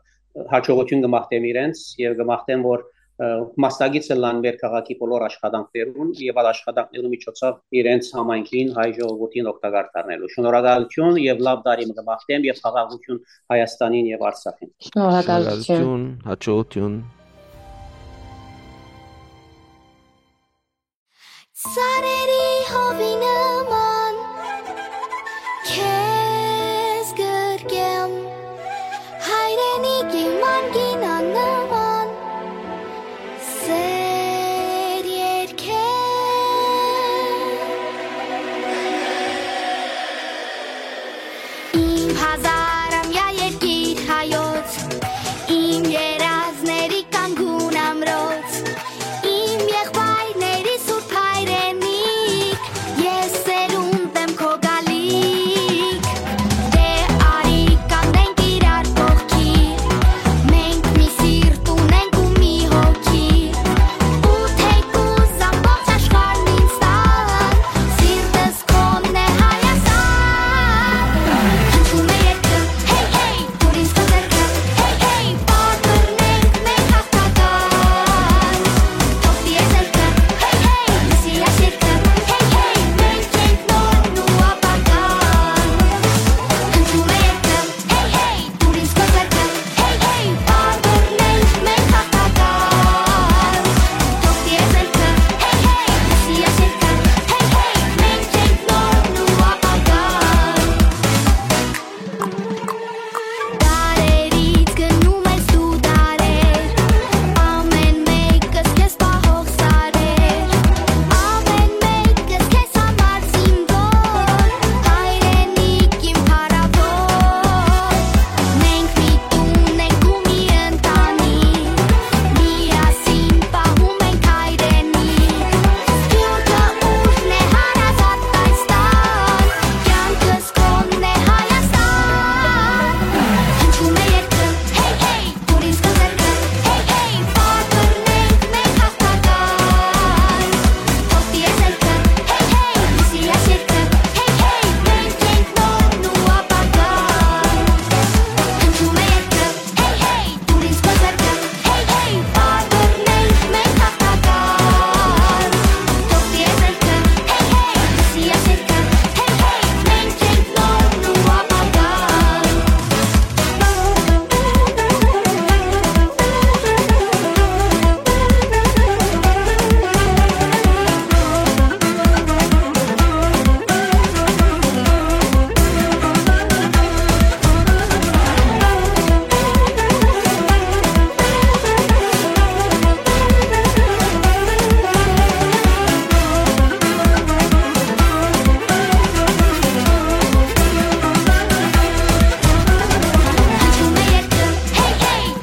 հաջողություն կը մաղթեմ իրենց, եւ կը մաղթեմ, որ ը, մասնակից ըլլան մեր քաղաքի բոլոր աշխատանքներուն եւ այդ աշխատանքներու միջոցով իրենց համայնքին, հայ ժողովուրդին օգտակար դառնալու։ Շնորհակալություն եւ լաւ տարի մը կը մաղթեմ եւ խաղաղություն Հայաստանին եւ Արցախին։ Շնորհակալություն։ Շնորհակալություն, հաջողություն։ Ծառերի հովի նման քեզ գրկեմ, հայրենիքի մանկին աննման, սեր երկեմ։ Իմ հազարամյա երկիր հայոց, իմ երազների կանգուն ամրոց, իմ եղբայրների սուրբ հայրենիք, ես սերունդ եմ քո գալիք։ Դե արի կանգնենք իրար կողքի, մենք մի սիրտ ունենք ու մի հոգի, ու թեկուզ ամբողջ աշխարհն ինձ տան, սիրտս քոնն է Հայաստան։ Հնչում է երկը, հեյ, հեյ, դուր ինձ քո ձեռքը, հեյ, հեյ, պարբռնենք մենք հաղթական։ Թող տիրե զելքը, հեյ, հեյ, լսի այս երգը, հեյ, հեյ, մենք ենք նորն ու ապագան։ Հնչում է երկը, հեյ, հեյ, դուր ինձ քո ձեռքը, հեյ, հեյ, պարբռնենք մենք հաղթական։ Թող տիրե զելքը, հեյ, հեյ, լսի այս երգը, հեյ, հեյ, մենք ենք նորն ու ապագան։ Դարերից գնում ես դու դարեր, ամեն մեկս քեզ պահող սարեր, ամեն մեկս քեզ համար զինվոր, հայրենիք իմ փառաւոր։ Մենք միտում ենք ու մի ընտանիք, միասին պահում ենք հայրենիք, սփիւռքը ուժն է հարազատ այս տան, կյանքս Կոնն է Հայաստան, հնչում է երգը, հեյ, հեյ, դուր ինձ քո ձեռքը, հեյ, հեյ, պարբռնենք մենք հաղթական։ Թող տիրե զելքը, հեյ, հեյ, լսի այս երգը, հեյ, հեյ, մենք ենք նորն ու ապագան։ Հնչում է երգը, հեյ, հեյ, դուր ինձ քո ձեռքը, հեյ, հեյ, պարբռնենք մենք հաղթական։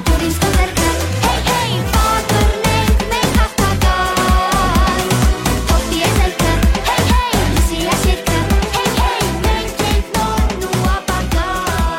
Թող տիրե զելքը, հեյ, հեյ, լսի այս երգը, հեյ, հեյ, մենք ենք նորն ու ապագան։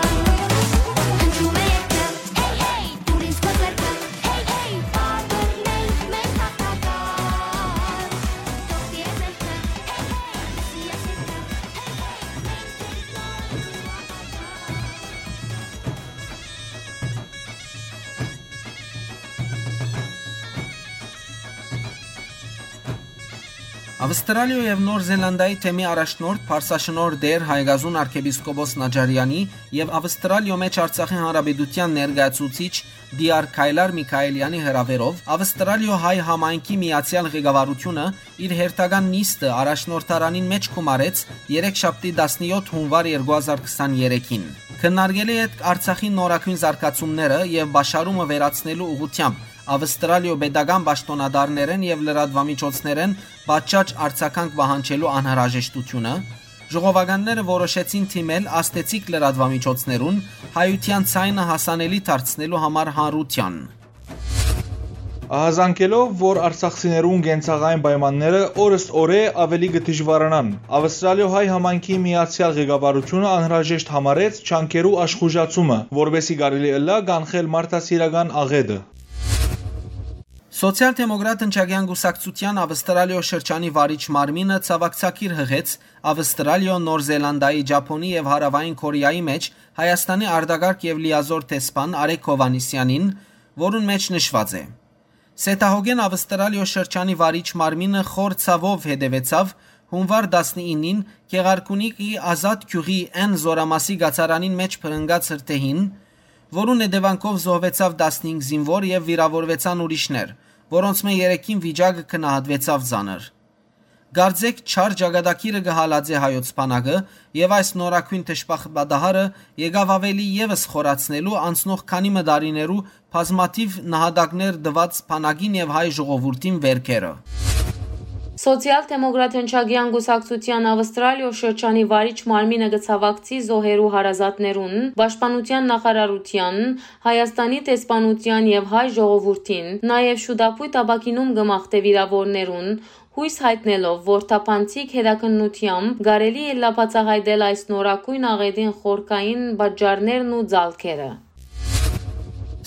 Ավստրալիոյ եւ Նոր Զելանդիայի թեմի առաջնորդ, փարսաշնորհ տէր Հայկազուն արքեպիսկոպոս Նաջարեանի եւ Ավստրալիոյ մէջ Արցախի Հանրապետութեան ներկայացուցիչ Դիար Քայլար Միքայելյանի հրաւերով Ավստրալիոյ հայ համայնքի միացեալ ղեկավարութիւնը իր հերթական նիստը առաջնորդարանին մէջ գումարեց երեքշաբթի տասնեօթ հունուար երկու հազար քսաներեքին։ Քննարկելի ետք Արցախի նորագոյն զարգացումները եւ պաշարումը վերացնելու ուղղութեամբ Ավստրալիոյ պետական պաշտօնատարներէն եւ լրատուամիջոցներէն պատշաճ արձագանք պահանջելու անհրաժեշտութիւնը, ժողովականները որոշեցին դիմել ազդեցիկ լրատուամիջոցներուն՝ հայութեան ձայնը հասանելի դարձնելու համար հանրութեան։ Ահազանգելով, որ արցախցիներուն կենցաղային պայմանները օրս օրէ ավելի կը դժուարանան, Ավստրալիոյ հայ համայնքի միացեալ ղեկավարութիւնը անհրաժեշտ համարեց ջանքերու աշխուժացումը, որպէսզի կարելի ըլլայ կանխել մարդասիրական աղէտը։ Սոցիալ-դեմոկրատ ընչակեան կուսակցութեան Ավստրալիոյ շրջանի վարիչ մարմինը ցաւակցագիր յղեց Ավստրալիոյ, Նոր Զելանդիայի, Ճապոնի եւ Հարաւային Քորեայի մէջ Հայաստանի արտակարգ եւ լիազօր դեսպան Արեգ Հովհաննիսեանին, որուն մէջ նշուած է. Սեթահոգեն Ավստրալիոյ շրջանի վարիչ մարմինը խոր ցաւով հետեւեցաւ հունուար տասնինին Գեղարքունիքի Ազատ գիւղի այն զօրամասի գացարանին մէջ փրնգած հրդեհին, որուն հետեւանքով զոհուեցաւ տասնհինգ զինուոր եւ վիրաւորուեցան ուրիշներ, որոնցմէ երեքին վիճակը գնահատուեցաւ ծանր։ Կարծէք չար ճակատագիրը կը հալածէ հայոց բանակը, եւ այս նորագոյն դժբախտ պատահարը եկաւ աւելի եւս խորացնելու անցնող քանի մը տարիներու բազմաթիւ նահատակներ տուած բանակին եւ հայ ժողովուրդին վէրքերը։ Սոցիալ-դեմոկրատ հնչակեան կուսակցութեան Ավստրալիոյ շրջանի վարիչ մարմինը կը ցաւակցի զոհերու հարազատներուն, պաշտպանութեան նախարարութեան, Հայաստանի դեսպանութեան եւ հայ ժողովուրդին, նաեւ շուտապոյտ ապագինում կը մաղթէ վիրաւորներուն, յոյս յայտնելով, որ թափանցիկ հետաքննութեամբ կարելի է լայնաբացահայտել այս նորագոյն աղէտին խորքային պատճառներն ու ծալքերը։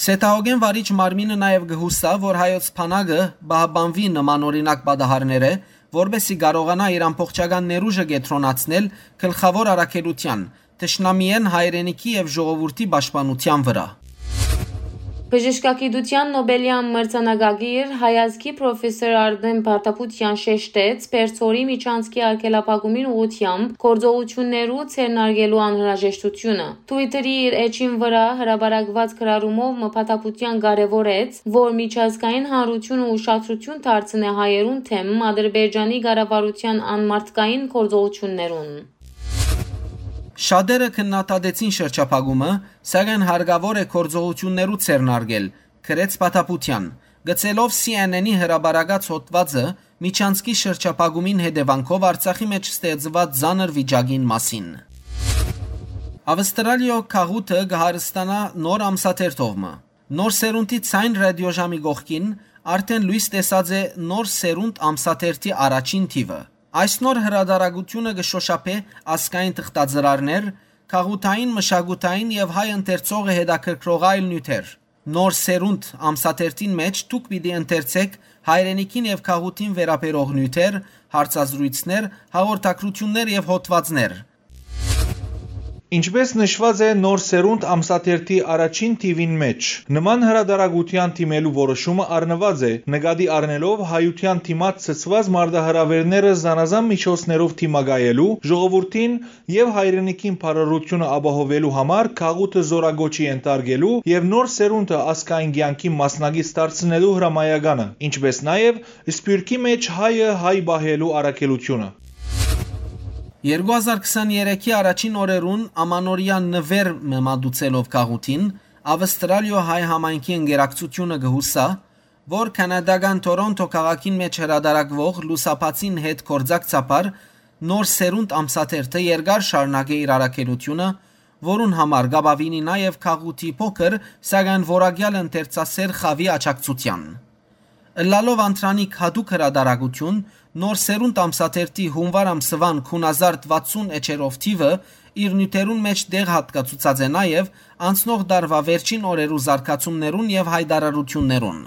Սեթահոգեն վարիչ մարմինը նաեւ կը յուսայ, որ հայոց բանակը պահպանուի նմանօրինակ պատահարներէ, որպէս զի կարողանայ իր ամբողջական ներուժը կեդրոնացնել գլխաւոր առաքելութեան, թշնամիէն հայրենիքի եւ ժողովուրդի պաշտպանութեան վրայ։ Բժշկագիտութեան Նոբելեան մրցանակակիր հայազգի պրոֆեսոր Արմէն Փաթապուտեան շեշտեց Պերձորի միջանցքի արգելափակումին ուղղութեամբ գործողութիւններու ձեռնարկելու անհրաժեշտութիւնը։ Twitter-ի իր էջին վրայ հրապարակուած գրառումով մը Փաթապուտեան կարեւորեց, որ միջազգային հանրութիւնը ուշադրութիւն դարձնէ հայերուն դէմ Ադրբեջանի կառավարութեան անմարդկային գործողութիւններուն։ Շատերը քննադատեցին շրջափակումը, սակայն հարկաւոր է գործողութիւններու ձեռնարկել, գրեց Փաթապուտեան, գծելով C N N-ի հրապարակած հոդուածը Միջանցքի շրջափակումին հետեւանքով Արցախի մէջ ստեղծուած ծանր վիճակին մասին։ Ավստրալիոյ գաղութը կը հարստանայ նոր ամսաթերթով մը։ Նոր սերունդի ձայն ռադիոժամի կողքին արդէն լոյս տեսած է նոր սերունդ ամսաթերթի առաջին թիւը։ Այս նոր հրատարակութիւնը կը շօշափէ ազգային թղթածրարներ, գաղութային, մշակութային եւ հայ ընթերցողը հետաքրքրող այլ նիւթեր։ Նոր սերունդ ամսաթերթին մէջ դուք պիտի ընթերցէք հայրենիքին եւ գաղութին վերաբերող նիւթեր, հարցազրոյցներ, հաղորդագրութիւններ եւ հոդուածներ։ Ինչպէս նշուած է Նոր սերունդ ամսաթերթի առաջին թիւին մէջ, նման հրատարակութեան դիմելու որոշումը առնուած է, նկատի առնելով հայութեան դիմաց ցցուած մարտահրաւէրները զանազան միջոցներով դիմակայելու, ժողովուրդին եւ հայրենիքին բարօրութիւնը ապահովելու համար գաղութը զօրակոչի ենթարկելու եւ նոր սերունդը ազգային կեանքի մասնակից դարձնելու հրամայականը, ինչպէս նաեւ Սփիւռքի մէջ հայը հայ պահելու առաքելութիւնը։ Երկու հազար քսաներեքի առաջին օրերուն ամանորեայ նուէր մը մատուցելով գաղութին, Ավստրալիոյ հայ համայնքի ընկերակցութիւնը կը յուսայ, որ քանադական Թորոնթո քաղաքին մէջ հրատարակուող լուսաբացին հետ գործակցաբար նոր սերունդ ամսաթերթը երկար շարունակէ իր առաքելութիւնը, որուն համար կ'ապավինի նաեւ գաղութի փոքր, սակայն որակեալ ընթերցասէր խաւի աջակցութեան։ Ըլլալով անդրանիկ յատուկ հրատարակութիւն, Նոր սերունդ ամսաթերթի յունուար ամսուան քուն հազար վաթսուն էջերով թիւը իր նիւթերուն մէջ տեղ յատկացուցած է նաեւ անցնող տարուայ վերջին օրերու զարգացումներուն եւ յայտարարութիւններուն։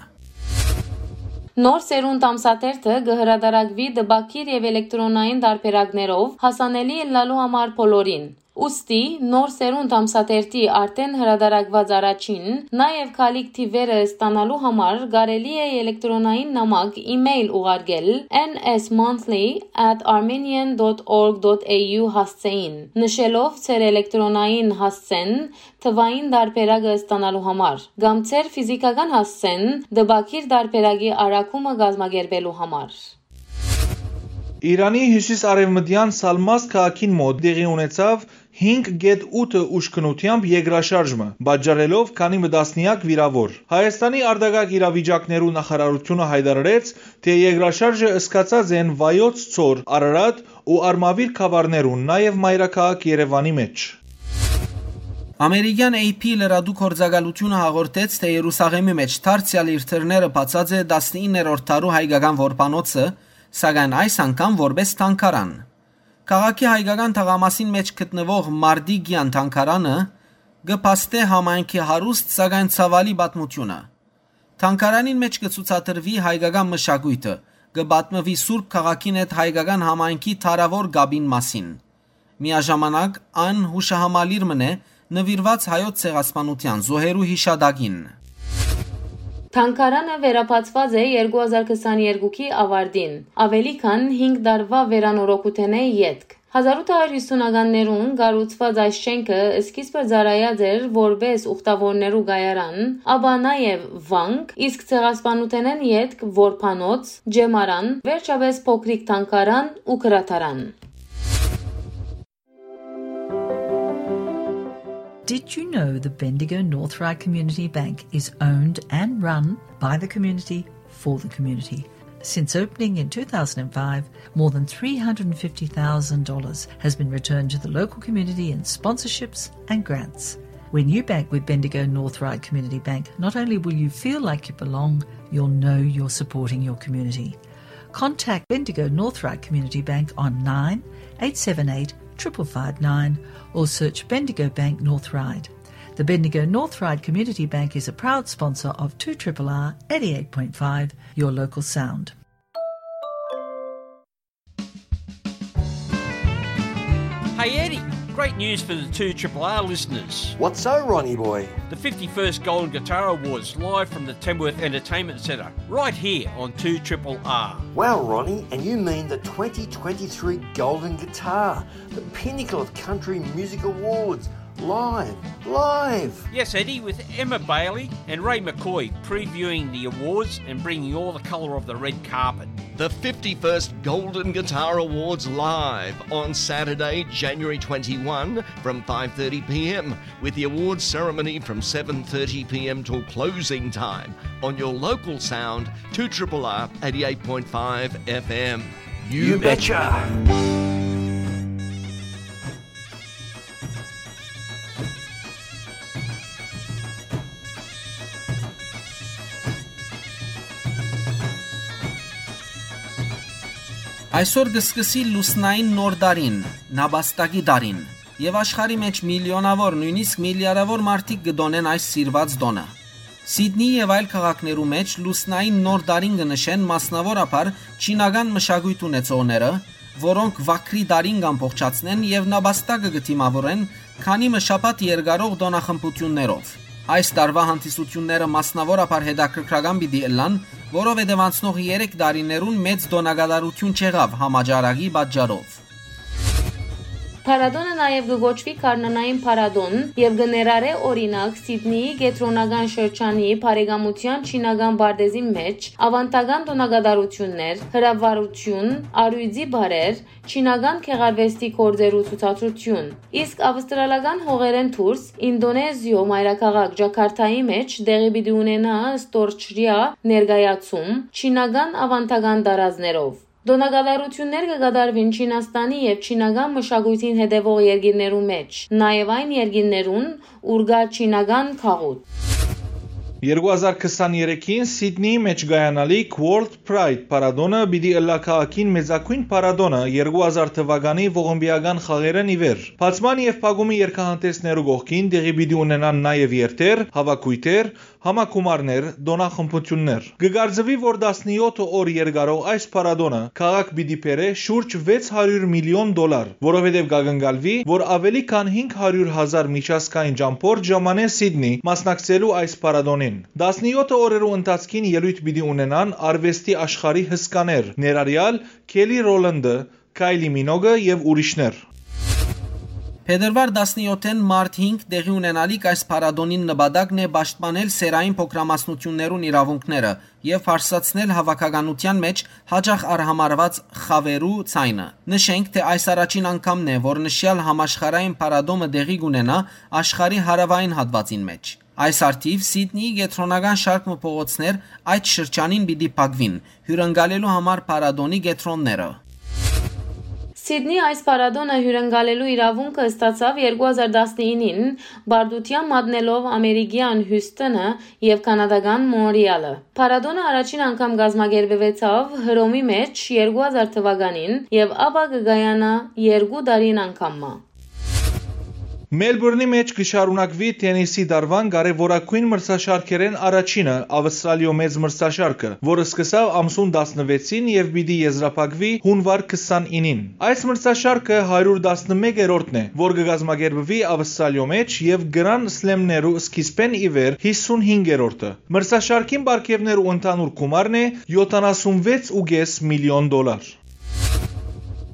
Նոր սերունդ ամսաթերթը կը հրատարակուի տպագիր եւ էլեկտրոնային տարբերակներով, հասանելի ըլլալու համար բոլորին։ Ուստի, Նոր սերունդ ամսաթերթի արդէն հրատարակուած առաջին, նաեւ գալիք թիւերը ստանալու համար կարելի է էլեկտրոնային նամակ, email ուղարկել N S monthly at armenian dot org dot A U հասցէին, նշելով ձեր էլեկտրոնային հասցեն թվային տարբերակը ստանալու համար, կամ ձեր ֆիզիքական հասցեն տպագիր տարբերակի առաքումը կազմակերպելու համար։ Իրանի հիւսիս-արեւմտեան Սալմաս քաղաքին մօտ տեղի ունեցաւ հինգ կետ ութը ուժգնութեամբ երկրաշարժ մը, պատճառելով քանի մը տասնեակ վիրաւոր։ Հայաստանի արտակարգ իրավիճակներու նախարարութիւնը յայտարարեց, թէ երկրաշարժը սկսած են Վայոց Ձոր, Արարատ ու Արմավիր գաւառներուն, նաեւ մայրաքաղաք Երեւանի մէջ։ Ամերիկեան A P լրատու գործակալութիւնը հաղորդեց, թէ Երուսաղէմի մէջ դարձեալ իր դռները բացած է տասնիններորդ դարու հայկական որբանոցը, սակայն այս անգամ որպէս թանգարան։ Քաղաքի հայկական թաղամասին մէջ գտնուող Մարտիկեան թանգարանը կը փաստէ համայնքի հարուստ, սակայն ցաւալի պատմութիւնը։ Թանգարանին մէջ կը ցուցադրուի հայկական մշակոյթը, կը պատմուի Սուրբ քաղաքին հետ հայկական համայնքի դարաւոր կապին մասին։ Միաժամանակ, այն յուշահամալիր մըն է նուիրուած հայոց ցեղասպանութեան զոհերու յիշատակին։ Թանգարանը վերաբացուած է երկու հազար քսաներկուքի աւարտին, աւելի քան հինգ տարուայ վերանորոգութենէ ետք։ Հազարութ հարիւր հիւսունականներուն կառուցուած այս շէնքը սկիզբը ծառայած էր որպէս ուխտաւորներու կայարան, ապա նաեւ վանք, իսկ ցեղասպանութենէն ետք որբանոց, ճեմարան, վերջապէս փոքրիկ թանգարան ու գրադարան։ Did you know the Bendigo North Ryde Community Bank is owned and run by the community for the community? Since opening in two thousand five, more than three hundred fifty thousand dollars has been returned to the local community in sponsorships and grants. When you bank with Bendigo North Ryde Community Bank, not only will you feel like you belong, you'll know you're supporting your community. Contact Bendigo North Ryde Community Bank on nine eight seven eight triple five nine or search Bendigo Bank North Ryde. The Bendigo North Ryde Community Bank is a proud sponsor of two triple R eighty-eight point five, your local sound. Hey Eddie, great news for the two triple R listeners. What's so, Ronnie boy? The fifty-first Golden Guitar Awards live from the Tamworth Entertainment Centre, right here on two triple R. Wow, Ronnie, and you mean the twenty twenty-three Golden Guitar, the pinnacle of country music awards. Live, live! Yes, Eddie, with Emma Bailey and Ray McCoy previewing the awards and bringing all the colour of the red carpet. The fifty-first Golden Guitar Awards live on Saturday, January twenty-one from five thirty p.m., with the awards ceremony from seven thirty p.m. till closing time on your local sound, two triple R eighty-eight point five F M. You betcha! Այսօր կը սկսի լուսնային նոր տարին, նապաստակի տարին, եւ աշխարհի մէջ միլիոնաւոր, նոյնիսկ միլիարդաւոր մարդիկ կը տօնեն այս սիրուած տօնը։ Սիդնի եւ այլ քաղաքներու մէջ լուսնային նոր տարին կը նշեն մասնաւորաբար չինական մշակոյթ ունեցողները, որոնք վագրի տարին կ'ամբողջացնեն եւ նապաստակը կը դիմաւորեն քանի մը շաբաթ երկարող տօնախմբութիւններով։ Այս տարուայ հանդիսութիւնները մասնաւորաբար հետաքրքրական պիտի ըլլան, որովհետեւ անցնող երեք տարիներուն մեծ տօնակատարութիւն չեղաւ համաճարակի պատճառով։ Փառատոնը նաեւ կը կոչուի Գարնանային փառատոն եւ կը ներառէ, օրինակ, Սիդնիի կեդրոնական շրջանի բարեկամութեան չինական պարտէզին մէջ աւանդական տօնակատարութիւններ, հրավառութիւն, առիւծի պարեր, չինական գեղարուեստի գործերու ցուցադրութիւն։ Իսկ աւստրալական հողերէն դուրս, Ինդոնեզիոյ մայրաքաղաք Ջաքարթայի մէջ տեղի պիտի ունենայ ստորջրեայ ներկայացում, չինական աւանդական տարազներով։ Տօնակատարութիւններ կը կատարուին Չինաստանի եւ չինական մշակոյթին հետեւող երկիրներու մէջ, նաեւ այն երկիրներուն, ուր կայ չինական գաղութ։ Երկու հազար քսաներեքին Սիդնիի մէջ կայանալիք World Pride փառատոնը պիտի ըլլայ քաղաքին մեծագոյն փառատոնը երկու հազար թուականի ողմբիական խաղերէն ի վեր։ Բացման եւ փակումի երգահանտեսներու կողքին տեղի պիտի ունենան նաեւ երթեր, հաւաքոյթեր, համագումարներ, տօնախմբութիւններ։ Կը կարծուի, որ տասնեօթ օր երկարող այս փառատոնը քաղաք պիտի բերէ շուրջ վեց հարիւր միլիոն դոլար, որովհետեւ կակնկալուի, որ աւելի քան հինգ հարիւր հազար միջազգային ճամբորդ ժամանեն Սիդնի մասնակցելու այս փառատոնին։ Տասնեօթ օրերու ընթացքին ելոյթ պիտի ունենան արուեստի աշխարհի հսկաներ, ներառեալ Քելի Ռոլանդը, Քայլի Մինոգը եւ ուրիշներ։ Փետրուար տասնեօթէն մարտ հինգ տեղի ունենալիք այս փառատոնին նպատակն է պաշտպանել սեռային փոքրամասնութիւններուն իրաւունքները եւ բարձրացնել հաւաքականութեան մէջ յաճախ արհամարհուած խաւերու ձայնը։ Նշենք, թէ այս առաջին անգամն է, որ նշեալ համաշխարհային փառատոնը տեղի կունենայ աշխարհի հարաւային հատուածին մէջ։ Այս առթիւ Սիդնիի կեդրոնական շարք մը փողոցներ այդ շրջանին պիտի փակուին, հիւրընկալելու համար փառատոնի կեդրոնները։ Սիդնի այս փառատոնը հիւրընկալելու իրաւունքը ստացաւ երկու հազար տասնինին, պարտութեան մատնելով ամերիկեան Հիւսթոնը եւ կանադական Մոնրեալը։ Փառատոնը առաջին անգամ կազմակերպուեցաւ Հռոմի մէջ երկու հազար թուականին եւ ապա կը կայանայ երկու տարին անգամ մը։ Մելբուրնի մէջ կը շարունակուի թենիսի տարուան կարեւորագոյն մրցաշարքերէն առաջինը՝ Աւստրալիոյ մեծ մրցաշարքը, որ սկսաւ ամսուն տասնվեցին եւ պիտի եզրափակուի հունուար քսանինին։ Այս մրցաշարքը հարիւր տասնմեկերորդն է, որ կը կազմակերպուի Աւստրալիոյ մէջ եւ Grand Slam-ներու սկիզբէն ի վեր հիսունհինգերորդը։ Մրցաշարքին պարգեւներու ընդհանուր գումարն է յոթանասունվեց ու կէս միլիոն դոլար։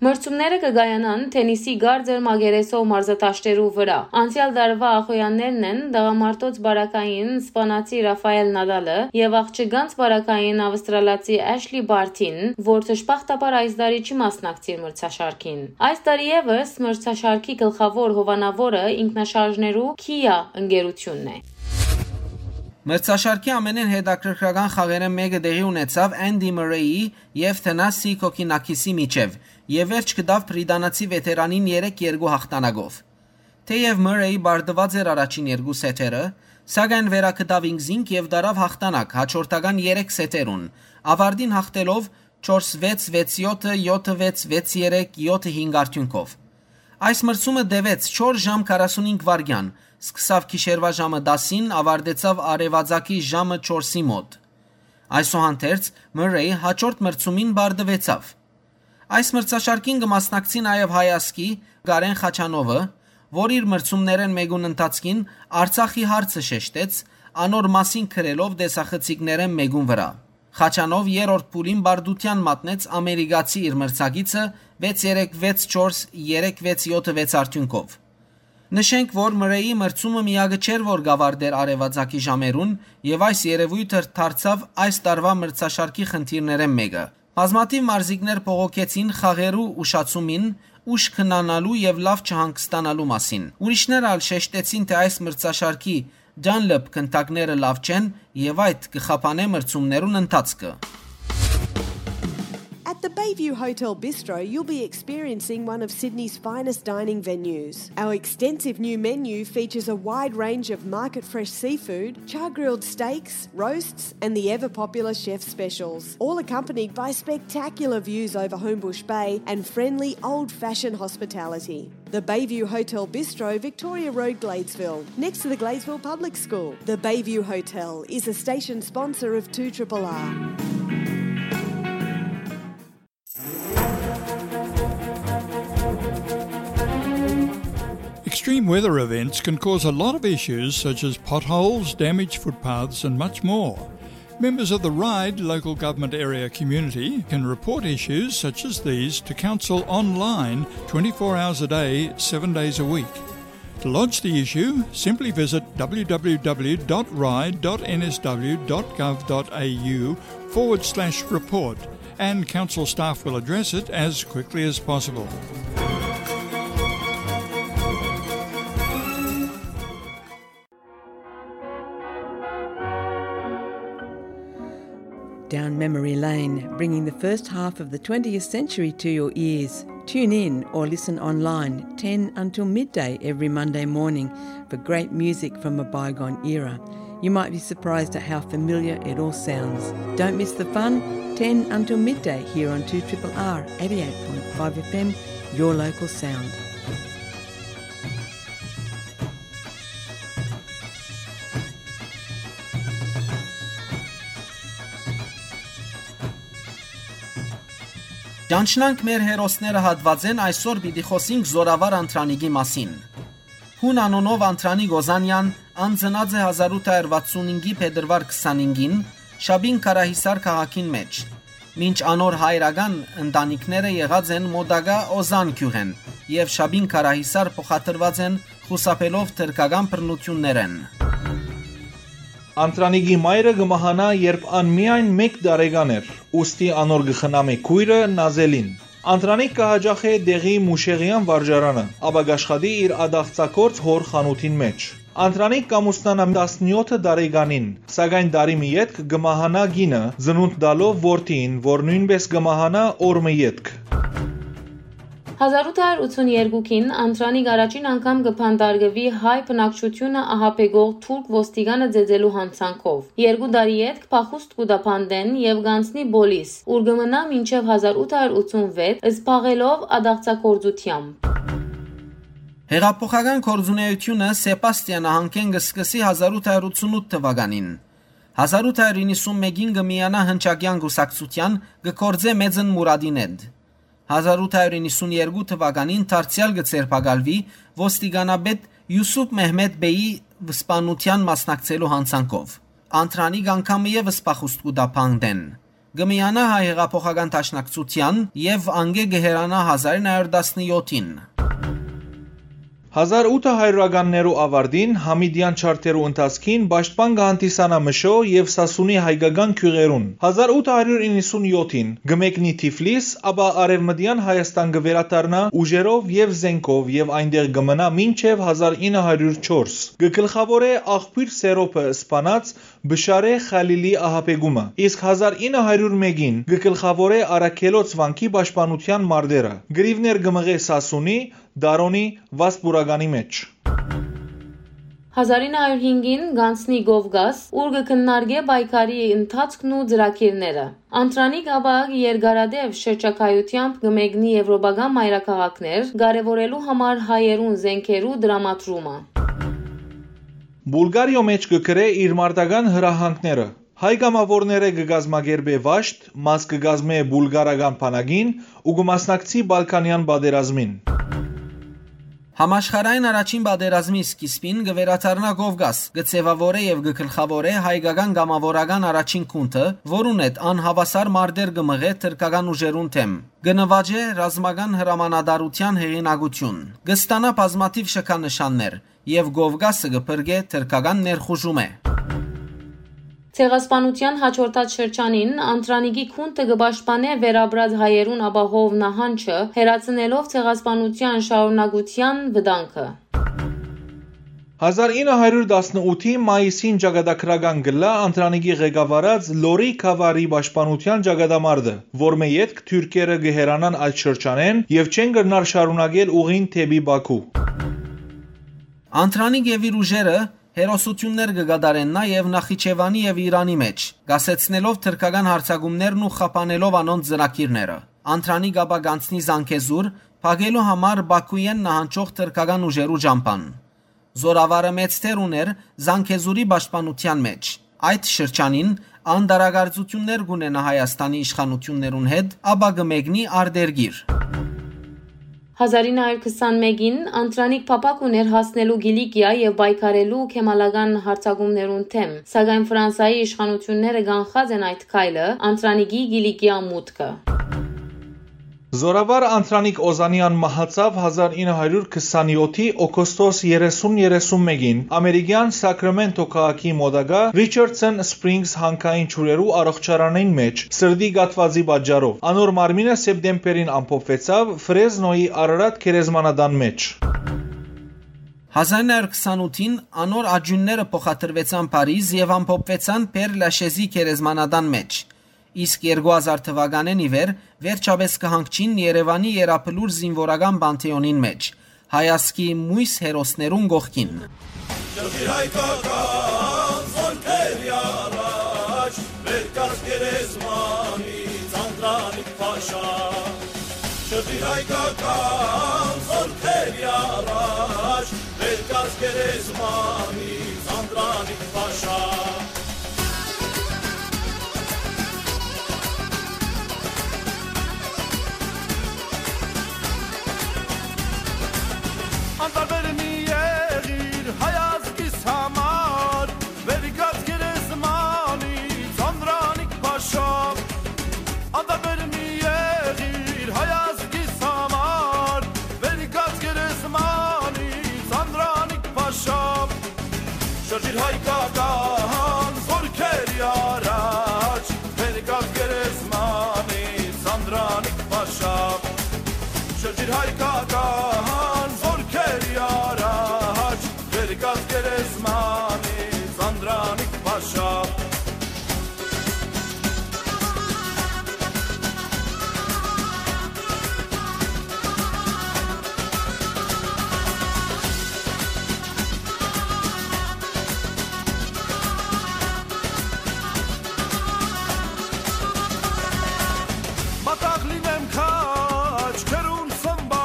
Մրցումները կը կայանան թենիսի կարծր մակերեսով մարզատաշտերու վրայ։ Անցեալ տարուայ ախոյեաններն են տղամարդոց պարագային սպանացի Ռաֆայել Նադալը եւ աղջկանց պարագային աւստրալացի Էշլի Բարթին, որ դժբախտաբար այս տարի չի մասնակցիր մրցաշարքին։ Այս տարի եւս մրցաշարքի գլխաւոր հովանաւորը ինքնաշարժներու Kia ընկերութիւնն է։ Մրցաշարքի ամենէն հետաքրքրական խաղերէն մէկը տեղի ունեցաւ Andy Murray-ի եւ Thanasi Kokkinakis-ի միջեւ, եւ վերջ գտաւ բրիտանացի վետերանին երեք երկու հաղթանակով։ Թէեւ Murray պարտուած էր առաջին երկու սեթերը, սակայն վերագտաւ ինքզինք եւ տարաւ հաղթանակ հաջորդական երեք սեթերուն, աւարտին հաղթելով չորս վեց, վեց յոթը, յոթ վեց, վեց երեք, յոթ հինգ արդիւնքով։ Այս մրցումը տեւեց չորս ժամ քառասունհինգ վայրկեան, սկսաւ գիշերուայ ժամը տասին, աւարտեցաւ արեւածագի ժամը չորսի մօտ։ Այսուհանդերձ, Մըրրէյ հաջորդ մրցումին պարտուեցաւ։ Այս մրցաշարքին կը մասնակցի նաեւ հայ ազգի Կարեն Խաչանովը, որ իր մրցումներէն մէկուն ընթացքին Արցախի հարցը շեշտեց, անոր մասին գրելով տեսախցիկներէն մէկուն վրայ։ Խաչանով երրորդ փուլին պարտութեան մատնեց ամերիկացի իր մրցակիցը վեց երեք վեց չորս, երեք վեց յոթ վեց արդիւնքով։ Նշենք, որ Մըրրէյի մրցումը միակը չէր, որ կ'աւարտէր արեւածագի ժամերուն, եւ այս երեւոյթը դարձաւ այս տարուայ մրցաշարքի խնդիրներէն մէկը։ Բազմաթիւ մարզիկներ բողոքեցին խաղերու ուշացումին, ուշ քնանալու եւ լաւ չհանգստանալու մասին։ Ուրիշներ ալ շեշտեցին, թէ այս մրցաշարքի Dunlop գնդակները լաւ չեն եւ այդ կը խափանէ մրցումներուն ընթացքը։ At the Bayview Hotel Bistro, you'll be experiencing one of Sydney's finest dining venues. Our extensive new menu features a wide range of market fresh seafood, char grilled steaks, roasts, and the ever popular chef specials, all accompanied by spectacular views over Homebush Bay and friendly old fashioned hospitality. The Bayview Hotel Bistro, Victoria Road, Gladesville, next to the Gladesville Public School. The Bayview Hotel is a station sponsor of two triple R. Extreme weather events can cause a lot of issues such as potholes, damaged footpaths, and much more. Members of the Ryde local government area community can report issues such as these to council online twenty-four hours a day, seven days a week. To lodge the issue, simply visit w w w dot ryde dot n s w dot gov dot a u forward slash report, and council staff will address it as quickly as possible. Down memory lane, bringing the first half of the twentieth century to your ears. Tune in or listen online ten until midday every Monday morning for great music from a bygone era. You might be surprised at how familiar it all sounds. Don't miss the fun, ten until midday here on two triple R eighty-eight point five F M, your local sound. Ճանչնանք մեր հերոսները հատվածեն, այսօր պիտի խոսենք Զորավար Անտրանիկի մասին։ Հուն անունով Անտրանիկ Օզանեան անցնած է հազար ութ հարյուր վաթսունհինգի փետրուար քսանհինգին Շաբին Քարահիսար քաղաքին մէջ, մինչ անոր հայրական ընտանիքները եղած են մոտակայ Օզան գիւղէն եւ Շաբին Քարահիսար փոխադրուած են խուսափելով թրքական բռնութիւններէն։ Անտրանիկի մայրը կը մահանայ, երբ ան միայն մէկ տարեկան էր, ուստի անոր կը խնամէ քոյրը Նազելին։ Անտրանիկ կը յաճախէ տեղի Մուշեղեան վարժարանը, ապա կ'աշխատի իր ադաղցագործ հօր խանութին մէջ։ Անտրանիկ կ'ամուսնանայ տասնեօթ տարեկանին, սակայն տարի մը ետք կը մահանայ կինը, ծնունդ տալով որդիին, որ նոյնպէս կը մահանայ օր մը ետք։ Հազար ութ հարյուր ութսուններկուին Անտրանիկ առաջին անգամ կը բանտարկուի հայ բնակչութիւնը ահաբեկող թուրք ոստիկանը ծեծելու յանցանքով։ Երկու տարի ետք փախուստ կու տայ բանտէն եւ կ'անցնի պոլիս, ուր կը մնայ մինչեւ հազար ութ հարյուր ութսունվեց, զբաղելով ադաղցագործութեամբ։ Հեղափոխական գործունէութիւնը Սեպաստիա նահանգէն կը սկսի հազար ութ հարյուր ութսունութ թուականին։ Հազար ութ հարյուր իննսուն մէկին կը միանայ Հնչակեան կուսակցութեան, կը գործէ Մեծն Մուրադին հետ։ Հազար ութ հարյուր իննսուն երկու թուականին դարձեալ կը ձերբակալուի ոստիկանապետ Յուսուփ Մեհմետ Բեյի սպանութեան մասնակցելու յանցանքով։ Անտրանիկ անգամ ևս փախուստ կու տայ բանտէն։ Կը միանայ Հայ Հեղափոխական Դաշնակցութեան եւ անկէ կը հեռանայ հազար ինը հարյուր տասնեօթին։ Հազար ութ հարիւրականներու աւարտին, Համիդեան չարթերու ընթացքին պաշտպան կը հանդիսանայ Մշոյ եւ Սասունի հայկական գիւղերուն։ Հազար ութ հարիւր իննսուն յոթին կը մեկնի Թիֆլիս, ապա Արեւմտեան Հայաստան կը վերադառնայ ուժերով եւ զէնքով եւ այնտեղ կը մնայ մինչեւ հազար ինը հարիւր չորս։ Կը գլխաւորէ Աղբիւր Սերոբը սպանած Բշարէ Խալիլի ահաբեկումը, իսկ հազար ինը հարիւր մէկին կը գլխաւորէ Արաքելոց վանքի պաշտպանութեան մարտերը։ Կռիւներ կը մղէ Սասունի, Դարոնի, Վասպուրականի մէջ։ Հազար ինը հարիւր հինգին կ'անցնի Կովկաս, ուր կը քննարկէ պայքարի ընթացքն ու ծրագիրները։ Անտրանիկ ապա երկարատեւ շրջագայութեամբ կը մեկնի եվրոպական մայրաքաղաքներ, կարեւորելու համար հայերուն զէնքերու տրամադրումը։ Պուլղարիոյ մէջ կը գրէ իր մարտական հրահանգները։ Հայ կամաւորներէ կը կազմակերպէ վաշտ, մաս կը կազմէ պուլղարական բանակին ու կը մասնակցի Բալկանեան պատերազմին։ Համաշխարհային առաջին պատերազմի սկիզբին կը վերադառնայ Կովկաս, կը ձեւաւորէ եւ կը գլխաւորէ հայկական կամաւորական առաջին գունդը, որուն հետ անհաւասար մարտեր կը մղէ թրքական ուժերուն դէմ, կը նուաճէ ռազմական հրամանատարութեան հեղինակութիւն, կը ստանայ բազմաթիւ շքանշաններ, եւ Կովկասը կը փրկէ թրքական ներխուժումէ։ Ցեղասպանութեան յաջորդած շրջանին Անտրանիկի գունդը կը պաշտպանէ վերապրած հայերուն ապահով նահանջը, հեռացնելով ցեղասպանութեան շարունակութեան վտանգը։ Հազար ինը հարիւր տասնութի մայիսին ճակատագրական կ'ըլլայ Անտրանիկի ղեկավարած Լորի Քավարի պաշտպանութեան ճակատամարտը, որմէ ետք թուրքերը կը հեռանան այդ շրջանէն եւ չեն կրնար շարունակել ուղին դէպի Պաքու։ Անտրանիկ եւ իր ուժերը հերոսութիւններ կը կատարեն նաեւ Նախիջեւանի եւ Իրանի մէջ, կասեցնելով թրքական յարձակումներն ու խափանելով անոնց ծրագիրները։ Անտրանիկ ապա կ'անցնի Զանգեզուր, փակելու համար Պաքուէն նահանջող թրքական ուժերու ճամբան։ Զորավարը մեծ դեր ունէր Զանգեզուրի պաշտպանութեան մէջ։ Այդ շրջանին ան տարակարծութիւններ կ'ունենայ Հայաստանի իշխանութիւններուն հետ, ապա կը մեկնի արտերկիր։ Հազար ինը հարիւր քսանմէկին Անտրանիկ փափաք ունէր հասնելու Կիլիկիա եւ պայքարելու քեմալական յարձակումներուն դէմ, սակայն Ֆրանսայի իշխանութիւնները կանխած են այդ քայլը, Անտրանիկի Կիլիկիա մուտքը։ Զորավար Անտրանիկ Օզանեան մահացաւ հազար ինը հարիւր քսանեօթի օգոստոս երեսուն երեսունմէկին ամերիկեան Սակրամենտո քաղաքի մոտակայ Ռիչարդսոն Սպրինգս հանքային ջուրերու առողջարանին մէջ սրտի կաթուածի պատճառով։ Անոր մարմինը սեպտեմբերին ամփոփուեցաւ Ֆրեզնոյի Արարատ գերեզմանատան մէջ։ Հազար ինը հարիւր քսանութին անոր աճիւնները փոխադրուեցան Փարիզ եւ ամփոփուեցան Պեր Լաշեզի գերեզմանատան մէջ, իսկ երկու հազար թուականէն ի վեր վերջապէս կը հանգչին Երեւանի Եռաբլուր զինուորական Պանթէոնին մէջ, հայազգի մոյս հերոսներուն կողքին։ Շրջիր հայկական զորքերի առաջ, վեր կաց գերեզմանից Անդրանիկ փաշա։ Շրջիր հայկական զորքերի առաջ, վեր կաց գերեզմանից Անդրանիկ փաշա։ Անտարբեր մի եղիր հայ ազգիս համար, վեր կաց գերեզմանից Անդրանիկ փաշա։ Անտարբեր մի եղիր հայ ազգիս համար, վեր կաց գերեզմանից Անդրանիկ փաշա։ Շրջիր հայկական զորքերի առաջ, վեր կաց գերեզմանից Անդրանիկ փաշա։ Շրջիր հայկական զորքերի առաջ, վեր կաց գերեզմանից Անդրանիկ փաշա։ Մատաղ լինեմ քաջ քերուն սմբա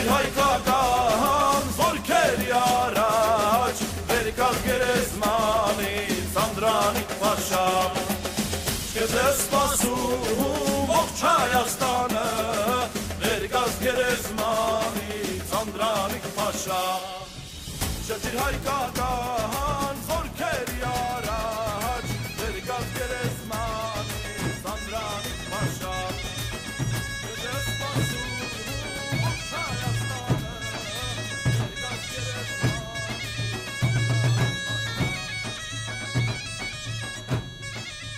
Հայկական զորքերի առաջ, վեր կաց գերեզմանից, Անդրանիկ փաշա։ Քեզ է սպասում ողջ Հայաստանը, վեր կաց գերեզմանից, Անդրանիկ փաշա։ Շրջիր հայկական զորքերի առաջ, վեր կաց գերեզմանից, Անդրանիկ փաշա։ Քեզ է սպասում ողջ Հայաստանը, վեր կաց գերեզմանից, Անդրանիկ փաշա։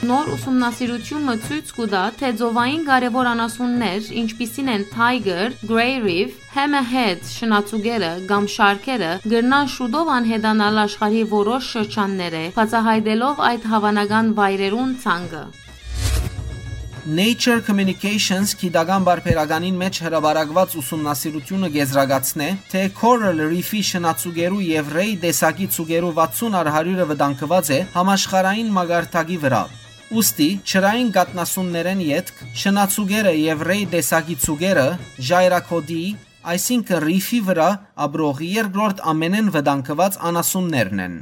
Նոր ուսումնասիրութիւնը ցոյց կու տայ, թէ ծովային կարեւոր անասուններ, ինչպիսին են Tiger, Grey Reef, Hammerhead շնաձուկերը կամ շարքերը, կրնան շուտով անհետանալ աշխարհի որոշ շրջաններէ, բացայայտելով այդ հաւանական վայրերուն ցանկը։ Nature Communications գիտական պարբերականին մէջ հրապարակուած ուսումնասիրութիւնը կ'եզրակացնէ, թէ Coral Reef-ի շնաձուկերու եւ Ray տեսակի ձուկերու վաթսուն առ հարիւրը վտանգուած է համաշխարհային մակարդակի վրայ։ Ուստի, ջրային կաթնասուններէն ետք, շնաձուկերը եւ Ray տեսակի ձուկերը ժայռագօտի, այսինքն Reef-ի վրայ ապրող երկրորդ ամենէն վտանգուած անասուններն են։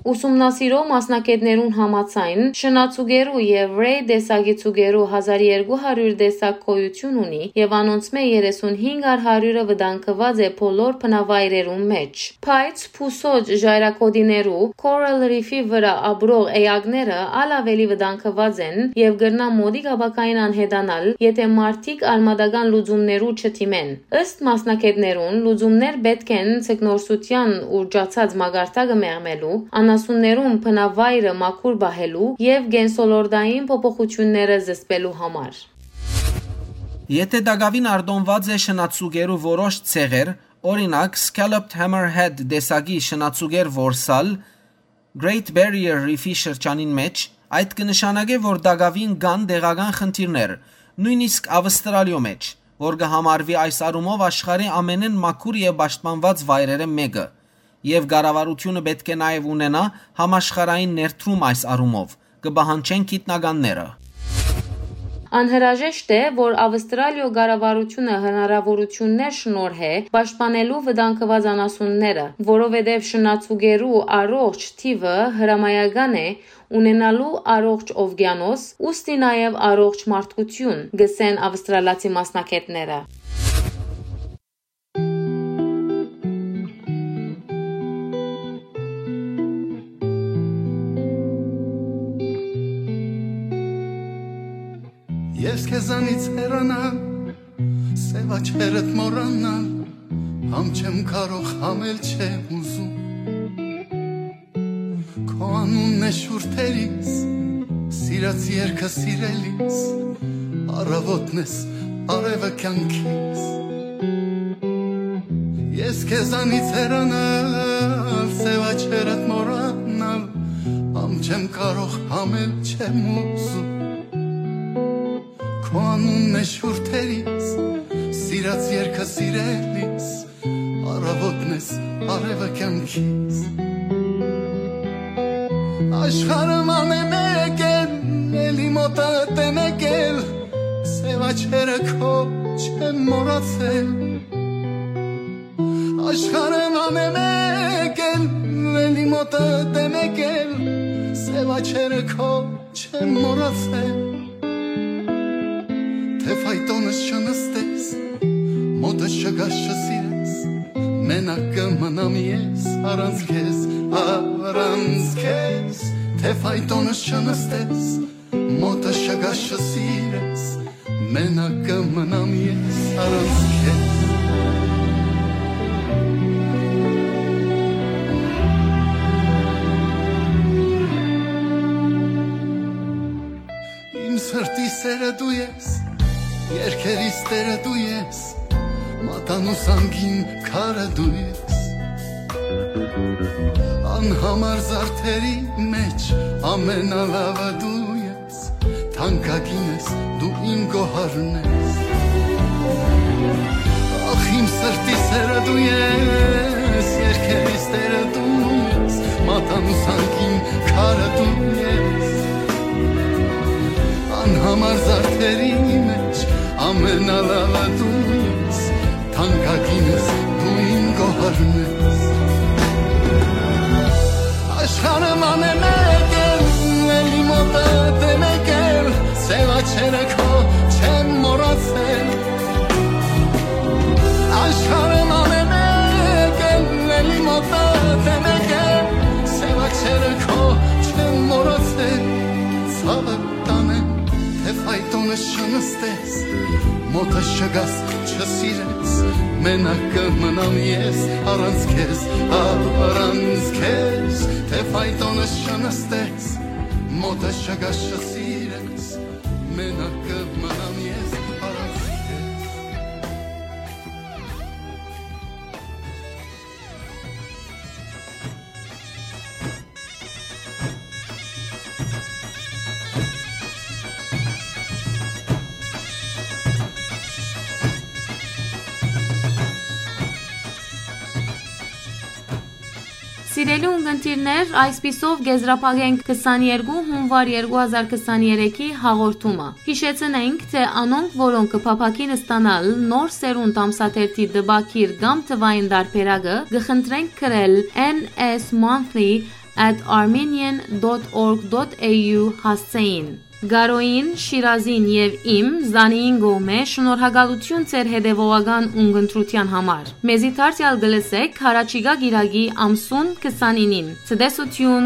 Ուսումնասիրող մասնագետներուն համաձայն, շնաձուկերու եւ Ray տեսակի ձուկերու հազար երկու հարիւր տեսակ գոյութիւն ունի եւ անոնցմէ երեսունհինգ առ հարիւրը վտանգուած է բոլոր բնավայրերուն մէջ։ Բայց փուսոջ ժայռագօտիներու, Coral Reef-ի վրայ ապրող էակները ալ աւելի վտանգուած են եւ կրնան մօտիկ ապագային անհետանալ, եթէ մարդիկ արմատական լուծումներու չդիմեն։ Ըստ մասնագետներուն, լուծումներ պէտք են ձկնորսութեան ուռճացած մակարդակը մեղմելու, անասուններուն բնավայրը մաքուր պահելու եւ կենսոլորտային փոփոխութիւնները զսպելու համար։ Եթէ տակաւին արտոնուած է շնաձուկերու որոշ ցեղեր, օրինակ, Scalloped Hammerhead տեսակի շնաձուկեր որսալ Great Barrier Reef-ի շրջանին մէջ, այդ կը նշանակէ, որ տակաւին կան տեղական խնդիրներ, նոյնիսկ Աւստրալիոյ մէջ, որ կը համարուի այս առումով աշխարհի ամենէն մաքուր եւ պաշտպանուած վայրերէն մէկը, եւ կառավարութիւնը պէտք է նաեւ ունենայ համաշխարհային ներդրում այս առումով, կը պահանջեն գիտնականները։ Անհրաժեշտ է, որ Աւստրալիոյ կառավարութիւնը հնարաւորութիւններ շնորհէ պաշտպանելու վտանգուած անասունները, որովհետեւ շնաձուկերու առողջ թիւը հրամայական է ունենալու առողջ օվկիանոս, ուստի նաեւ առողջ մարդկութիւն, կ'ըսեն աւստրալացի մասնագետները։ Ես քեզանից հեռանալ, սեւ աչքերդ մոռանալ, համ չեմ կարող, համ էլ չեմ ուզում։ Քո անունն է շուրթերիս, սիրած երկը սիրելիս, առավոտն ես, արևը կյանքիս։ Ես քեզանից հեռանալ, սեւ աչքերդ մոռանալ, համ չեմ կարող, համ էլ չեմ ուզում։ Քո անունն է շուրթերիս, սիրած երկը սիրելիս, առավոտն ես, արևը կյանքիս։ Աշխարհը ման է մեկ էլ, էլի մոտդ է մեկ էլ, սեւ աչքերը քո չեմ մոռացել։ Աշխարհը ման է մեկ էլ, էլի մոտդ է մեկ էլ, սեւ աչքերը քո չեմ մոռացել։ Թէ ֆայտոնս չնստես, մոտս չգաս չսիրես, մենակ կը մնամ ես առանց քեզ, առանց քեզ։ Թէ ֆայտոնս չնստես, մոտս չգաս չսիրես, մենակ կը մնամ ես առանց քեզ։ Իմ սրտի սերը դու ես, երկերիս տերը դու ես, մատանու սանգին քարը դու ես։ Անհամար զարդերի մեջ ամենալավը դու ես, թանկագին ես, դու իմ գոհարն ես։ Ախ, իմ սրտի սերը դու ես, երկերիս տերը դու ես, մատանու սանգին քարը դու ես։ Անհամար զարդերի մեջ ամենալավը դու ես, Աշխարհը ման է մեկ էլ, էլի մոտդ է մեկ էլ, սեւ աչերը քո չեն մոռացել։ Աշխարհը ման է մեկ էլ, էլի մոտդ է մեկ էլ, սեւ աչերը քո չեն մոռացել։ Ցաւը տանեմ, թէ ֆայտոնը չնստես, մոտը չգաս, չսիրես, մենակ կը մնամ ես առանց քեզ, առանց քեզ, թէ ֆայտոնը չնստես, մոտը չգաս, չսիրես, մենակ կը մնամ ես առանց քեզ։ Սիրելի ունգընտիրներ, այսպիսով կ'եզրափակենք քսաներկու հունուար երկու հազար քսաներեքի հաղորդումը։ Յիշեցնենք, թէ անոնք, որոնք կը փափաքին ստանալ Նոր Սերունդ ամսաթերթի տպագիր կամ թուային տարբերակը, կը խնդրենք գրել N S monthly at armenian dot org dot A U հասցէին։ Գարոյին, Շիրազին եւ իմ, Զանիին կողմէ շնորհակալութիւն ձեր հետեւողական ունգընտրութեան համար։ Մեզի դարձեալ կը լսէք յառաջիկայ կիրակի ամսուն քսանինին։ Ցտեսութիւն։